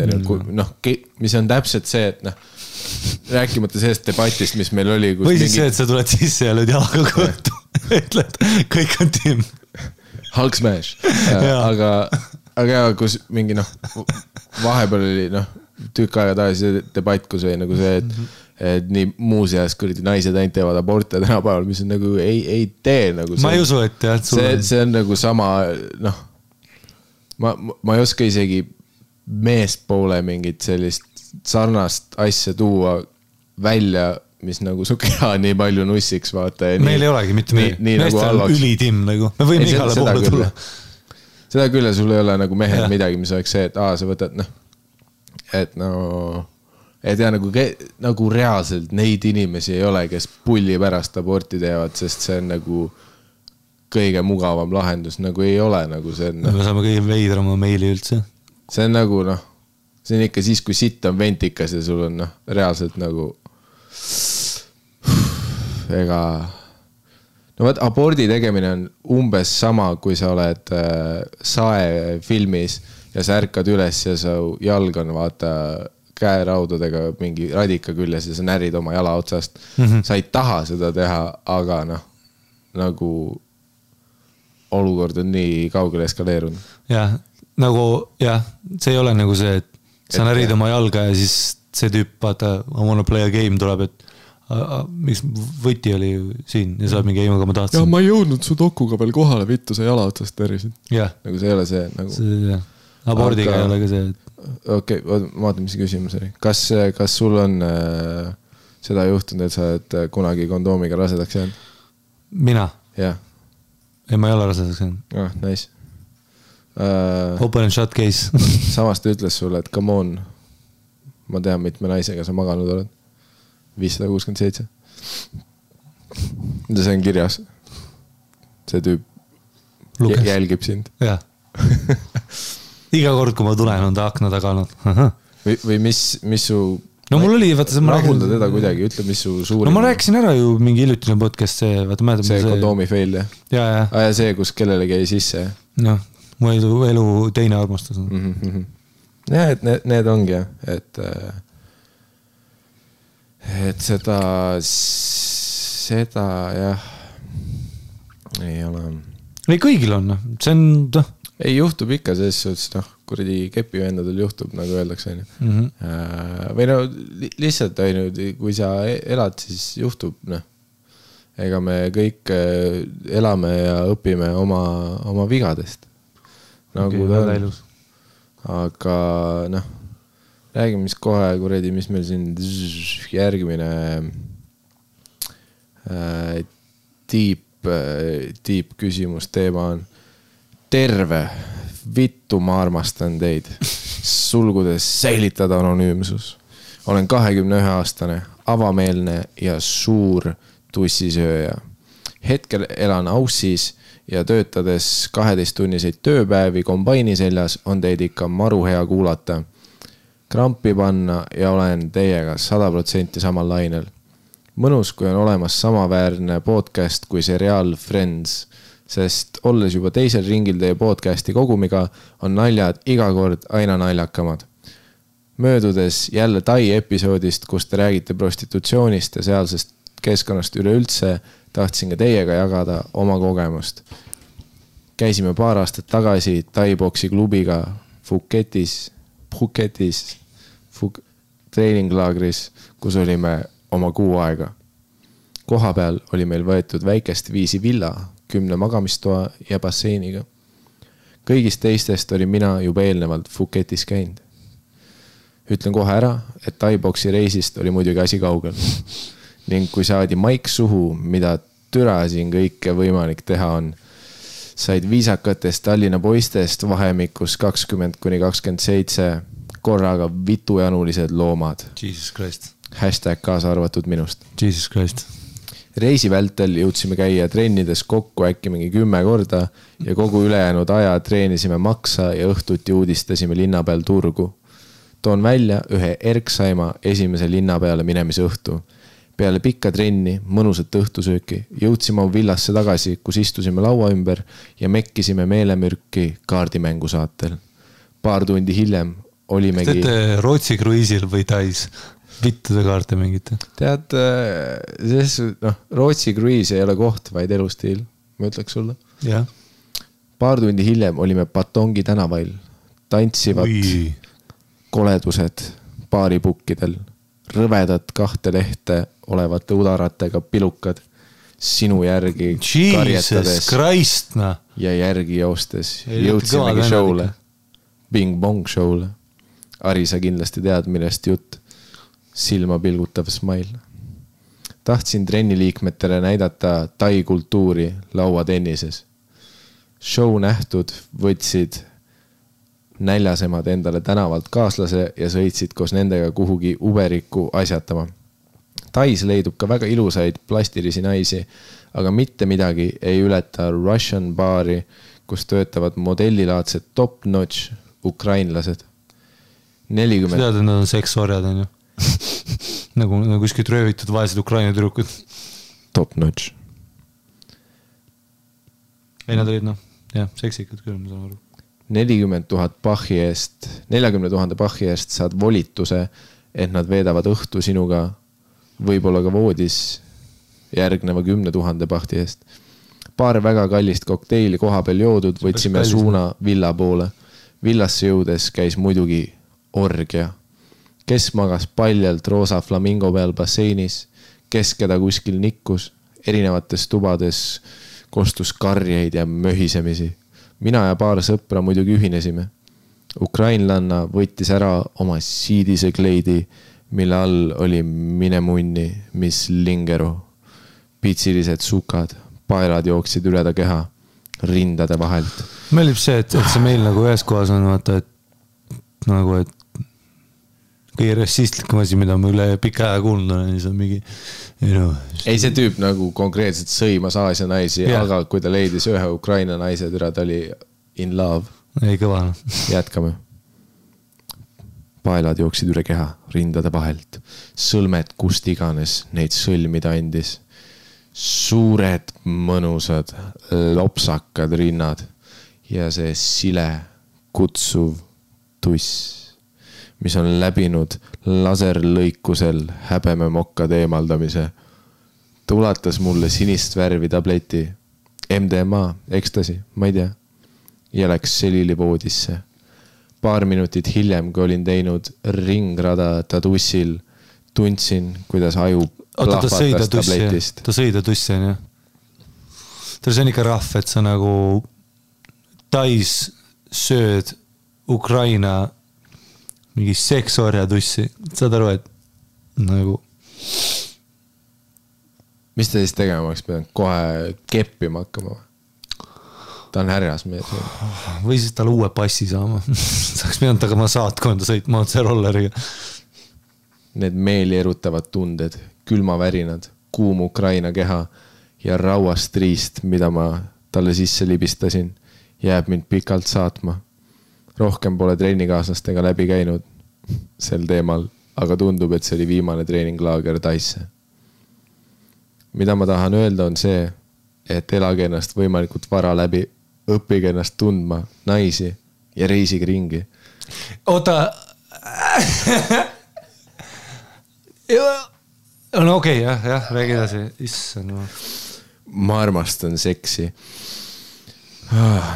Mis on täpselt see, et rääkimata sellest debatist, mis meil oli. Või siis see, et sa tuled sisse ja lööd jalaga kõhtu. Ütled, kõik on tiim. Hulk smash. Aga kus mingi vahepeal oli tükk aega tagasi debatt, kus oli nagu see, et nii muuseas kõrdi naised ainult teevad aborte tänapäeval, mis on nagu ei tee nagu ma ei usu, et jah, see on nagu sama ma ei oska isegi meespoole mingit sellist sarnast asja tuua välja, mis nagu su keha nii palju nussiks vaata. Meil ei olegi mitte meestel on ülitimm nagu, me võime igale poole tulla. Seda küll ja sul ei ole nagu mehel midagi, mis oleks see, et sa võtad et et ja nagu reaalselt neid inimesi ei ole, kes pulli pärast aborti teevad, sest see on nagu kõige mugavam lahendus, nagu ei ole nagu see on. Me saame kõige veidrama meili üldse. See on nagu see on ikka siis, kui sitt on ventikas ja sul on reaalselt nagu ega võt, abordi tegemine on umbes sama, kui sa oled Sae filmis ja sa ärkad üles ja sa jalg on vaata käeraudadega mingi radika küljes ja sa närid oma jala otsast. Sa ei taha seda teha, aga nagu olukord on nii kaugele eskaleerunud. Jah, see ei ole nagu see, et sa närid oma jalga ja siis see tüüp, vaata, I wanna play a game tuleb, et miks võti oli siin ja sa oled mingi aga ma tahtsin. Ja ma ei jõudnud su dokuga veel kohale, vittu sa jala otsast tervisid. Nagu see ei ole see nagu. Abordiga ei ole ka see, et okei, ma vaatan, mis küsimus oli. Kas sul on seda juhtunud, et sa oled kunagi kondoomiga rasedaks jäänud? Mina? Jah. Ei, ma ei ole rasedaks jäänud. Nice. Open and shut case. Samas ta ütles sulle, et come on, ma tean, mitme naisega sa maganud oled. 567. See on kirjas. See tüüp jälgib sind. Jah. Iga kord, kui ma tulen, on ta akna taga olnud. Või mis su... No mul oli, vaata... Rahulda teda kuidagi, ütle, mis su suurim... No ma rääkisin ära ju mingi ilutine podcast, see, vaata, mäletab... See kondoomi fail, jah? Ja. Ja see, kus kellelegi jäi sisse, jah? No, mu elu teine armastus on. Ja, et need ongi, jah, et seda, jah, ei ole... Ei, kõigil on, see on... Ei juhtub ikka selles suhtes, kuradi kepivendadel juhtub, nagu öeldakse. Või lihtsalt ainult, kui sa elad, siis juhtub. Ega me kõik elame ja õpime oma vigadest. Nagu ta on. Aga räägime, mis kohe, kuradi, mis meil siin järgmine tiip küsimus teema on. Terve, vittu ma armastan teid. Sulgudes säilitada anonüümsus. Olen 21-aastane, avameelne ja suur tussisööja. Hetkel elan Aussis ja töötades 12-tunniseid tööpäevi kombaini seljas on teid ikka maru hea kuulata. Krampi panna ja olen teiega 100% samal lainel. Mõnus, kui on olemas samaväärne podcast kui seriaal Friends. Sest olles juba teisel ringil teie podcasti kogumiga, on naljad iga kord aina naljakamad. Möödudes jälle Tai episoodist, kus te räägite prostitutsioonist ja sealsest keskkonnast üleüldse, tahtsin ka teiega jagada oma kogemust. Käisime paar aastat tagasi Tai boksi klubiga Phuketis treeninglaagris, kus olime oma kuu aega. Koha peal oli meil võetud väikest viisi villa, 10 magamistoa ja basseiniga. Kõigist teistest oli mina juba eelnevalt Phuketis käinud. Ütlen kohe ära, et Thai-boksi reisist oli muidugi asi kaugel. Ning kui saadi maik suhu, mida türa siin kõike võimalik teha on, said viisakatest Tallinna poistest vahemikus 20-27 korraga vitujanulised loomad. Jesus Christ. Hashtag kaasa arvatud minust. Jesus Christ. Reisi vältel jõudsime käia trennides kokku äkki mingi 10 korda ja kogu ülejäänud aja treenisime maksa ja õhtuti uudistasime linna peal turgu. Toon välja ühe Erksaima esimese linna peale minemise õhtu. Peale pikka trenni, mõnusat õhtusööki, jõudsime oma villasse tagasi, kus istusime laua ümber ja mekkisime meelemürki kaardimängu saatel. Paar tundi hiljem olimegi... Teete Rootsi kruiisil või Tais? Vittude kaarte mingite? Tead, Rootsi kruiis ei ole koht, vaid elustiil, ma ütleks sulle. Ja. Paar tundi hiljem olime Patongi tänavail. Tantsivad koledused baaripukkidel, rõvedad 2 lehte olevate udaratega pilukad, sinu järgi karjetades Christ, no. ja järgi joostes. Jõudsimegi showle, Bing Bong showle. Ari, sa kindlasti tead, millest jutt. Silma pilgutav smile. Tahtsin trenniliikmetele näidata tai kultuuri lauatennises. Show nähtud võtsid näljasemad endale tänavalt kaaslase ja sõitsid koos nendega kuhugi uberiku asjatama. Tais leidub ka väga ilusaid plastilisi naisi, aga mitte midagi ei ületa Russian baari, kus töötavad modellilaadsed top-notch ukrainlased. 40... Tead, et nad on seksorjad, on ju? nagu kuskilt röövitud vaesed Ukraina tüdrukud. Top-notch. Ei, nad olid, seksikad küll, ma saan aru. 40 000 bahhi eest saad volituse, et nad veedavad õhtu sinuga võib-olla ka voodis järgneva 10 000 bahti eest. Paar väga kallist kokteili koha peal joodud, võtsime suuna villa poole. Villasse jõudes käis muidugi orgia. Kes magas paljalt roosa flamingo peal basseinis, kes keda kuskil nikkus, erinevates tubades kostus karjeid ja möhisemisi. Mina ja paar sõpra muidugi ühinesime. Ukrainlanna võttis ära oma siidise kleidi, mille all oli minemunni, mis lingeru. Pitsilised sukad, paelad jooksid üle ta keha, rindade vahelt. Meeldib see, et see meil nagu ühes kohas on, vaata, et kõige rassistlikum asi, mida ma üle pika aja kuulnud olen, siis on mingi... Ei, see tüüp nagu konkreetselt sõimas Aasia naisi, aga kui ta leidis ühe Ukraina naise, ta oli in love. Ei, kõva. Jätkame. Paelad jooksid üle keha, rindade vahelt. Sõlmed kust iganes neid sõlmida andis. Suured, mõnusad, lopsakad rinnad ja see sile, kutsuv tuss, mis on läbinud laserlõikusel häbeme mokkade eemaldamise. Ta ulatas mulle sinist värvi tableti, MDMA, ekstasi, ma ei tea, ja läks selili voodisse. Paar minutit hiljem, kui olin teinud ringrada ta tussil, tundsin, kuidas aju plahvatas tabletist. Ta sõi ta tussi, on ju? See on ikka rahv, et sa nagu Tais sööd Ukraina mingi seksorja tussi. Saad aru, et nagu... Mis ta siis tegema oleks pidanud? Kohe keppima hakkama? Ta on härjas mees. Või siis tal uue passi saama. Saaks pidanud tagama saatkonda sõitma otse rolleriga. Need meeli erutavad tunded, külmavärinad, kuum Ukraina keha ja rauast riist, mida ma talle sisse libistasin, jääb mind pikalt saatma. Rohkem pole treenikaaslastega läbi käinud sel teemal, aga tundub, et see oli viimane treeninglaager Taisse. Mida ma tahan öelda on see, et elage ennast võimalikult vara läbi, õppige ennast tundma, naisi ja reisige ringi. Oota. No okei, jah, räägi edasi. Issand. Ma armastan seksi.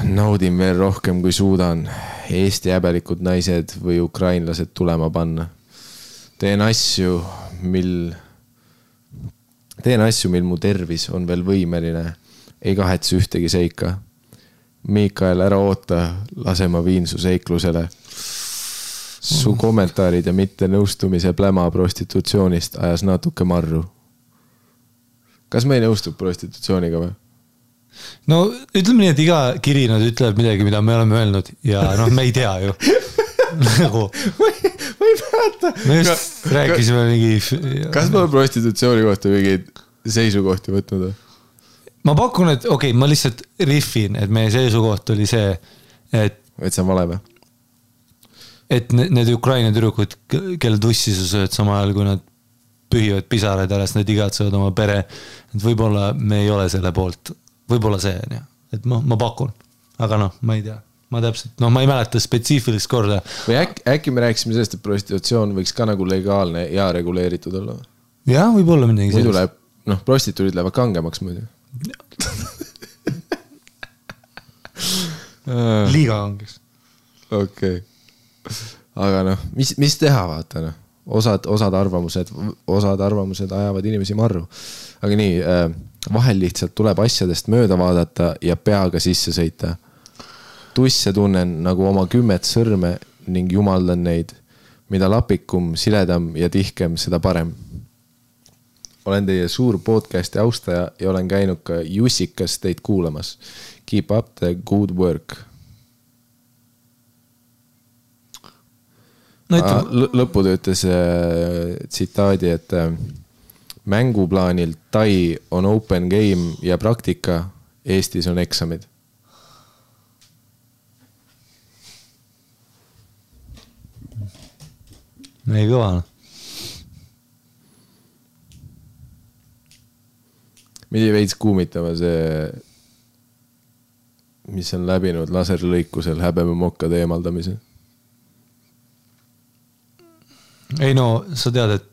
Naudin veel rohkem kui suudan Eesti häbelikud naised või ukrainlased tulema panna. Teen asju, mil mu tervis on veel võimeline ei kahetse ühtegi seika. Miikael, ära oota, lase ma viin su seiklusele. Su kommentaarid ja mitte nõustumise pläma prostitutsioonist ajas natuke marru. Kas me ei nõustub prostitutsiooniga või? No ütleme nii, et iga kiri nad ütleb midagi, mida me oleme öelnud ja noh, me ei tea ju. Nagu ma ei mäleta. Me just rääkisime mingi... Kas me oleme prostitutsiooni kohta mingeid seisukohti võtnud? Ma pakun, et okei, ma lihtsalt riffin, et meie seisukoht oli see, et see on vale või? Et need Ukraina tüdrukud, kelle tussi sa sööd sama ajal, kui nad pühivad pisaraid alles, need igatsevad oma pere. Et võib-olla me ei ole selle poolt. Võib-olla see on, et ma pakun. Aga noh, ma ei tea. Ma täpselt, ma ei mäleta spetsiifilist korda. Või äkki me rääkisime sellest, et prostitutsioon võiks ka nagu legaalne ja reguleeritud olla? Jah, võib-olla midagi sellist. Muidu läheb, prostituudid lähevad kangemaks muidu. Liiga kangeks. Okei. Aga mis teha, vaata, osad arvamused ajavad inimesi marru. Aga nii, vahel lihtsalt tuleb asjadest mööda vaadata ja peaga sisse sõita. Tusse tunnen nagu oma 10 sõrme ning jumaldan neid. Mida lapikum, siledam ja tihkem, seda parem. Olen teie suur podcasti austaja ja olen käinud ka Jussikas teid kuulamas. Keep up the good work. Lõpud ütles tsitaadi, et mänguplaanil Tai on open game ja praktika, Eestis on eksamid. Ei kõva. Midi veits kuumitama see, mis on läbinud laserlõikusel häbeme mokkade eemaldamise. Ei no, sa tead, et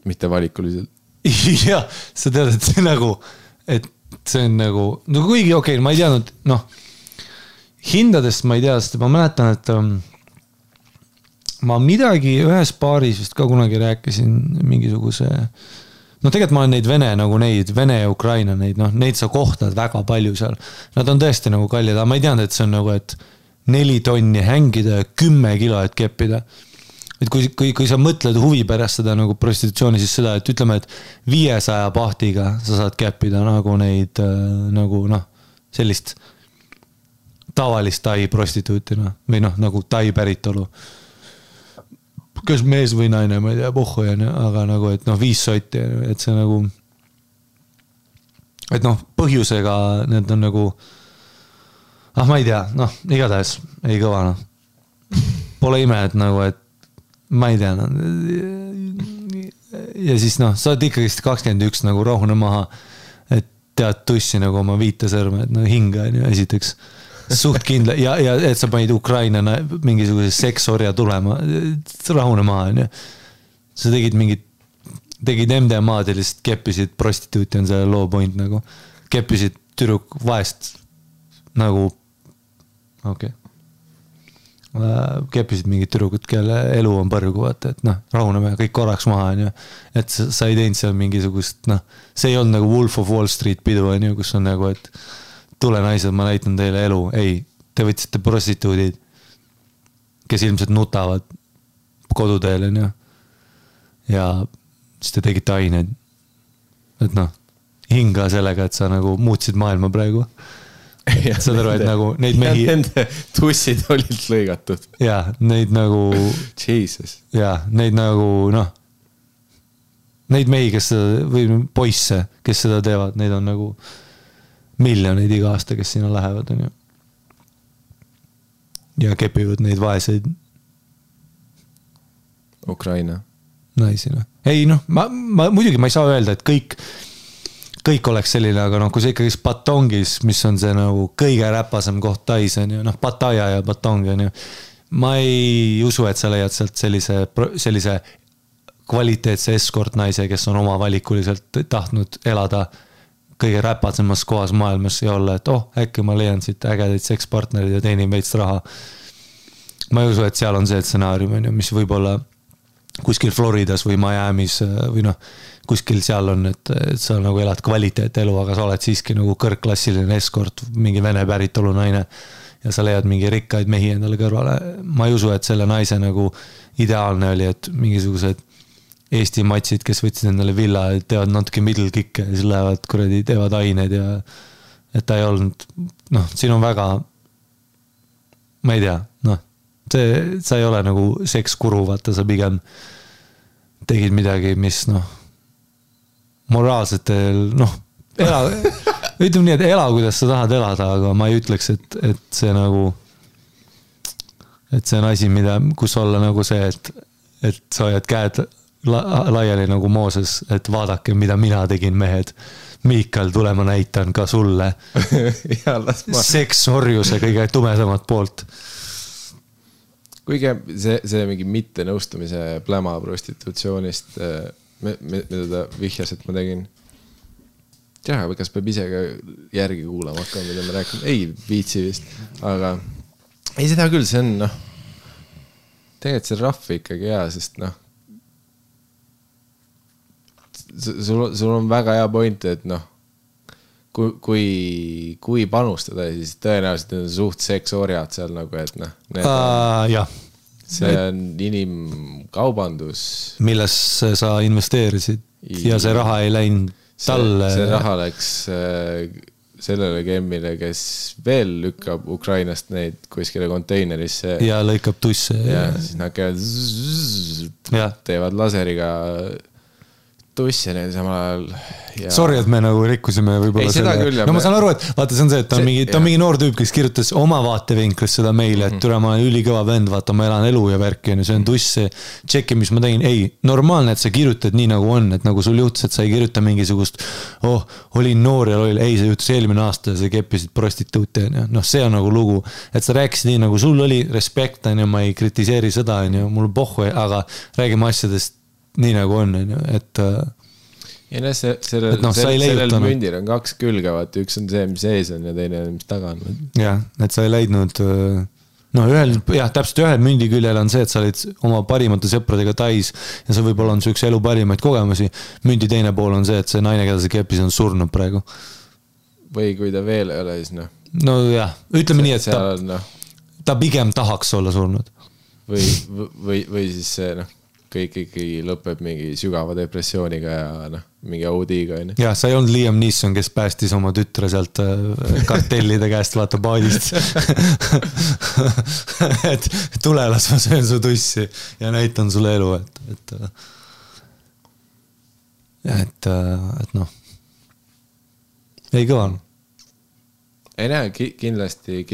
mitte valikuliselt. Jah, sa tead, et see nagu, et see on nagu, no kuigi okei, ma ei teadnud, hindadest ma ei tea, sest ma mäletan, et ma midagi ühes paaris vist ka kunagi rääkisin mingisuguse, tegelikult ma olen neid Vene ja Ukraina, neid sa kohtad väga palju seal. Nad on tõesti nagu kallid, aga ma ei teadnud, et see on nagu, et 4 tonni hängida ja 10 kilo, et keppida. Et kui sa mõtled huvi pärast seda nagu prostitutsiooni, siis seda, et ütleme, et 500 pahtiga sa saad käppida nagu neid, nagu sellist tavalist Tai prostituuti, või nagu Tai päritolu. Kas mees või naine, ma ei tea, pohhu, aga nagu, et 5 sotti, et see nagu, et põhjusega need on nagu, ma ei tea, igatahes ei kõva, Pole ime, et nagu, et ma ei tea, ja siis sa oled ikkagi 21 nagu rohune maha, et tead tussi nagu oma 5 sõrme, et hinga on ju esiteks suht kindla ja et sa panid Ukraina mingisuguse seksorja tulema, rahune maha on ju. Sa tegid MDMA-d ja lihtsalt keppisid prostituuti on see low point nagu, keppisid tüdruk vaest nagu okei. Keppisid mingid tüdrukud, kelle elu on põrgu, vaata, et rahuneme kõik korraks maha, on ju. Et sa ei teinud seal mingisugust, see ei olnud nagu Wolf of Wall Street pidu, on ju, kus on nagu, et tule naised, ma näitan teile elu. Ei, te võtsite prostituudid, kes ilmselt nutavad koduteel, on ju. Ja siis te tegite aineid. Et hinga sellega, et sa nagu muutsid maailma praegu. Saad aru, et nagu neid mehi nende tussid olid lõigatud ja neid nagu Jesus ja neid nagu neid mehi, kes seda, või poisse, kes seda teevad, neid on nagu miljoneid iga aasta, kes sinna lähevad, on ju. Ja kepivad neid vaeseid Ukraina naisi, Ei, ma muidugi ma ei saa öelda, et kõik oleks selline, aga kui see ikkagi Batongis, mis on see nagu kõige räpasem koht Tais, on ju, Pattaya ja Batong, on ju. Ma ei usu, et sa leiad sealt sellise kvaliteetse escort naise, kes on oma valikuliselt tahtnud elada kõige räpasemas kohas maailmas ja olla, et äkki ma leian siit ägedaid sekspartnerid ja teenin veits raha. Ma ei usu, et seal on see stsenaarium, on ju, mis võib olla kuskil Floridas või Miamis või kuskil seal on, et sa nagu elad kvaliteetelu, aga sa oled siiski nagu kõrgklassiline eskort, mingi vene päritolu naine ja sa leiad mingi rikkaid mehi endale kõrvale. Ma ei usu, et selle naise nagu ideaalne oli, et mingisugused Eesti matsid, kes võtsid endale villa, teevad natuke middle kick'e ja siis lähevad kuradi, teevad ained ja et ta ei olnud, siin on väga, ma ei tea, sa ei ole nagu sekskuru, vaata, sa pigem tegid midagi, mis moraalsetel, ütleme nii, et ela, kuidas sa tahad elada, aga ma ei ütleks, et see nagu, et see on asi, kus olla nagu see, et sa hoiad käed laiali nagu Mooses, et vaadake, mida mina tegin, mehed. Miikal, tule ma näitan ka sulle seksorjuse kõige tumedamat poolt. Kuigi see mingi mitte nõustumise pläma prostitutsioonist, mida ta vihjas, et ma tegin. Jah, kas peab ise ka järgi kuulama hakkama, mida ma rääkin? Ei, viitsi vist. Aga ei, seda küll, see on, tegelikult see rahv ikkagi hea, sest sul on väga hea point, et kui panustada, siis tõenäoliselt on suht seksorjad seal nagu, et see on inimkaubandus. Milles sa investeerisid ja see raha ei läinud talle. See raha läks sellele gemmile, kes veel lükkab Ukrainast neid kuskile konteinerisse. Ja lõikab tusse. Ja siis nad käivad teevad laseriga tussi neil samal ajal. Sorry, et me nagu rikkusime võib-olla selle. Ma saan aru, et vaata, see on see, et ta on mingi noor tüüp, kes kirjutas oma vaatevinklist seda meile, et tule, ma olen ülikõva vend, vaata, ma elan elu ja värki, see on tuss, tšeki, mis ma tegin. Ei, normaalne, et sa kirjutad nii nagu on, et nagu sul juhtus, et sa ei kirjuta mingisugust, olin noor ja ei, see juhtus eelmine aasta ja sa keppisid prostituuti. See on nagu lugu, et sa rääkisid nii nagu sul oli respekt, ma ei kritiseeri seda, mul pohhu, aga räägime asjadest nii nagu on, et ja sellel mündil on kaks külge, vaata, üks on see, mis ees on ja teine on, mis taga on. Jah, et sa ei leidnud täpselt ühel mündi küljel on see, et sa olid oma parimate sõpradega Tais ja see võib-olla on su üks elu parimaid kogemusi. Mündi teine pool on see, et see naine, keda sa keppis, on surnud praegu. Või kui ta veel ei ole, siis no jah, ütleme nii, et ta pigem tahaks olla surnud. Või siis see, kõik ikkagi lõpeb mingi sügava depressiooniga ja mingi audiga. Ja, sa ei olnud Liam Neeson, kes päästis oma tütre sealt kartellide käest, vaata paadist. Et tule, las ma söön su tussi ja näitan sulle elu, et ei kõva. Ei näe, kindlasti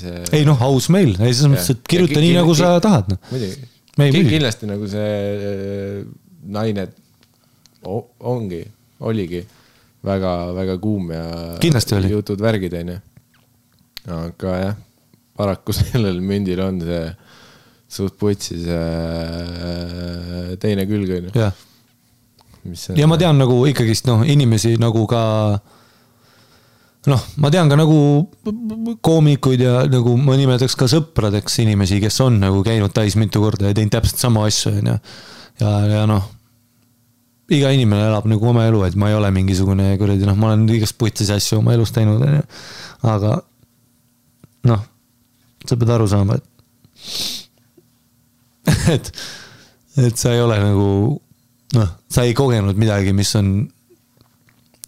see... Ei aus meil, siis mõttes, et kirjuta nii, nagu sa tahad. Muidugi. Kindlasti nagu see naine oligi väga, väga kuum ja jutud värgid, aga jah, paraku sellel mündil on see suht putsis teine külg. Ja ma tean nagu ikkagist inimesi nagu ka ma tean ka nagu koomikuid ja nagu ma nimetaks ka sõpradeks inimesi, kes on nagu käinud Tais mitu korda ja teinud täpselt sama asju. Ja iga inimene elab nagu oma elu, et ma ei ole mingisugune kuradi, ma olen igast putsis asju oma elus teinud. Aga sa pead aru saama, et sa ei ole nagu, sa ei kogenud midagi, mis on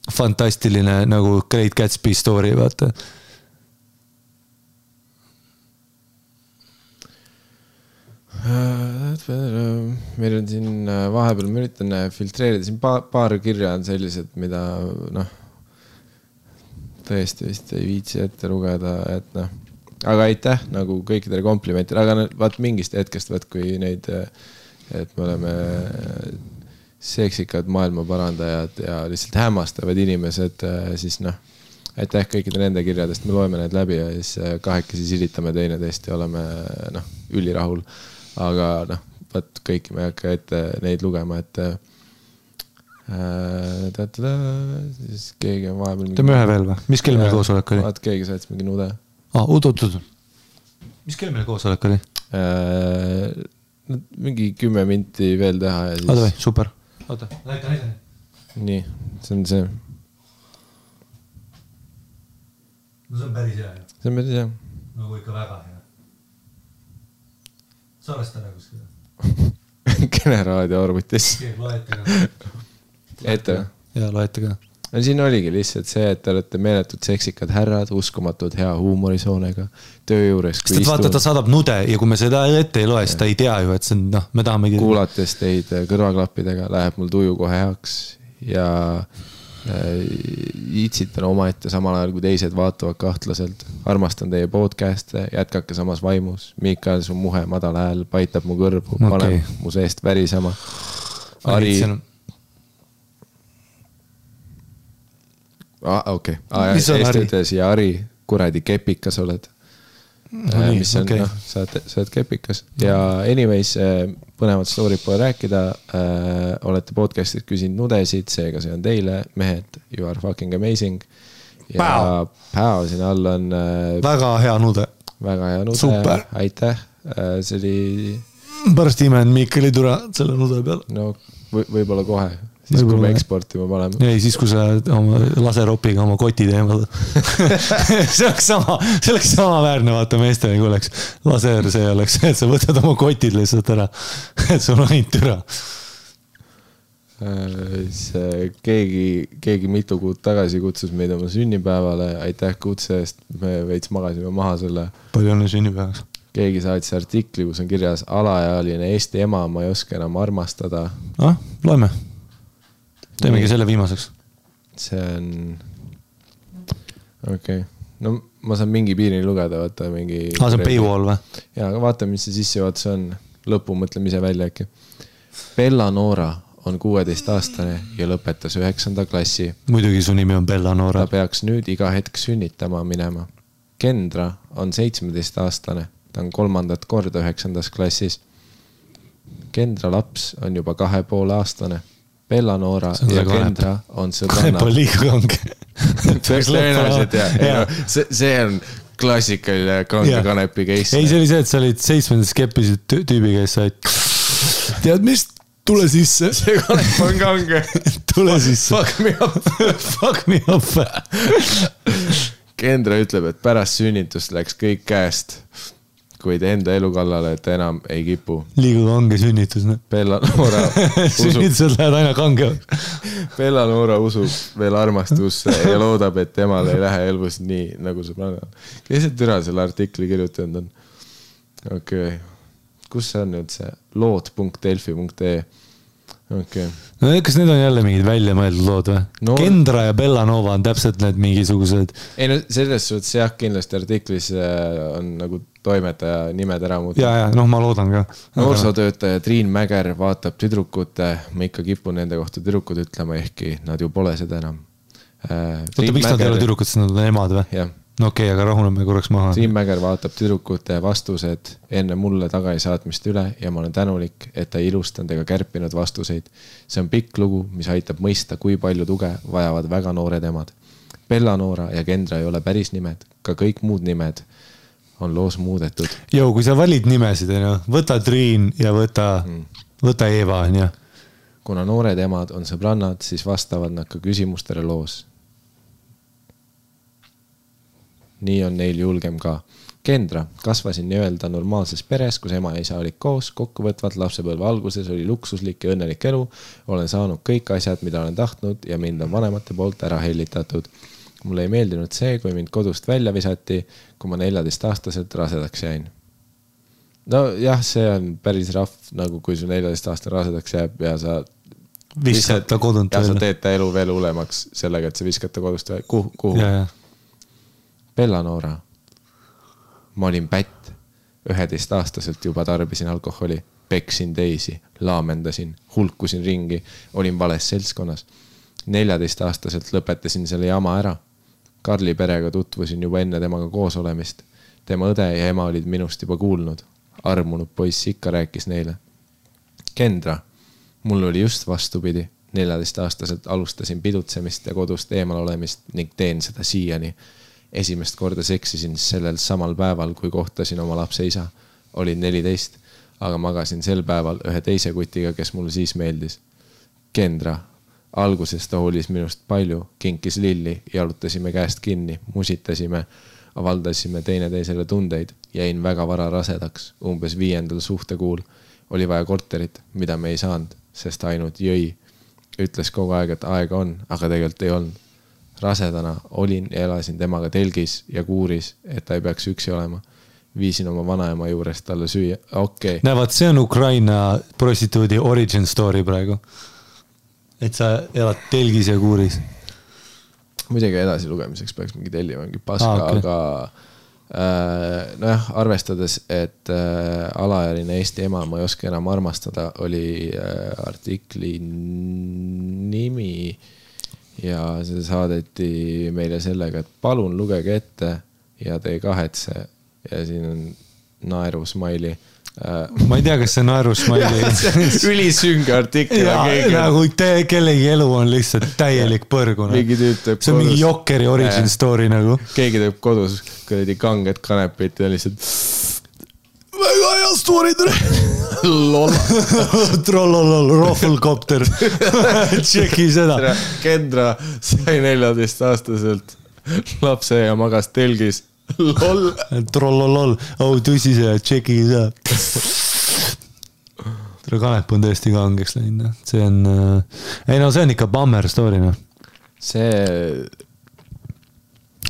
fantastiline nagu Great Gatsby story, vaata. Meil on siin vahepeal, ma üritan filtreerida, siin paar kirja on sellised, mida tõesti vist ei viitsi ette lugeda, et aga aitäh nagu kõikidele komplimentidele, aga vaat mingist hetkest, kui neid, et me oleme seksikad maailma parandajad ja lihtsalt hämmastavad inimesed, siis aitäh kõikide nende kirjadest, me loeme need läbi ja siis kahekesi silitame teineteist ja oleme ülirahul, aga vaat kõiki me ei hakka ette neid lugema, et siis keegi on vahepeal teeme ühe veel või? Mis kell meil koosolek oli? Vaat keegi saatis mingi nude. Oot. Mis kell meil koosolek oli? Mingi 10 minti veel teha ja siis... Super. oota, näita. nii, see on see. No see on päris hea. See on päris hea. Nagu ikka väga hea. Salvesta ära kuskil. Kene raadio arvutis. Loete ka. Ette või? Jaa, loete ka. No siin oligi lihtsalt see, et te olete meeletud seksikad härrad, uskumatud hea huumorisoonega, töö juures. Sest vaata, ta saadab nude ja kui me seda ette ei loe, siis ta ei tea ju, et see on, noh, me tahamegi... Kuulates teid kõrvaklappidega läheb mul tuju kohe heaks ja itsitan omaette samal ajal, kui teised vaatavad kahtlaselt. Armastan teie podcast'e, jätkake samas vaimus. Miikael, su muhe madal hääl paitab mu kõrvu, paneb mu seest värisema. Ari... okei. Eesti ütles ja Ari, kuradi kepikas oled. Mis on, noh, sa oled kepikas. Ja anyways, põnevat story't pole rääkida. Olete podcastit küsinud nudesid, seega see on teile. Mehed, you are fucking amazing. Ja päev siin all on... Väga hea nude. Väga hea nude. Super. Aitäh. See oli... Pärast imen Miikali tura selle nude peal. No, võib-olla kohe. Siis kui me eksportima paneme. Ei, siis kui sa oma laseropiga oma koti teemad. see oleks sama väärne, vaata meestele, kui oleks laser, see oleks, et sa võtad oma kotid lihtsalt ära. Et sul on ainult türa. Keegi mitu kuud tagasi kutsus meid oma sünnipäevale. Aitäh kutse eest. Me veits magasime maha selle. Palju õnne sünnipäevaks. Keegi saatis artikli, kus on kirjas alaealine Eesti ema, ma ei oska enam armastada. Loeme. Teemegi selle viimaseks. See on... Okei. No ma saan mingi piirini lugeda, vaata mingi... see on paywall või? Jaa, aga vaata, mis see sissejuhatus on. Lõpu mõtleme ise välja äkki. Bella Noora on 16-aastane ja lõpetas 9. klassi. Muidugi su nimi on Bella Noora. Ta peaks nüüd iga hetk sünnitama minema. Kendra on 17-aastane. Ta on 3. korda 9. klassis. Kendra laps on juba 2,5-aastane. Bella Noora ja Kendra on sõbrannad. Kanep on liiga kange. Tõenäoliselt, jah. See on klassikaline kange kanepi case. Ei, see oli see, et sa olid 7. skeppisid tüübi käes, sa olid... Tead, mis? Tule sisse. See kanep on kange. Tule sisse. Fuck me up. Fuck me up. Kendra ütleb, et pärast sünnitust läks kõik käest. Kuid enda elu kallale, et enam ei kipu. Liiga kange sünnitus, ne? Bella Noora usub... Sünnitused lähed aina kange. Bella Noora usub veel armastusse ja loodab, et temal ei lähe elvus nii, nagu sõbrannal. Kes see türa selle artikli kirjutanud on? Okei. Kus see on nüüd see? Lood.delfi.ee. Okei. No kas need on jälle mingid välja mõeldud lood või? No, Kendra ja Bella Nova on täpselt need mingisugused... Ei no selles suhtes jah, kindlasti artiklis on nagu toimetaja nimed ära muuta. Ja, noh ma loodan ka. Noorsootöötaja Triin Mäger vaatab tüdrukute, ma ikka kipun nende kohta tüdrukud ütlema, ehkki nad ju pole seda enam. Oota, miks nad ei ole tüdrukud, sest nad on emad või? Jah. No okei, aga rahuneme korraks maha. Triin Mäger vaatab tüdrukute vastused enne mulle tagaisaatmist üle ja ma olen tänulik, et ta ilustanud ega kärpinud vastuseid. See on pikk lugu, mis aitab mõista, kui palju tuge vajavad väga noored emad. Bella Noora ja Kendra ei ole päris nimed, ka kõik muud nimed on loos muudetud. Joo, kui sa valid nimesid, võta Triin ja võta Eva. Kuna noored emad on sõbrannad, siis vastavad nad ka küsimustele loos. Nii on neil julgem ka. Kendra, kasvasin nii-öelda normaalses peres, kus ema ja isa olid koos, kokkuvõtvalt lapsepõlve alguses oli luksuslik ja õnnelik elu. Olen saanud kõik asjad, mida olen tahtnud ja mind on vanemate poolt ära hellitatud. Mulle ei meeldinud see, kui mind kodust välja visati, kui ma 14-aastaselt rasedaks jäin. No jah, see on päris rahv, nagu kui su 14-aastane rasedaks jääb ja sa viskad ta kodunt välja. Ja sa teed ta elu veel hulemaks sellega, et sa viskad ta kodust välja. Kuhu? Ja. Bella Noora. Ma olin pätt. 11-aastaselt juba tarbisin alkoholi. Peksin teisi. Laamendasin. Hulkusin ringi. Olin vales seltskonnas. 14-aastaselt lõpetasin selle jama ära. Karli perega tutvusin juba enne temaga koos olemist. Tema õde ja ema olid minust juba kuulnud. Armunud poiss ikka rääkis neile. Kendra. Mul oli just vastupidi. 14-aastaselt alustasin pidutsemist ja kodust eemal olemist ning teen seda siiani. Esimest korda seksisin sellel samal päeval, kui kohtasin oma lapse isa. Olin 14, aga magasin sel päeval ühe teise kutiga, kes mulle siis meeldis. Kendra. Alguses ta hoolis minust palju, kinkis lilli, jalutasime käest kinni, musitasime, avaldasime teineteisele tundeid, jäin väga vara rasedaks, umbes 5. suhtekuul. Oli vaja korterit, mida me ei saanud, sest ainult jõi. Ütles kogu aeg, et aega on, aga tegelikult ei olnud. Rasedana olin ja elasin temaga telgis ja kuuris, et ta ei peaks üksi olema. Viisin oma vanaema juurest talle süüa. Okay. Näevad, see on Ukraina prostituudi origin story praegu. Et sa elad telgis ja kuuris. Muidugi edasi lugemiseks peaks mingi tellima mingi paska, okay. Aga nojah, arvestades, et alaealine Eesti ema ma ei oska enam armastada, oli artikli nimi ja see saadeti meile sellega, et palun lugege ette ja te ei kahetse ja siin on naeru smaili. Ma ei tea, kas see naeru smaili ülisünge artikkel. Nagu kellegi elu on lihtsalt täielik põrguna. See on mingi Jokeri origin story nagu. Keegi teeb kodus kuradi kanged kanepit ja lihtsalt väga hea story Trollolol, rohvulkopter. Tšeki seda. Kendra sai 14-aastaselt lapse ja magas telgis. Lol. Trollolol, tõsi see, tšeki seda. Kanep on tõesti kangeks läinud. See on, ei no see on ikka bummer story. No. See.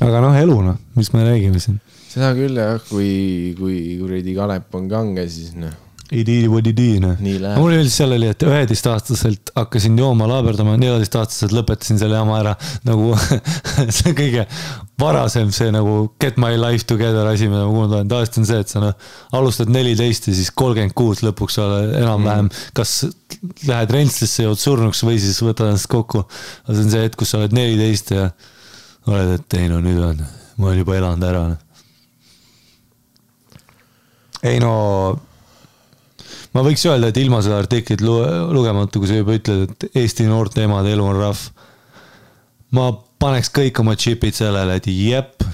Aga noh, elu, no. Mis me räägime siin? Seda küll jah, kui kuradi kanep on kange, siis noh. Ei tiidi, no. Mul oli seal oli, et 11-aastaselt hakkasin jooma laaberdama, 14-aastaselt lõpetasin selle jama ära. Nagu see kõige varasem see nagu get my life together asi, mida ma kuulnud. Tavaliselt on see, et sa no, alustad 14 ja siis 36 lõpuks ole enam-vähem. Kas lähed rentslisse ja oled surnuks või siis võtad ennast kokku. Aga see on see hetk, kus sa oled 14 ja oled, et ei no nüüd on, ma olen juba elanud ära. Ei no... Ma võiks öelda, et ilma seda artiklit lugemata, kui sa juba ütled, et Eesti noorte emade elu on rahv. Ma paneks kõik oma chipid sellele, et jep,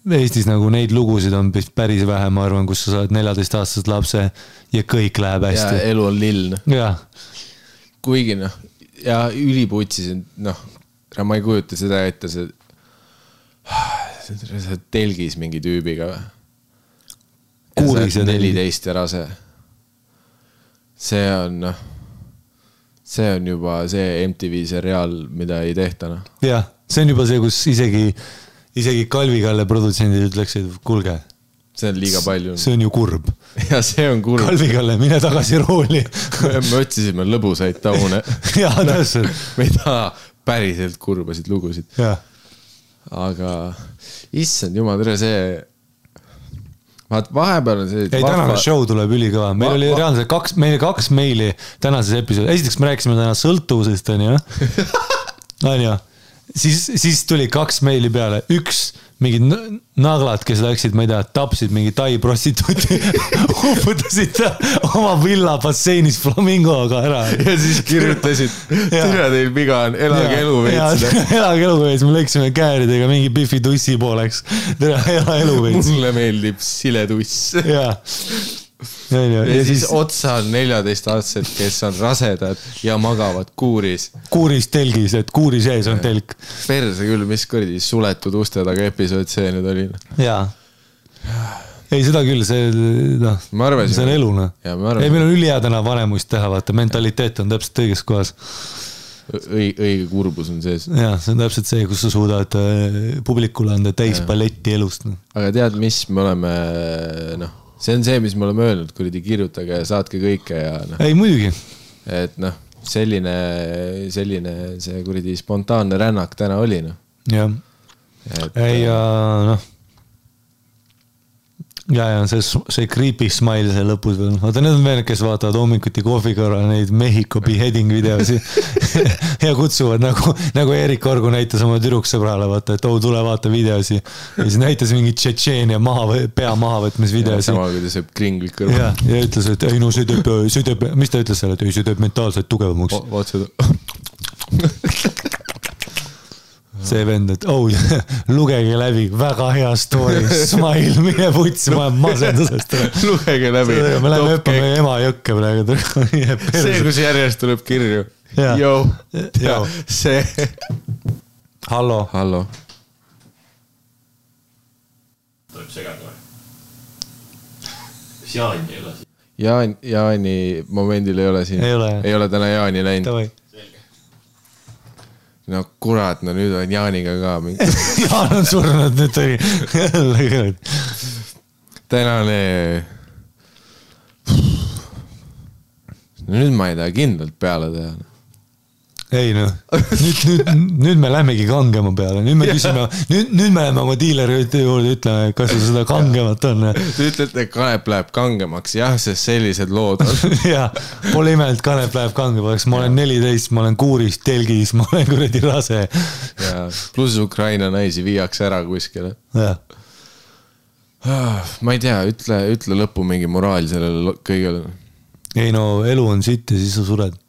Eestis nagu neid lugusid on päris vähe, ma arvan, kus sa saad 14-aastased lapse ja kõik läheb hästi. Ja elu on lill. Ja. Kuigi noh, ja üliputsisin, noh, ma ei kujuta seda ette, see telgis mingi tüübiga. Kuuris ja 14 ja rase. See on juba see MTV seriaal, mida ei tehta. No. Jah, see on juba see, kus isegi Kalvi-Kalle produtsendid ütleksid, kuulge. See on liiga palju. See on ju kurb. Ja see on kurb. Kalvi-Kalle, mine tagasi rooli. Me otsisime lõbusaid taune. Jaa, täpselt. Me ei taha päriselt kurbasid lugusid. Jah. Aga issand jumal, tere see... Vahepeal on see... Ei, tänane show tuleb ülikõva. Meil oli reaalselt meil 2 meili tänases episood. Esiteks me rääkisime täna sõltuvusest, on ju. On ju. Siis tuli 2 meili peale. Üks mingid naglad, kes läksid, ma ei tea, tapsid mingi tai prostituuti, uputasid oma villa basseinis flamingoga ära. Ja siis kirjutasid, tere teil viga on, elage elu veits. Elage elu veits, me lõiksime kääridega mingi Biffi tussi pooleks. Tere, ela elu veits. Mulle meeldib siletuss. Jaa. Ja siis otsa on 14-aastased, kes on rasedad ja magavad kuuris. Kuuris telgis, et kuuri sees on telk. Perse küll, mis kurdi suletud uste taga episood see nüüd oli. Jaa. Ei, seda küll, see on elu. Ei, meil on ülihea täna vanemust teha, vaata, mentaliteet on täpselt õiges kohas. Õige kurbus on sees. Jaa, see on täpselt see, kus sa suudad publikule anda täis paletti elust. Aga tead, mis me oleme, noh, see on see, mis me oleme öelnud, kuridi kirjutage ja saatke kõike ja noh. Ei, muidugi. Et noh, selline see kuridi spontaanne rännak täna oli, noh. Jah. Ei, noh. Ja see creepy smile see lõpus veel. Vaata, need on veel, kes vaatavad hommikuti kohvi korral neid Mehhiko beheading videosi ja kutsuvad nagu Erik Orgu näitas oma tüdruksõbrale, vaata, et tule vaata videosi. Ja siis näitas mingi Tšetšeenia pea mahavõtmis videosi. Sama, kui ta sööb kringlit kõrva. Ja ütles, et ei no see teeb, mis ta ütles selle, et ei, see teeb mentaalselt tugevamaks. Vaat seda. See vend, et lugege läbi, väga hea story, smile, mine putsi, ma olen masendusest. Lugege läbi. Me läheme õppame ema jõkke praegu. See, kus järjest tuleb kirju. Jou, Jou. see. Hallo. Hallo. Tuleb segada või? Kas Jaani ei ole siin? Jaani momendil ei ole siin. Ei ole täna Jaani läinud. No kurat, no nüüd on Jaaniga ka mingi. Jaan on surnud, nüüd oli jälle. Tänane. Nüüd ma ei taha kindlalt peale teha. Ei noh, nüüd me lähmegi kangema peale, nüüd me küsime, nüüd me läheme oma diileri juurde ütleme, kas seda kangemat on. Te ütlete, et Kanep läheb kangemaks, jah, sest sellised lood on. Jah, pole ime, et Kanep läheb kangemaks, ma olen 14, ma olen kuuris, telgis, ma olen kuradi rase. Ja, pluss Ukraina naisi viiakse ära kuskile. Jah. Ma ei tea, ütle lõppu mingi moraal sellele kõigele. Ei no, elu on sitt ja siis sa sured.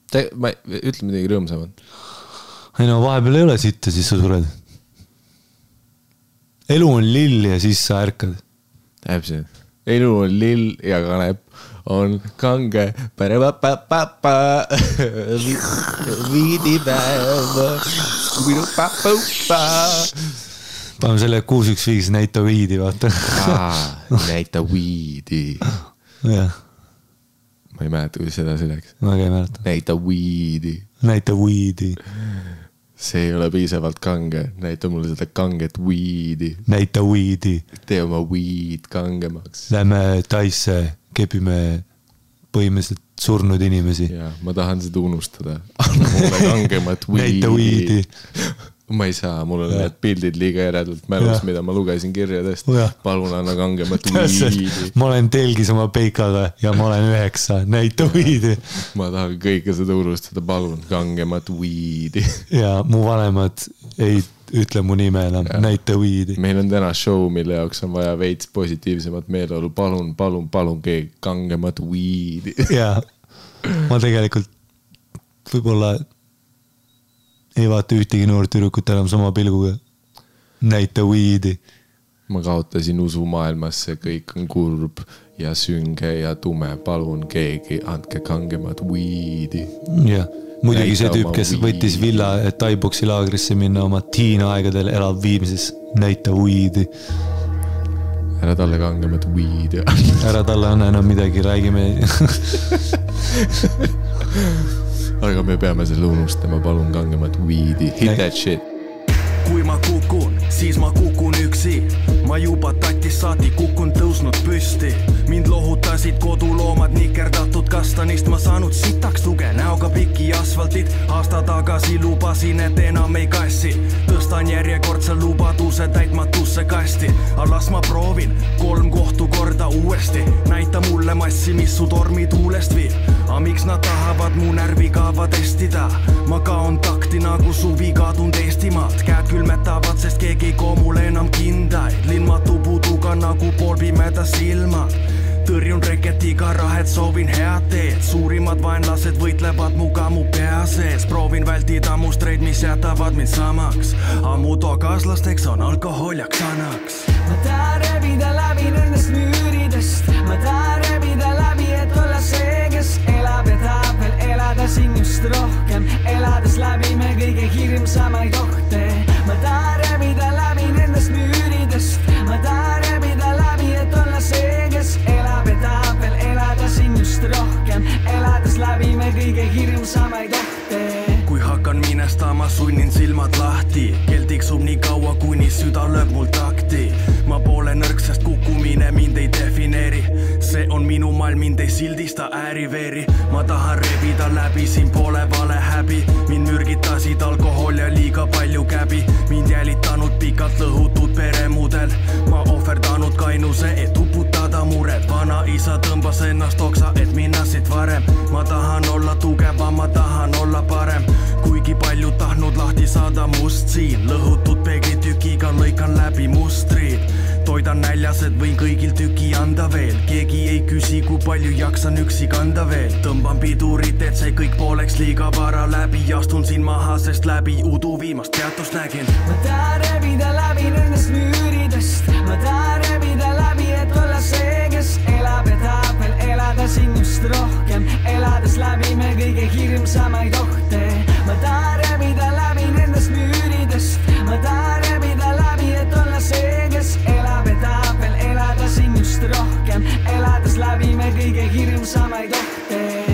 Ütle midagi rõõmsamat. Ei no, vahepeal ei ole sitt ja siis sa sured. Elu on lill ja siis sa ärkad. Täpselt. Elu on lill ja Kanep on kange. Paneme selle 615 näita viidi, vaata. Näita viidi. Jah. Ma ei mäleta, kui seda läks. Ma ei mäleta. Näita viidi. Näita viidi. See ei ole piisavalt kange. Näita mulle seda kanget viidi. Näita viidi. Tee oma viid kangemaks. Lähme Taisse, kepime põhimõtteliselt surnud inimesi. Ja, ma tahan seda unustada. Anna mulle kangemat viidi. Näita viidi. Ma ei saa, mul on need pildid liiga eredalt mälus, mida ma lugesin kirjadest. Palun anna kangemat viidi. Ma olen telgis oma peikaga ja ma olen 9. Näita viidi. Ma tahan kõike seda unustada. Palun kangemat viidi. Ja mu vanemad ei ütle mu nime enam. Näita viidi. Meil on täna show, mille jaoks on vaja veits positiivsemat meeleolu. Palun keegi kangemat viidi. Ja ma tegelikult võib-olla ei vaata ühtegi noort tüdrukut enam sama pilguga. Näita viidi. Ma kaotasin usu maailmasse, kõik on kurb ja sünge ja tume. Palun keegi, andke kangemat viidi. Jah, muidugi see tüüp, kes võttis villa, et Thai-boksi laagrisse minna oma teen-aegadel elab viimises. Näita viidi. Ära talle kangemat viidi. Ära talle anna enam midagi, räägime. Aga me peame selle unustama, palun kangemat viidi. Hit that shit. Kui ma kukun, siis ma kukun üksi. Ma juba tatis saati kukun tõusnud püsti. Mind lohutasid koduloomad nikerdatud kastanist. Ma saanud sitaks tuge näoga piki asfaltit. Aasta tagasi lubasin, et enam ei kassi. Tõstan järjekordse lubaduse täitmatusse kasti. Alas ma proovin 3 kohtu korda uuesti. Näita mulle massi, mis su tormi tuulest viib. A miks nad tahavad mu närvikava testida? Ma kaon takti nagu suvi kadund Eestimaalt. Käed külmetavad, sest keegi ei koo mulle enam kindaid. Linmatu puduga nagu poolpimeda silmad. Tõrjun reketiga rahet, soovin head teed. Suurimad vaenlased võitlevad muga mu pea sees. Proovin vältida mustreid, mis jätavad mind samaks. Ammu toakaslasteks on alkohol ja ksanaks. Ma tahan rebida läbi nendest müüridest. Ma tahan rebida läbi, et olla see, kes elab ja tahab veel elada siin just rohkem. Elades läbi me kõige hirmsamaid ohte. Ma tahan rebida läbi nendest müüridest. Ma tahan rebida läbi, et olla see, kes elab ja tahab veel elada siin just rohkem. Elades läbi me kõige hirmsamaid ohte. Kui hakkan minestama, sunnin silmad lahti. Kell tiksub nii kaua, kuni süda lööb mul takti. Ma pole nõrk, sest kukkumine mind ei defineeri. See on minu maailm, mind ei sildista ääriveeri. Ma tahan rebida läbi, siin pole vale häbi. Mind mürgitasid alkohol ja liiga palju käbi. Mind jälitanud pikalt lõhutud peremudel. Ma ohverdanud kainuse, et uputada mured. Vana isa tõmbas ennast oksa, et minna siit varem. Ma tahan olla tugevam, ma tahan olla parem. Kuigi kuigi palju tahtnud lahti saada must siin. Lõhutud peeglitükiga lõikan läbi mustrid. Toidan näljased, võin kõigil tüki anda veel. Keegi ei küsi, kui palju jaksan üksi kanda veel. Tõmban pidurit, et see kõik pooleks liiga vara läbi. Astun siin maha, sest läbi udu viimast peatust nägin. Ma tahan rebida läbi nendest müüridest. Ma tahan rebida läbi, et olla see, kes elab ja tahab veel elada siin just rohkem. Elades läbi me kõige hirmsamaid ohte. Ma tahan rebida läbi nendest müüridest. Ma tahan rebida läbi, et olla see, kes elab ja tahab veel elada siin just rohkem. Elades läbi me kõige hirmsamaid ohte.